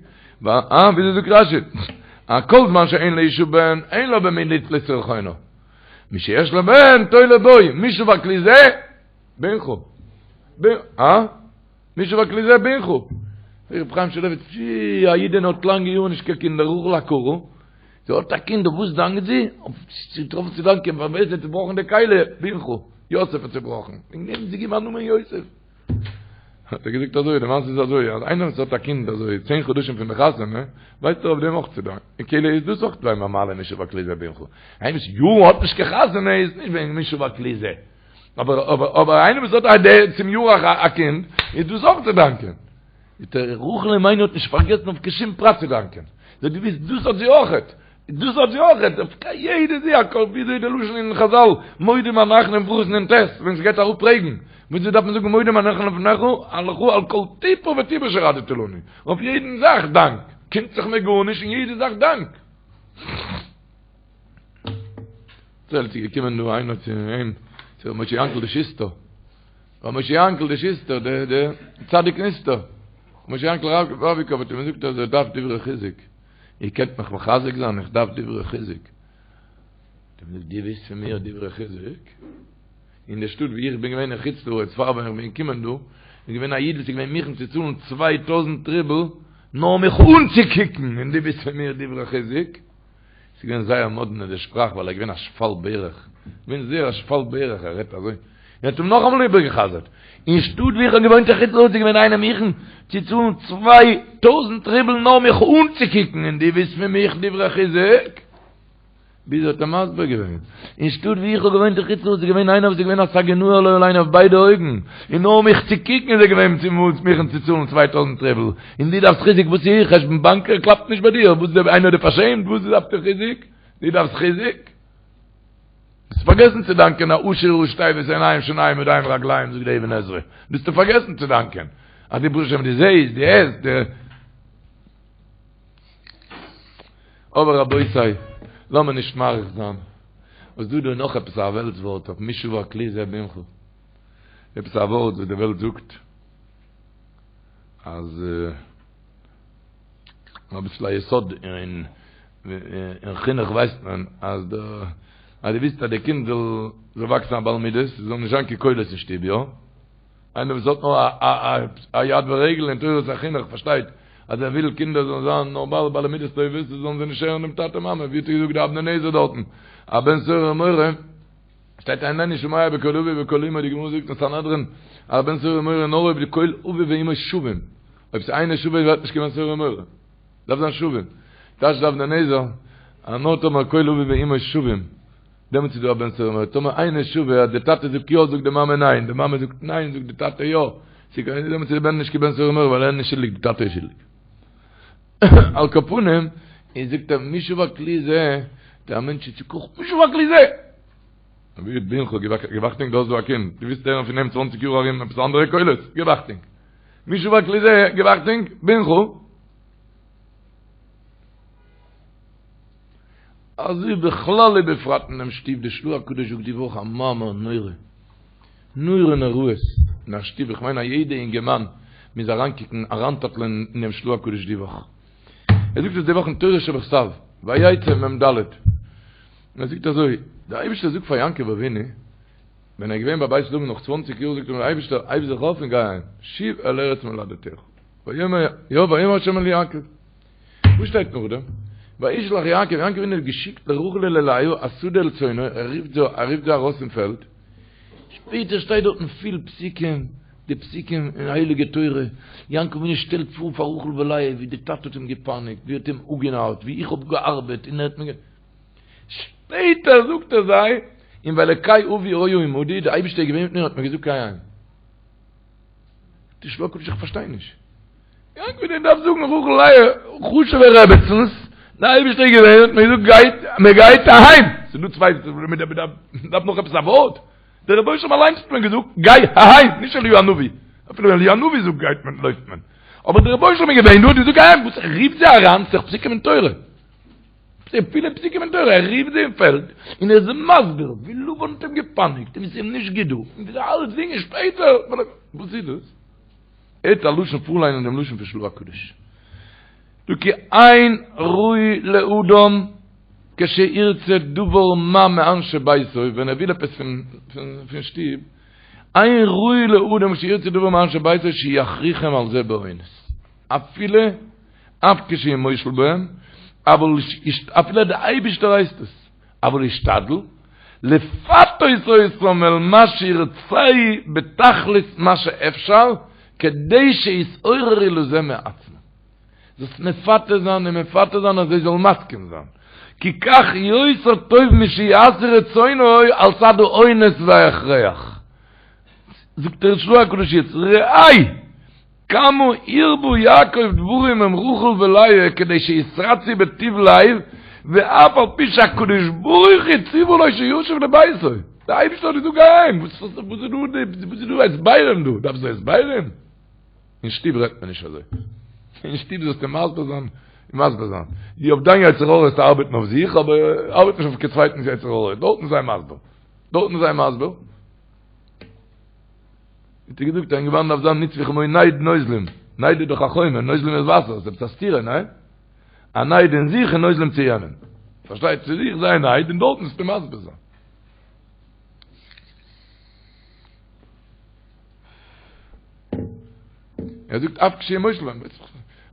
Speaker 5: אה, וויאזוי זאגט רשי? א כל זמן שאין לאשה בן, אין לה במי לתלות רחונה. משיש לה בן, תולה בו, מי שבר כלי זה? בנך. אה? מי שבר כלי זה בנך. ר' חיים שולביץ, פשי, א אידענע האט לאנגע יארן נישט קיין קינדער, רחל עקרה. זי האט א קינד, אויף וואס דאנקט זי? אויף זי האט געטראפן צו דאנקען פאר ווער עס האט צובראכן די כלי, בנך, יוסף האט צובראכן, וועגן דעם האט זי געגעבן א נאמען יוסף. האט ער געזאגט אזוי, די מעשה איז אזוי, אז איינער וואס האט א קינד אזוי צען חדשים פון די חתונה, ווייסט ער אויף דעם אויך צו דאנקען, און כאילו איז דאס אויך ביי אים א מעלה מי שבר כלי זה בנך. איינער וואס יארן האט נישט קיין חתונה איז נישט וועגן מי שבר כלי זה. אבער אבער אבער איינער וואס האט א צום יאר א קינד, איז דאס אויך צו דאנקען. רחל אמנו האט נישט פארגעסן אויף קיין שום פרט צו דאנקען. זי האט געוואוסט דאס האט זי אויכעט, דאס האט זי אויכעט, אויף יעדע זי א וויאזוי די לשון אין חזל, מודים אנחנו אין ברכות נ"ט, ווען ס'גייט אראפ רעגן, וויאזוי דארף מען זאגן מודים אנחנו לפניך, לך על כל טיפה וטיפה שהורדת לנו. אויף יעדן זאך דאנק. קומט זיך מיר גארנישט און יעדע זאך דאנק. ס'איז געקומען דא איינער צו אים, צו ר' משה יענקל די שוסטער. ר' משה יענקל די שוסטער, דער דער צדיק נסתר. משה יענקל ראביקאוו האט אים געזאגט אז ער דארף דברי חיזוק. איר קענט מיך מחזק זיין? איך דארף דברי חיזוק. האט אים געזאגט, דו ווילסט פון מיר דברי חיזוק? אין די שטאט ווי איך בין געווען אין חוץ לארץ פאר ווען איך בין געקומען דא, איז געווען א איד וואס איז געווען מוכן צו צאלן 2000 רובל נאר מיך אנצוקוקן, און דו ווילסט פון מיר דברי חיזוק? ס'איז געווען זייער מאדנע די שפראך ווייל ער איז געווען א שפל ברך, געווען זייער א שפל ברך, ער רעדט אזוי, און האט אים נאכאמאל איבערגע'חזר'ט, אין שטאט ווי איך האב געוואוינט אין חוץ לארץ איז געווען איינער מוכן צו צאלן 2000 רובל נאר מיך אנצוקוקן און דו ווילסט פון מיך דברי חיזוק? ביז ער האט אים מסביר געווען, אין שטאט ווי איך האב געוואוינט אין חוץ לארץ איז געווען איינער וואס איז געווען א סגי נהור לא עלינו אויף ביידע אויגן, און נאר מיך צו קוקן איז ער געווען צו מוכן צו צאלן 2000 רובל, און דו דארפסט חיזוק וואס איז חשבון באנק קלאפט נישט ביי דיר, וואס איז איינער האט דיר פארשעמט וואס דארפסטו חיזוק, דו דארפסט חיזוק? האסט פארגעסן צו דאנקען העשיר ראשי תיבות עיניים שיניים ידיים רגליים זאגט די אבן עזרא, ביסטו פארגעסן צו דאנקען אז דו ברוך השם דו זעהסט דו הערסט דו. אבער רבותי, לאמיר נישט מאריך זיין, וואס דא דא נאך עפעס א וועלטס ווארט אויף מי שבר כלי זה בנך, עפעס א ווארט וואס די וועלט זאגט אז אביסל א יסוד אין חינוך ווייסט מען אז די אז דו ווילסט אז די קינד זאל זאל וואקסן א בעל מידות זאל נישט זיין קיין קולות אין שטוב יא? איינער וואס האט נאר א יד ורגל אין תורת החינוך פארשטייט אז ער וויל קינדער זאלן זיין נארמאל בעלי מידות טובות זאלן זיי נישט הערן דעם טאטע מאמע ווי האט ער געזאגט די אבני נזר דארטן א בן סורר ומורה שטייט איננו שומע בקול אביו ובקול אמו די גמרא זאגט אין סנהדרין א בן סורר ומורה נאר אויב די קול אביו ואמו שווים אויב ס'איז אינו שווה ווערט נישט קיין בן סורר ומורה דארף זיין שווים טייטשט די אבני נזר אז נאר טאמער קול אביו ואמו שווים דעמאלטס איז דא א בן סורר ומורה, טאמער אינו שווה אז די טאטע זאגט יא זאגט די מאמע ניין, די מאמע זאגט ניין זאגט די טאטע יא, דעמאלטס איז די בן נישט קיין בן סורר ומורה ווייל ער איז נישט שולדיג די טאטע איז שולדיג. על כל פנים, איז זאגט ער מי שבר כלי זה, דער מענטש איז צוקאכט, מי שבר כלי זה! אבי בנך גיב אכטונג דו האסט דא א קינד, דו ווילסט הערן פון אים צוואנציג יאר ארום עפעס אנדערע קולות, גיב אכטונג. מי שבר כלי זה, גיב אכטונג, בנך. אזוי בכלל ובפרט אינעם שטוב, די של"ה הקדוש זאגט די וואך א מאמר נורא, נורא נוראות אין א שטוב, איך מיין א יעדע אינגערמאן מוז אריינקוקן אריינטאפלען אינעם של"ה הקדוש די וואך, ער זאגט עס די וואך אין תורה שבכתב, ויצא מ"ד, ער זאגט אזוי, דער אייבערשטער זאגט פאר יעקב אבינו, ווען ער איז געווען ביי בית לבן נאך צוואנציג יאר זאגט אים דער אייבערשטער הייב זיך אויף און גיי אהיים, שוב אל ארץ מולדתך, ויאמר יא ויאמר ה' אל יעקב. וואס שטייט נאכדעם? וישלח יעקב, יעקב אבינו האט געשיקט לרחל וללאה השדה אל צאנו, ער רופט זיי, ער רופט זיי ארויס אין פעלד, שפעטער שטייט דארטן פיל פסוקים, די פסוקים אין הייליגע תורה, יעקב אבינו שטעלט פאר פאר רחל ולאה ווי די טאטע האט אים געפייניגט, ווי ער האט אים אפגענארט, ווי איך האב געארבעט און ער האט מיר גע. שפעטער זאגט ער זיי, און ואלקי אבי היה עמדי, די אייבערשטער איז געווען מיט מיר און האט מיר געזאגט גיי אהיים. די של"ה הקדוש איך פארשטיי נישט. יעקב אבינו דארף זאגן רחל לאה חשובע רעבעצנס, די אייבערשטער איז געווען האט מיר געזאגט גייט מען גייט אהיים, ס'איז דא צוויי מען דארף נאך עפעס א ווארט, דער רבונו של עולם אליינס האט מיר געזאגט גיי אהיים, נישט אליהו הנביא, אפילו ווען אליהו הנביא זאגט גייט מען לויפט מען, אבער דער רבונו של עולם איז געווען דא האט געזאגט גיי אהיים, וואס ער רופט זיי אריין ס'איז דאך פסוקים אין תורה. פילע פסוקים אין תורה, ער רופט זיי אין פעלד, און ער איז מסביר ווי לבן האט אים געפייניגט, און ווי ס'איז אים נישט גוט דא, און ווי אלצדינג און שפעטער, וואס איז דאס? ער האט א לשון פארליינען דעם לשון פון של"ה הקדוש. דא כי אין ראוי לאדם כשירצה דבר מה מאנשי ביתו, ווען ער וויל עפעס פון שטוב, אין ראוי לאדם כשירצה דבר מאנשי ביתו שיכריחם על זה באונס. אפילו אף כשהוא מושל בהם, אבל אפילו דער אייבישטער הייסט עס, אבל ישתדל לפתות אותם אל מה שירצה בתכלית מה שאפשר, כדי שיתעוררו לזה מעצמם. זאלסט מפתה זיין און מפתה זיין אז זיי זאלן מסכים זיין. כי כך יותר טוב משיעשו רצונו על צד האונס וההכרח. זאגט דער של"ה הקדוש יעצט, ראה! כמה הרבה יעקב דברים עם רחל ולאה כדי שיתרצו בטוב לב, ואף על פי שהקדוש ברוך הוא ציוה לו שישוב לביתו. דער אייבערשטער האט געזאגט גיי אהיים, וואס איז דא הסברים דא? דארפסט דא הסברים? אין שטוב רעדט מען נישט אזוי. אין שטוב זאלסטו מסביר זיין און מסביר זיין. דו אויף דיין יצר הרע זאלסטו ארבעטן אויף זיך, אבער ארבעט נישט אויף קיין צווייטנס יצר הרע. דארטן זיי מסביר. דארטן זיי מסביר. האט ער געזאגט א אינגערמאן דארף זיין נצבו כמו נייד נוזלים, נייד איז דאך א חומר, נוזלים איז וואסער, ס'איז עפעס א סתירה, ניין? א נייד אין זיך און נוזלים צו יענעם. פארשטייט צו זיך זיי נייד און דארטן זאלסטו מסביר זיין. ער זאגט אף כשהוא מושל בהם,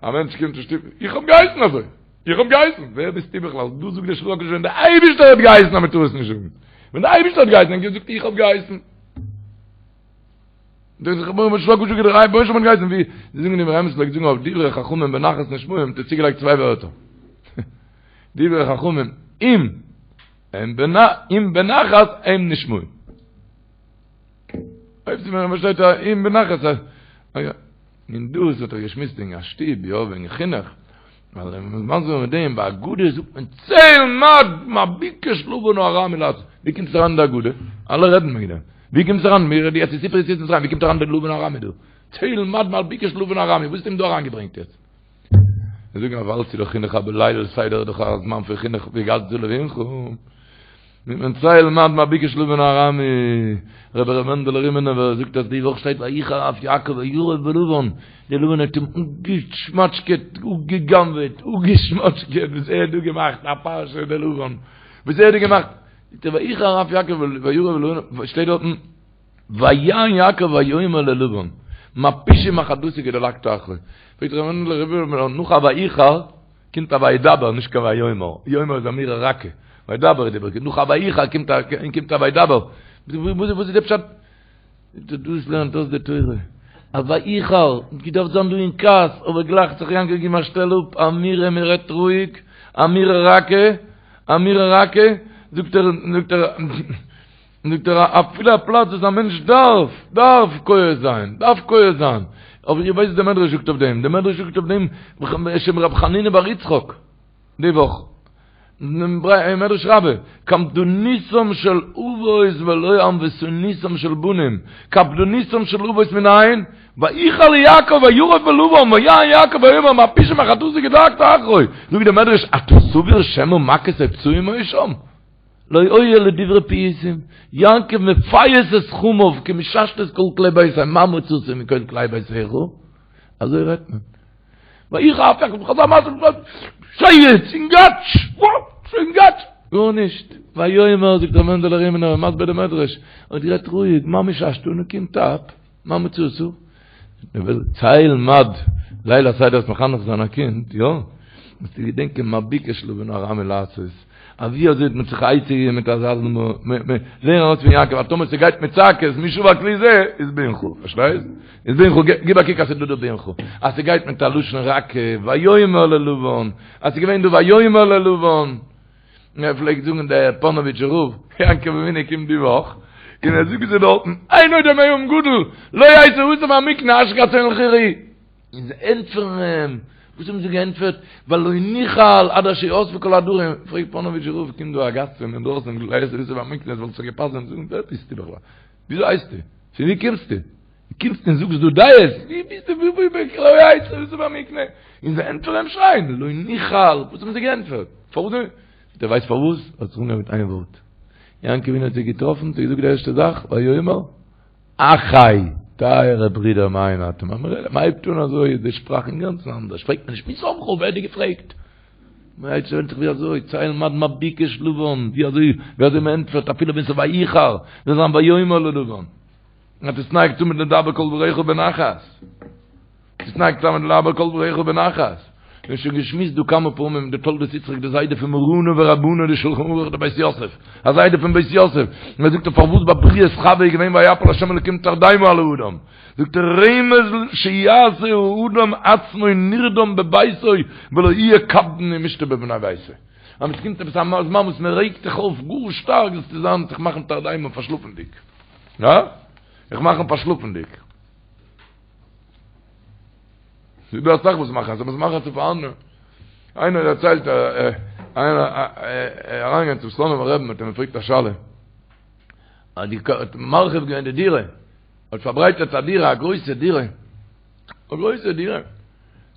Speaker 5: א מענטש קומט אין שטוב, איך האב געהייסן אזוי, איך האב געהייסן, ווער ביסטו בכלל, דא זאגט דער של"ה הקדוש ווען דער אייבערשטער האט געהייסן אז מען טאר עס נישט זאגן, ווען דער אייבערשטער האט געהייסן, ער זאגט איך האב געהייסן. דאס איז רבונו של עולם געזאגט דער רבונו של עולם האט געהייסן ווי זיי זאגן דער אמרי אמת פלעגט זאגן אויף דברי חכמים בנחת נשמעים האט ער צוגעלייגט צוויי ווערטער דברי חכמים אם. אם בנחת הם נשמעים. אויב ס'איז מען פארשטייט א אם בנחת א יא. און דאס האט ער געשמועסט וועגן א שטוב, יא, וועגן חינוך. ווייל ווען מ'איז מסביר מיט דעם, ביי הגדה זאגט מען צא ולמד מה ביקש לבן הארמי לעשות. ווי קומט עס אריין אין די הגדה? אלע רעדן וועגן דעם. ווי קומט עס אריין? מיר רעדן יעצט אין סיפור יציאת מצרים, ווי קומט אריין דער לבן הארמי דא? צא ולמד מה ביקש לבן הארמי, וואס האט אים דא אריינגעברענגט יעצט? זיי זאגן אז ווייל ס'איז דאך חינוך אבער ליל סדר איז דאך א זמן פון חינוך והגדת לבנך. מיט מען צא ולמד מה ביקש לבן הארמי, רבי ר' מענדעלע רימינובער זאגט אז די וואך שטייט ויחר אף יעקב וירב בלבן, די לבן האט אים אפגעשמאטשקעט, אפגע'גנב'עט, אפגעשמאטשקעט, וואס ער האט דא געמאכט א פרשה די לבן, וואס ער האט דא געמאכט, זאגט ער ויחר אף יעקב וירב בלבן, שטייט דארטן ויען יעקב ויאמר ללבן, מה פשעי מה חטאתי כי דלקת אחרי, פרעגט ר' מענדעלע רימינובער נאך א ויחר, קומט א וידבר נישט קיין ויאמר, יאמר איז אמירה רכה, וידבר איז די ברכת, נאך א ויחר קומט א קומט א וידבר, וואס איז די פשט? דאס לערנט אויס די תורה, א ויחר, געדארפט זיין דא אין כעס, אבער גלייך האט זיך יעקב געגעבן א שטעל אפ, אמירה מען רעדט רואיג, אמירה רכה, אמירה רכה, זאגט ער, זאגט ער, זאגט ער, אפילו א פלאץ וואס א מענטש דארף, דארף כועס זיין, דארף כועס זיין, אבער איר ווייסט וואס דער מדרש זאגט אויף דעם, דער מדרש זאגט אויף דעם בשם רב חנינא בר יצחק, די וואך, אין מדרש רבה, קפדנותם של אבות ולא ענוותנותם של בנים, קפדנותם של אבות מנין? ויחר ליעקב וירב בלבן ויען יעקב ויאמר מה פשעי מה חטאתי כי דלקת אחרי, זאגט דער מדרש, אתה סבור שמא מכות או פצעים היו שם? לא היו אלא דברי פיוסים, יעקב מפייס את חמיו כמששת את כל כלי ביתו, מה מצאת מכל כלי ביתך? אזוי רעדט מען. ויחר אף יעקב חזר מעשה שייגעץ יונגאטש! יונגאטש! גארנישט. ויאמר זאגט ר' מענדעלע רימינער מסביר די מדרש, האט גערעדט רואיג, מה מששת נו קום טאפ, מה מצאת? צא ולמד, ליל הסדר איז מחנך זיין א קינד, יא? מוזטו געדענקען מה ביקש לבן הארמי לעשות, אז ווי אזוי האט מען זיך עצה געגעבן מיט אזא ז מ, לערן ארויס פון יעקב אז טאמער ס'גייט מיט צעקות מי שבר כלי זה איז בנך, פארשטייסט? איז בנך, גיב א קוק אז ס'דא דא בנך, אז ס'גייט מיט א לשון רכה, ויאמר ללבן, אז ס'געווען דא ויאמר ללבן, ער פלעגט זאגן דער פאנאוויטשער רב, יעקב אבינו קומט די וואך, און ער זאגט זיי דארטן, אין עוד עם גדול, לא יצא האסף מהמקנה אשרי כצאן לכל רעה. און זיי ענטפערן אים, וואס האבן זיי געענטפערט? ווייל לא נוכל עד אשר יאספו כל העדרים, פרעגט פאנאוויטשער רב, קומט דא א גאסט פון אינדרויסן, לא יצא האסף מהמקנה, עס וואלט זיך געפאסט זיי זאגן, ווער ביסטו בכלל? וויאזוי הייסטו? פון ווי קומסטו? דו קומסט און זאגסט דא דעות? ווי ביסטו? ווי ווי ווי לא יצא האסף מהמקנה? און זיי ענטפערן אים שרייען, לא נוכל, וואס האבן זיי געענטפערט? פארוואס? דו ווייסט פארוואס? האט זיך אנגעהויבן מיט איין ווארט. יעקב אבינו האט זיי געטראפן, האט ער געזאגט די ערשטע זאך, ויאמר, אחי, טייערע ברידער מיינע, אתם, מען הייבט אן אזוי איז די שפראך אינגאנצן אנדערש, פרעגט מען נישט מי שמך, ווער האט דיר געפרעגט? מען הייבט שוין זיך ווי אזוי, צא ולמד מה ביקש לבן, ווי אזוי, ווי אזוי מען ענטפערט אפילו ווען ס'איז ויחר, זאל זיין ויאמר ללבן. תתנהג תמיד לדבר כל דבריך בנחת. תתנהג תמיד לדבר כל דבריך בנחת. מיר האבן שוין געשמועסט דא כמה פעמים די תולדות יצחק די זיידע פון מרנא ורבנא די שלחן ערוך די בית יוסף א זיידע פון בית יוסף און ער זאגט פארוואס ביי בריאת חווה איז געווען ויפל השם אלקים תרדמה על האדם זאגט ער רמז שיעשה האדם עצמו נרדם בביתו ולא יהיה קפדן ומשתה בבני ביתו אז עס קומט עפעס א זמן וואס מען רעגט זיך אויף גאר שטארק זאלסטו זיין זיך מאכן תרדמה פארשלאפנדיג יא זיך מאכן פארשלאפנדיג ס'איז דא אסאך וואס מאכן אזוי, וואס מאכן צו פאר אנדערע. איינער דערציילט, איינער אריינגעגאנגען צום סלאנימער רבי'ן האט אים געפרעגט א שאלה. אז די האט מרחיב געווען די דירה, האט פארברייטערט א דירה, א גרויסע דירה, א גרויסע דירה,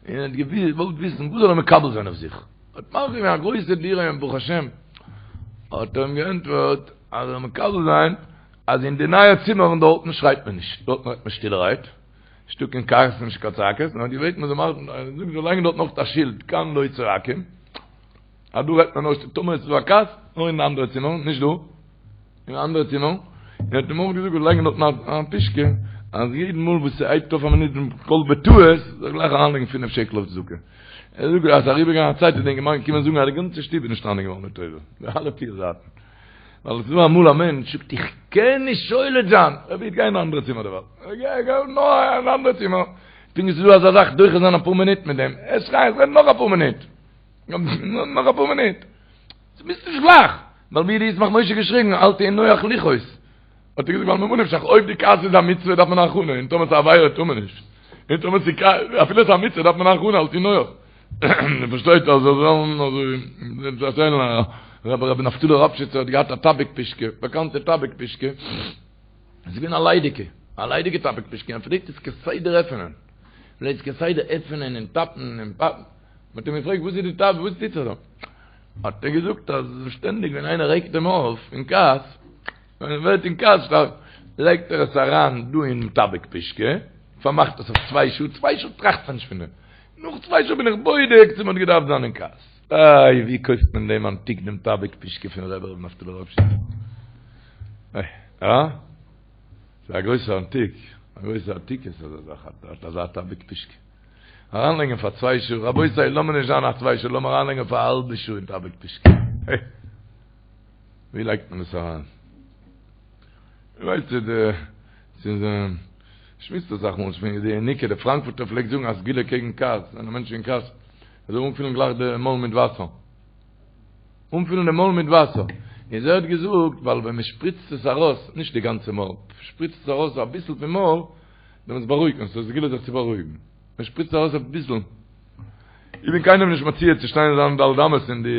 Speaker 5: און האט געוואלט וויסן וואס זאל ער מקבל זיין אויף זיך. האט מרחיב געווען א גרויסע דירה און ברוך השם, האט ער אים געענטפערט אז ער זאל מקבל זיין אז אין די נייע צימערן דארטן שרייט מען נישט, דארטן רעדט מען שטילערהייט. נישטא קיין כעס און נישט קיין צעקות, נאר געבעטן מען זאל מאכן, זאגט זאל לייגן דארט נאך א שילד, כאן לא צועקים, אז דא רעדט מען נאר טאמער עס איז דא א כעס, נאר אין די אנדערע צימער, נישט דא, אין אנדערע צימער, און האט אים אויך געזאגט זאל לייגן דארט א פישקע, אז יעדן מאל וואס ס'הייבט אויף א מינוט דעם קול בטעות, זאל גלייך אריינלייגן פינף שקל אויף צדקה. ער זאגט אז ס'איז אריבערגעגאנגען א צייט איז דער אינגערמאן געקומען זאגן אז די גאנצע שטוב איז נשתנה געווארן לטובה, די אלע פיר זייטן. ווייל עס איז דא אמאל א מענטש זאגט איך קען נישט שולט זיין, ער וויל גיין אין א אנדערע צימער דערווייל, גיי גיי נאר אין א אנדערע צימער, פונקט ווי ס'איז דא אזא זאך דוחה זיין אפאר מינוט מיט דעם, ער שרייט רעד נאך אפאר מינוט, נאך אפאר מינוט, דו ביסט נישט גלייך. ווייל ווי האט די ישמח משה געשריגן אל תהי נוח לכעוס. האט ער געזאגט ווייל ממה נפשך אויב די כעס איז א מצוה דארף מען א הכנה און טאמער ס'איז א עבירה טאר מען נישט. און טאמער ס'איז אפילו ס'איז א מצוה דארף מען א הכנה אל תהי נוח. מען פארשטייט אז זיי זאלן אזוי דערציילן א רבי רבי נפתלי ראפשיצער האט געהאט א טאביק פישקע, באקאנטע טאביק פישקע, עס איז געווען א ליידיגע, א ליידיגע טאביק פישקע, ער פלעגט עס כסדר עפענען, פלעגט עס כסדר עפענען און טאפן און פאפן, מען האט אים געפרעגט וואס איז די טאביק, וואס טוט זיך דא? האט ער געזאגט אז שטענדיג ווען איינער רעגט אים אויף אין כעס, ווען ער ווערט אין כעס שטארק, לייגט ער עס אריין דא אין טאביק פישקע, פארמאכט עס אויף צוויי שעה, צוויי שעה טראכט מען נישט פון דעם, נאך צוויי שעה בין איך בודק צו מען האט געדארפט זיין אין כעס. איי ווי קויפט מען דעם אנטיק דעם טאביק פישקע פון רבי ר' נפתלי ראפשיצער? איי אה? ס'איז א גרויסע אנטיק, א גרויסע עתיקות אזא זאך, אזא טאביק פישקע. אריינלייגן פאר צוויי שעה, רבותי לאמיר נישט זיין א צוויי שעה, לאמיר אריינלייגן פאר א האלבע שעה אין טאביק פישקע. ווי לייגט מען עס אריין? ווייסט די ס'איז שמועסט אסאך מאל פון די ינוקא די פראנקפורטער פלעגט זאגן א סגולה קעגן כעס ווען א מענטש איז אין כעס ער זאל אנפילן גלייך די מויל מיט וואסער אנפילן די מויל מיט וואסער איז ער האט געזאגט ווייל ווען מען שפריצט עס ארויס נישט די גאנצע מויל שפריצט עס ארויס אביסל פון מויל דעמאלטס בארואיגט מען עס איז א סגולה זיך צו בארואיגן מען שפריצט ארויס אביסל איך בין קיינעם נישט מציע צו שטיין אין זיינע ד' אמות אין די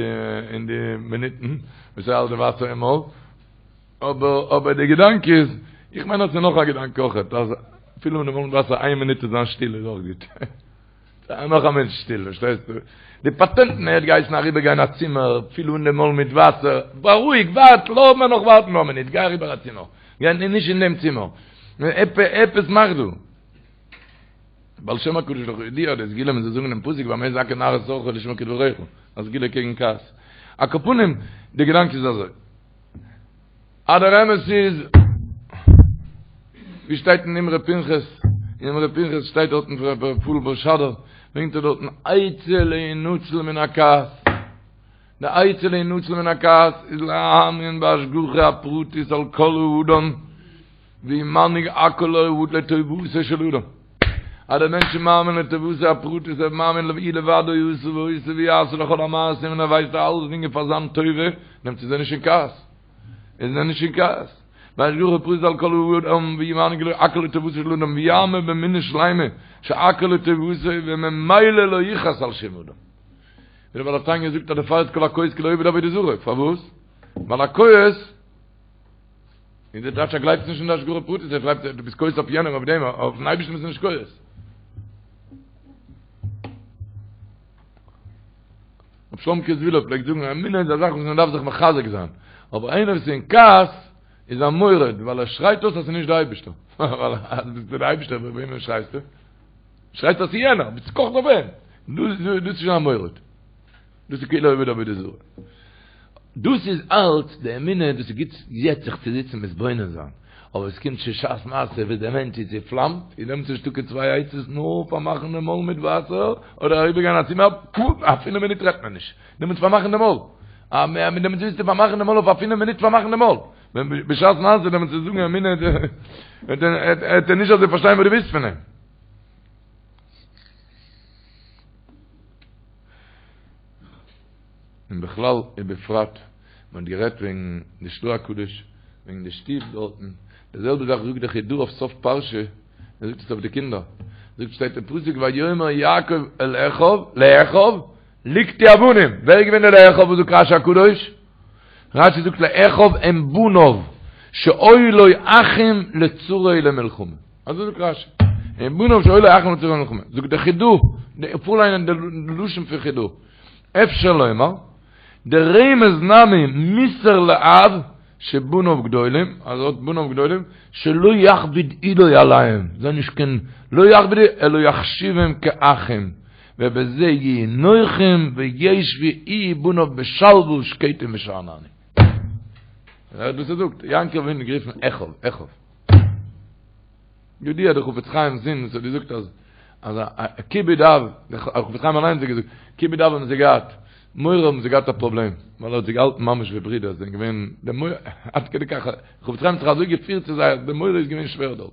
Speaker 5: אין די מינוטן וואס ער האלט די וואסער אין מויל אבער אבער די געדאנק איז, איך מיין אז ס'איז נאך א געדאנק אויכעט, אז אפילו מיט די מויל וואסער איין מינוט צו זיין שטיל איז אויך גוט. נאך א מענטש שטיל, פארשטייסטו? די פאטענטן, ער האט געהייסן אריבער גיין א צימער, פיל אן די מויל מיט וואסער, בארואיג, ווארט, לאז מיר נאך ווארטן נאך א מינוט, גיי אריבער א צימער, גיי נישט אין דעם צימער, עפעס מאך דא. בעל שם הקדוש דאך ידוע די סגולה מען זאל זאגן דעם פסוק במה יזכה נער את אורחו לשמור כדבריך, א סגולה קעגן כעס. על כל פנים, די געדאנק איז אזוי. אז דער אמת איז, ווי שטייט אין אמרי פנחס, אין אמרי פנחס שטייט דארטן פון רבי רפאל בערשאדער, ברענגט ער דארטן עצה להינצל מן הכעס, די עצה להינצל מן הכעס איז להאמין בהשגחה הפרטית על כל האדם, והוא מנהיג הכל לטובתו של אדם. אז דער מענטש איז מאמין לטובתו הפרטית, ער איז מאמין הוא לבדו עשה ועושה ויעשה לכל המעשים און ער ווייסט אז אלסדינג איז פאר זיין טובה, דעמאלטס איז ער נישט אין כעס. איז ער נישט אין כעס. בהשגחה פרטית על כל האדם והוא מנהיג הכל לטובתו של אדם ויאמין באמונה שלימה שהכל לטובתו וממילא לא יכעס על שום אדם. ווי דער בעל התניא זאגט אז דערפאר איז כל הכועס כאילו עובד עבודה זרה. פארוואס? ווייל א כועס איז דער טייטש ער גלייבט נישט אין די השגחה פרטית, ער גלייבט דו ביסט כועס אויף יענעם אויף דעם, אויפן אייבערשטן ביסטו נישט כועס. רבי שלומקע זוויהלער פלעגט זאגן אמונה איז א זאך וואס מען דארף זיך מחזק זיין, אבער איינער וואס איז אין כעס איז א מורד ווייל ער שרייט אויס אז ס'איז נישט די אייבערשטער, ווייל אז ביסטו די אייבערשטער אויף וועמען שרייסטו? שרייסט אז ס'איז יענער, ביסט קאכט אויף אים, דאס איז שוין א מורד. דאס איז כאילו עובד עבודה זרה. דאס איז אלץ די אמונה, דאס איז גוט יעצט זיך צו זיצן מתבונן זיין, אבער עס קומט שוין שעת מעשה ווען דער מענטש איז צעפלאמט, איז דעמאלטס נישטא קיין צוויי עצות נאר פארמאכן די מויל מיט וואסער, אדער אריבערגיין א צימער, א פינף מינוט רעדט מען נישט, דעמאלטס פארמאכן די מויל, דעמאלטס ווילסטו פארמאכן די מויל אויף א פינף מינוט פארמאכן די מויל, ווען בשעת מעשה דעמאלטס צו זאגן אמונה, וועט ער נישט אזוי פארשטיין וואס דו ווילסט פון אים. און בכלל ובפרט מען האט גערעדט וועגן די של"ה הקדוש, וועגן די שטוב דארטן, די זעלבע זאך זאגט דער חיד"א אויף סוף פרשה, ער זאגט עס אויף די קינדער, זאגט שטייט אין פסוק ויאמר יעקב אל אחיו, לאחיו, לקטו אבנים, ווער איז געווען דער לאחיו וואס זאגט רש"י הקדוש? רש"י זאגט לאחיו הם בניו, שהיו לו אחים לצרה ולמלחמה. אזוי זאגט רש"י. הם בניו שהיו לו אחים לצרה ולמלחמה. זאגט דער חיד"א, פארליינען די לשון פון חיד"א. אפשר לומר, דרמז נמי מוסר לאב שבניו גדולים, אז ער האט בניו גדולים, שלא יכביד עולו עליהם, זיי נישט קיין, לא יכביד אלא יחשיבם כאחים, ובזה יהיו נוחים וישבו הוא ובניו בשלווה שקטים ושאננים. הערט וואס ער זאגט, יעקב אבינו גערופן אחיו, אחיו. ידוע דער חפץ חיים'ס זון וואס האט געזאגט אז אז א כיבוד אב, דער חפץ חיים אליינס האט געזאגט, כיבוד אב האבן זיי געהאט, מורא האבן זיי געהאט א פראבלעם, ווייל ער האט זיי געהאלטן ממש ווי ברידער, זיי זענען געווען די מורא, עד כדי כך, חפץ חיים האט זיך אזוי געפירט צו זיי אז די מורא איז געווען שווער דארט.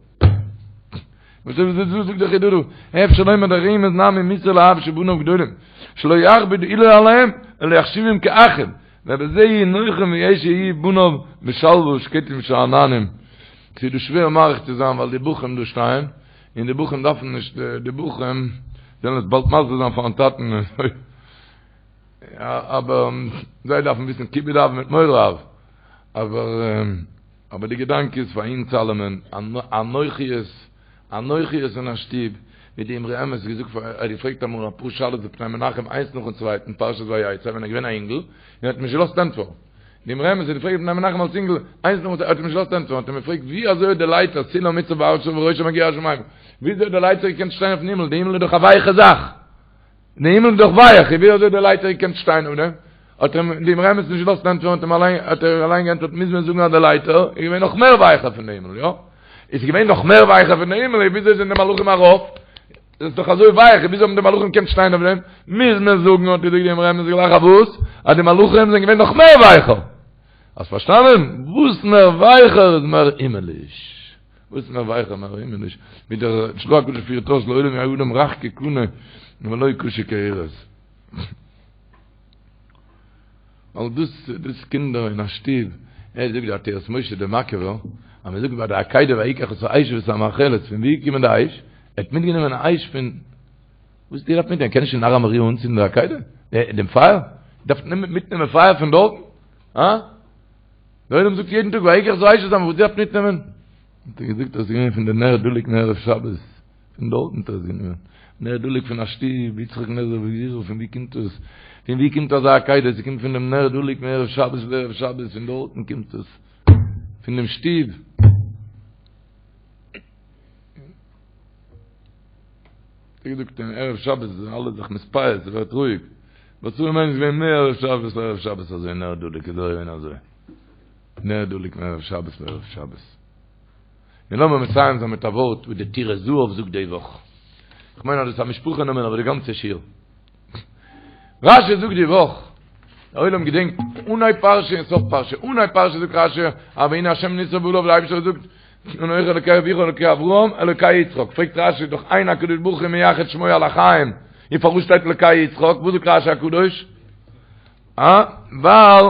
Speaker 5: וואס איז דאס זאגט דער חיד"א דא, אפשר לומר דרמז נמי מוסר לאב שבניו גדולים, שלא יכביד עולו עליהם, אלא יחשיבם כאחים. ובזה יהיו נוחים ויהיו בניו בשלווה ושקטים ושאננים. ס'איז דא שווער מאריך צו זיין ווייל די בחורים דא שטייען, און די בחורים דארפן נישט, די בחורים זאלן עס באלד מסביר זיין פארן טאטן, אבער זיי דארפן וויסן כיבוד אב מיט מורא אב, אבער אבער די געדאנק איז פאר אונז אלעמען, אנוכיות, אנוכיות אין א שטוב, ווי די אמרי אמת האט געזאגט פאר, ער האט געפרעגט אמאל אפאר שאלות די פני מנחם איינס נאכן צווייטן פרשת ויצא ווען ער איז געווען א אינגל, און ער האט אים נישט געלאזט ענטפערן. די אמרי אמת האט געפרעגט די פני מנחם אלס אינגל איינס נאכן צווייטן, ער האט אים נישט געלאזט ענטפערן, האט אים געפרעגט ווי אזוי האט די לייטער סולם מוצב ארצה וראשו מגיע השמימה, ווי אזוי האט די לייטער געקענט שטיין אויפן הימל, די הימל איז דאך א ווייכע זאך. די הימל איז דאך ווייך, ווי אזוי האט די לייטער געקענט שטיין אויף דעם? האט אים די אמרי אמת נישט געלאזט ענטפערן, האט אים אליין, האט ער אליין געענטפערט, מוז מען זאגן אז די לייטער איז געווען נאך מער ווייכער פון די הימל, יא? איז געווען נאך מער ווייכער פון די הימל, ווי אזוי זענען די מלאכים ארויף? עס איז דאך אזוי ווייך, ווי אזוי האבן די מלאכים געקענט שטיין אויף דעם? מוז מען זאגן, האט געזאגט די אמרי אמת גלייך אויף וואס? אז די מלאכים זענען געווען נאך מער ווייכער. האסט פארשטאנען? וואס מער ווייכער איז מער הימעליש. וואס מער ווייכער מער הימעליש, ווי דער של"ה הקדוש פירט אויס לעולם יהא אדם רך כקנה ולא קשה כארז. ווייל דאס דאס קינדער אין א שטוב, ער זאגט די עטרת משה דער מאקעווער, אז מען זאגט ביי די עקידה ויקח את האש ואת המאכלת, פון ווי איז געקומען די אש? ער האט מיטגענומען א אש פון וואס האט ער געדארפט מיטנעמען? קען נישט אין הר המוריה אנצינדן די עקידה? דעם פייער? דארף מיטנעמען פייער פון דארטן? הא? דער עולם זאגט יעדן טאג ויקח את האש ואת וואס דארף מיטנעמען? האט ער געזאגט אז עס איז געווען פון די נר דלוק מערב שבת, פון דארטן האט ער עס גענומען, נר דלוק פון א שטוב, יצחק נזר בגבורה, פון ווי קומט עס? פון ווי קומט אזא עקידה? עס קומט פון דעם נר דלוק מערב שבת לערב שבת, פון דארטן קומט עס, פון דעם שטוב. האט ער געזאגט אין ערב שבת זענען אלע זיך מתפייס, ס'ווערט רואיג. וואס זאל מען געווען מער ערב שבת לערב שבת אזוי נר דלוק איז געווען אזוי. נר דלוק מערב שבת לערב שבת. און לאמיר מסיים זיין מיט א ווארט וואס די טורי זהב זאגט די וואך. כ'מיין אז דאס איז א משפחה נאמען אבער די גאנצע שיעור. רשי זאגט די וואך, דער עולם געדענקט אנהייב פרשה און סוף פרשה, אנהייב פרשה זאגט רשי, אז והנה השם ניצב עליו, דער אייבערשטער זאגט, אנכי אלוקי אביך אלוקי אברהם אלוקי יצחק, פרעגט רשי דאך אין הקדוש ברוך הוא מייחד שמו על החיים, און פארוואס שטייט אלוקי יצחק, וואס זאגט רשי הקדוש? אה? ווייל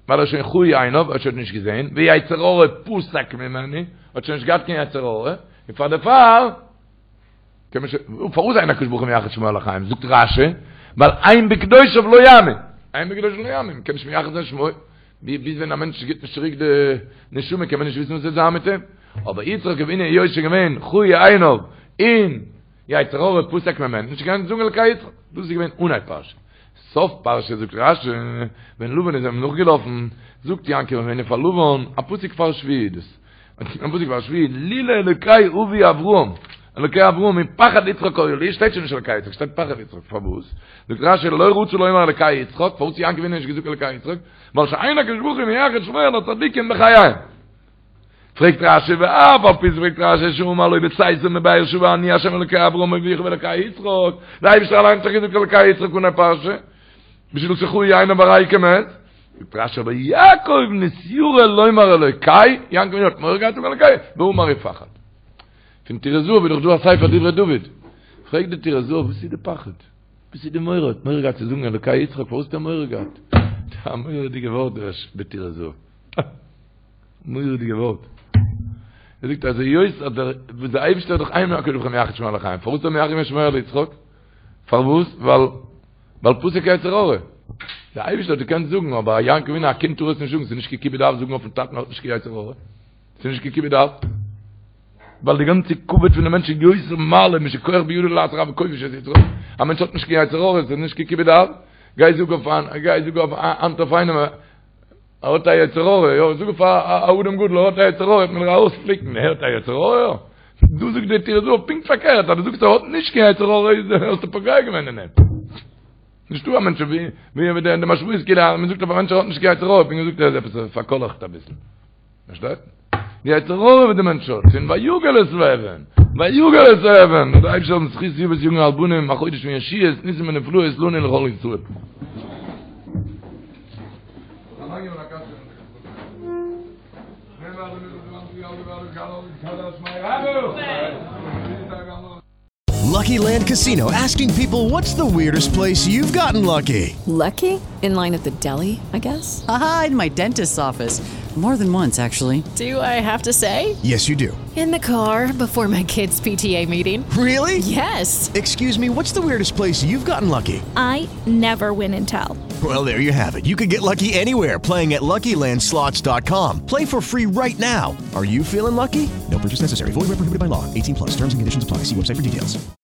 Speaker 5: ווייל ער איז שוין כהו עיניו, ער האט שוין נישט געזען, ויצר הרע פסק ממנו, האט שוין נישט געהאט קיין יצר הרע, און פאר דערפאר קען מען שוין, פארוואס אין הקדוש ברוך הוא מייחד שמו על החיים? זאגט רשי, ווייל הן בקדושיו לא יאמין, הן בקדושיו לא יאמין, מ'קען נישט מייחד זיין שמו, ביז ווען א מענטש גיבט נישט צוריק די נשמה קען מען נישט וויסן וואס וועט זיין מיט אים, אבער יצחק אבינו היות שוין געווען כהו עיניו און יצר הרע פסק ממנו, נישט געקענט זאגן אלקי יצחק, דאס איז געווען אנהייב פרשה. סוף פרשה זאגט רשי, ווען לבן איז אים נאכגעלאפן, זאגט יעקב אבינו פאר לבן, א פסוק פאר שביעי איז דאס, א פסוק פאר שביעי, לולא אלוקי אבי אברהם, אלוקי אברהם ופחד יצחק היה לי, שטייט שוין נישט אלוקי יצחק, שטייט פחד יצחק, פארוואס? זאגט רשי, לא רצה לומר אלוקי יצחק, פארוואס האט יעקב אבינו נישט געזאגט אלוקי יצחק? ווייל שאין הקדוש ברוך הוא מייחד שמו על הצדיקים בחייהם. פרעגט רשי ואף על פי פרעגט רשי שאמר לו בצאתו מבאר שבע אני השם אלוקי אברהם אביך ואלוקי יצחק, דער אייבערשטער אליין האט דאך געזאגט אלוקי יצחק אנהייב פרשה, בשביל שכהו עיניו הרי הוא כמת, זאגט רשי אבער יעקב נתיירא לומר אלוקי, יעקב אבינו האט מורא געהאט זאגן אלוקי, ואמר ופחד. פון טורי זהב איז דאך דא א ספר דברי דוד, פרעגט די טורי זהב וואס איז די פחד? וואס איז די מורא? האט מורא געהאט צו זאגן אלוקי יצחק, פארוואס האט ער מורא געהאט? א מורא'דיגע ווארט דער טורי זהב. מורא'דיגע ווארט. ער זאגט אז היות אז דער וואס דער אייבערשטער האט דאך אין הקדוש ברוך הוא מייחד שמו על החיים, פארוואס האט ער מייחד געווען שמו על יצחק? פארוואס? ווייל ווייל פסק יצר הרע. דער אייבערשטער האט געקענט זאגן, אבער א יעקב אבינו א קינד טאר עס נישט זאגן, ס'איז נישט קיין כיבוד אב זאגן אויפן טאטן האט נישט קיין יצר הרע. ס'איז נישט קיין כיבוד אב. ווייל די גאנצע כבוד פון די מענטש איז יותר מעלה משכוח בידו לעשות רע וכובש את יצרו. א מענטש האט נישט קיין יצר הרע, ס'איז נישט קיין כיבוד אב. גיי זאג אויף איין, גיי זאג אויף היינט אויף איינעם, ער האט א יצר הרע, יא, זאג אויף א אדם גדול, ער האט א יצר הרע, וועט מען דיר ארויספליקן, ער האט א יצר הרע? דא זאגט דער טורי זהב פונקט פארקערט, אז דו זאגסט ער האט נישט קיין יצר הרע, איז האסטו פוגע געווען אין אים. נישטא א מענטש ווי ווי די משמעות כאילו אז מען זאגט אויף א מענטש ער האט נישט קיין יצר הרע, פונקט געזאגט ער איז עפעס פארקאלעכט אביסל. פארשטייט? די יצר הרע וואס די מענטש האט, פון ויגל את האבן, ויגל את האבן, זאל דער אייבערשטער האבן זכות אבות יגן על בנים, א חודש פון ישועות, ניסים ונפלאות לנו ולכל ישראל.
Speaker 1: Lucky Land Casino asking people what's the weirdest place you've gotten lucky?
Speaker 2: Lucky? In line at the deli, I guess?
Speaker 3: Aha, in my dentist's office. More than once, actually.
Speaker 2: Do I have to say?
Speaker 1: Yes, you do.
Speaker 2: In the car before my kids' PTA meeting.
Speaker 1: Really?
Speaker 2: Yes.
Speaker 1: Excuse me, what's the weirdest place you've gotten lucky?
Speaker 4: I never win and tell.
Speaker 1: Well, there you have it. You can get lucky anywhere playing at LuckyLandSlots.com. Play for free right now. Are you feeling lucky? No purchase necessary. Void where prohibited by law. 18 plus. Terms and conditions apply. See website for details.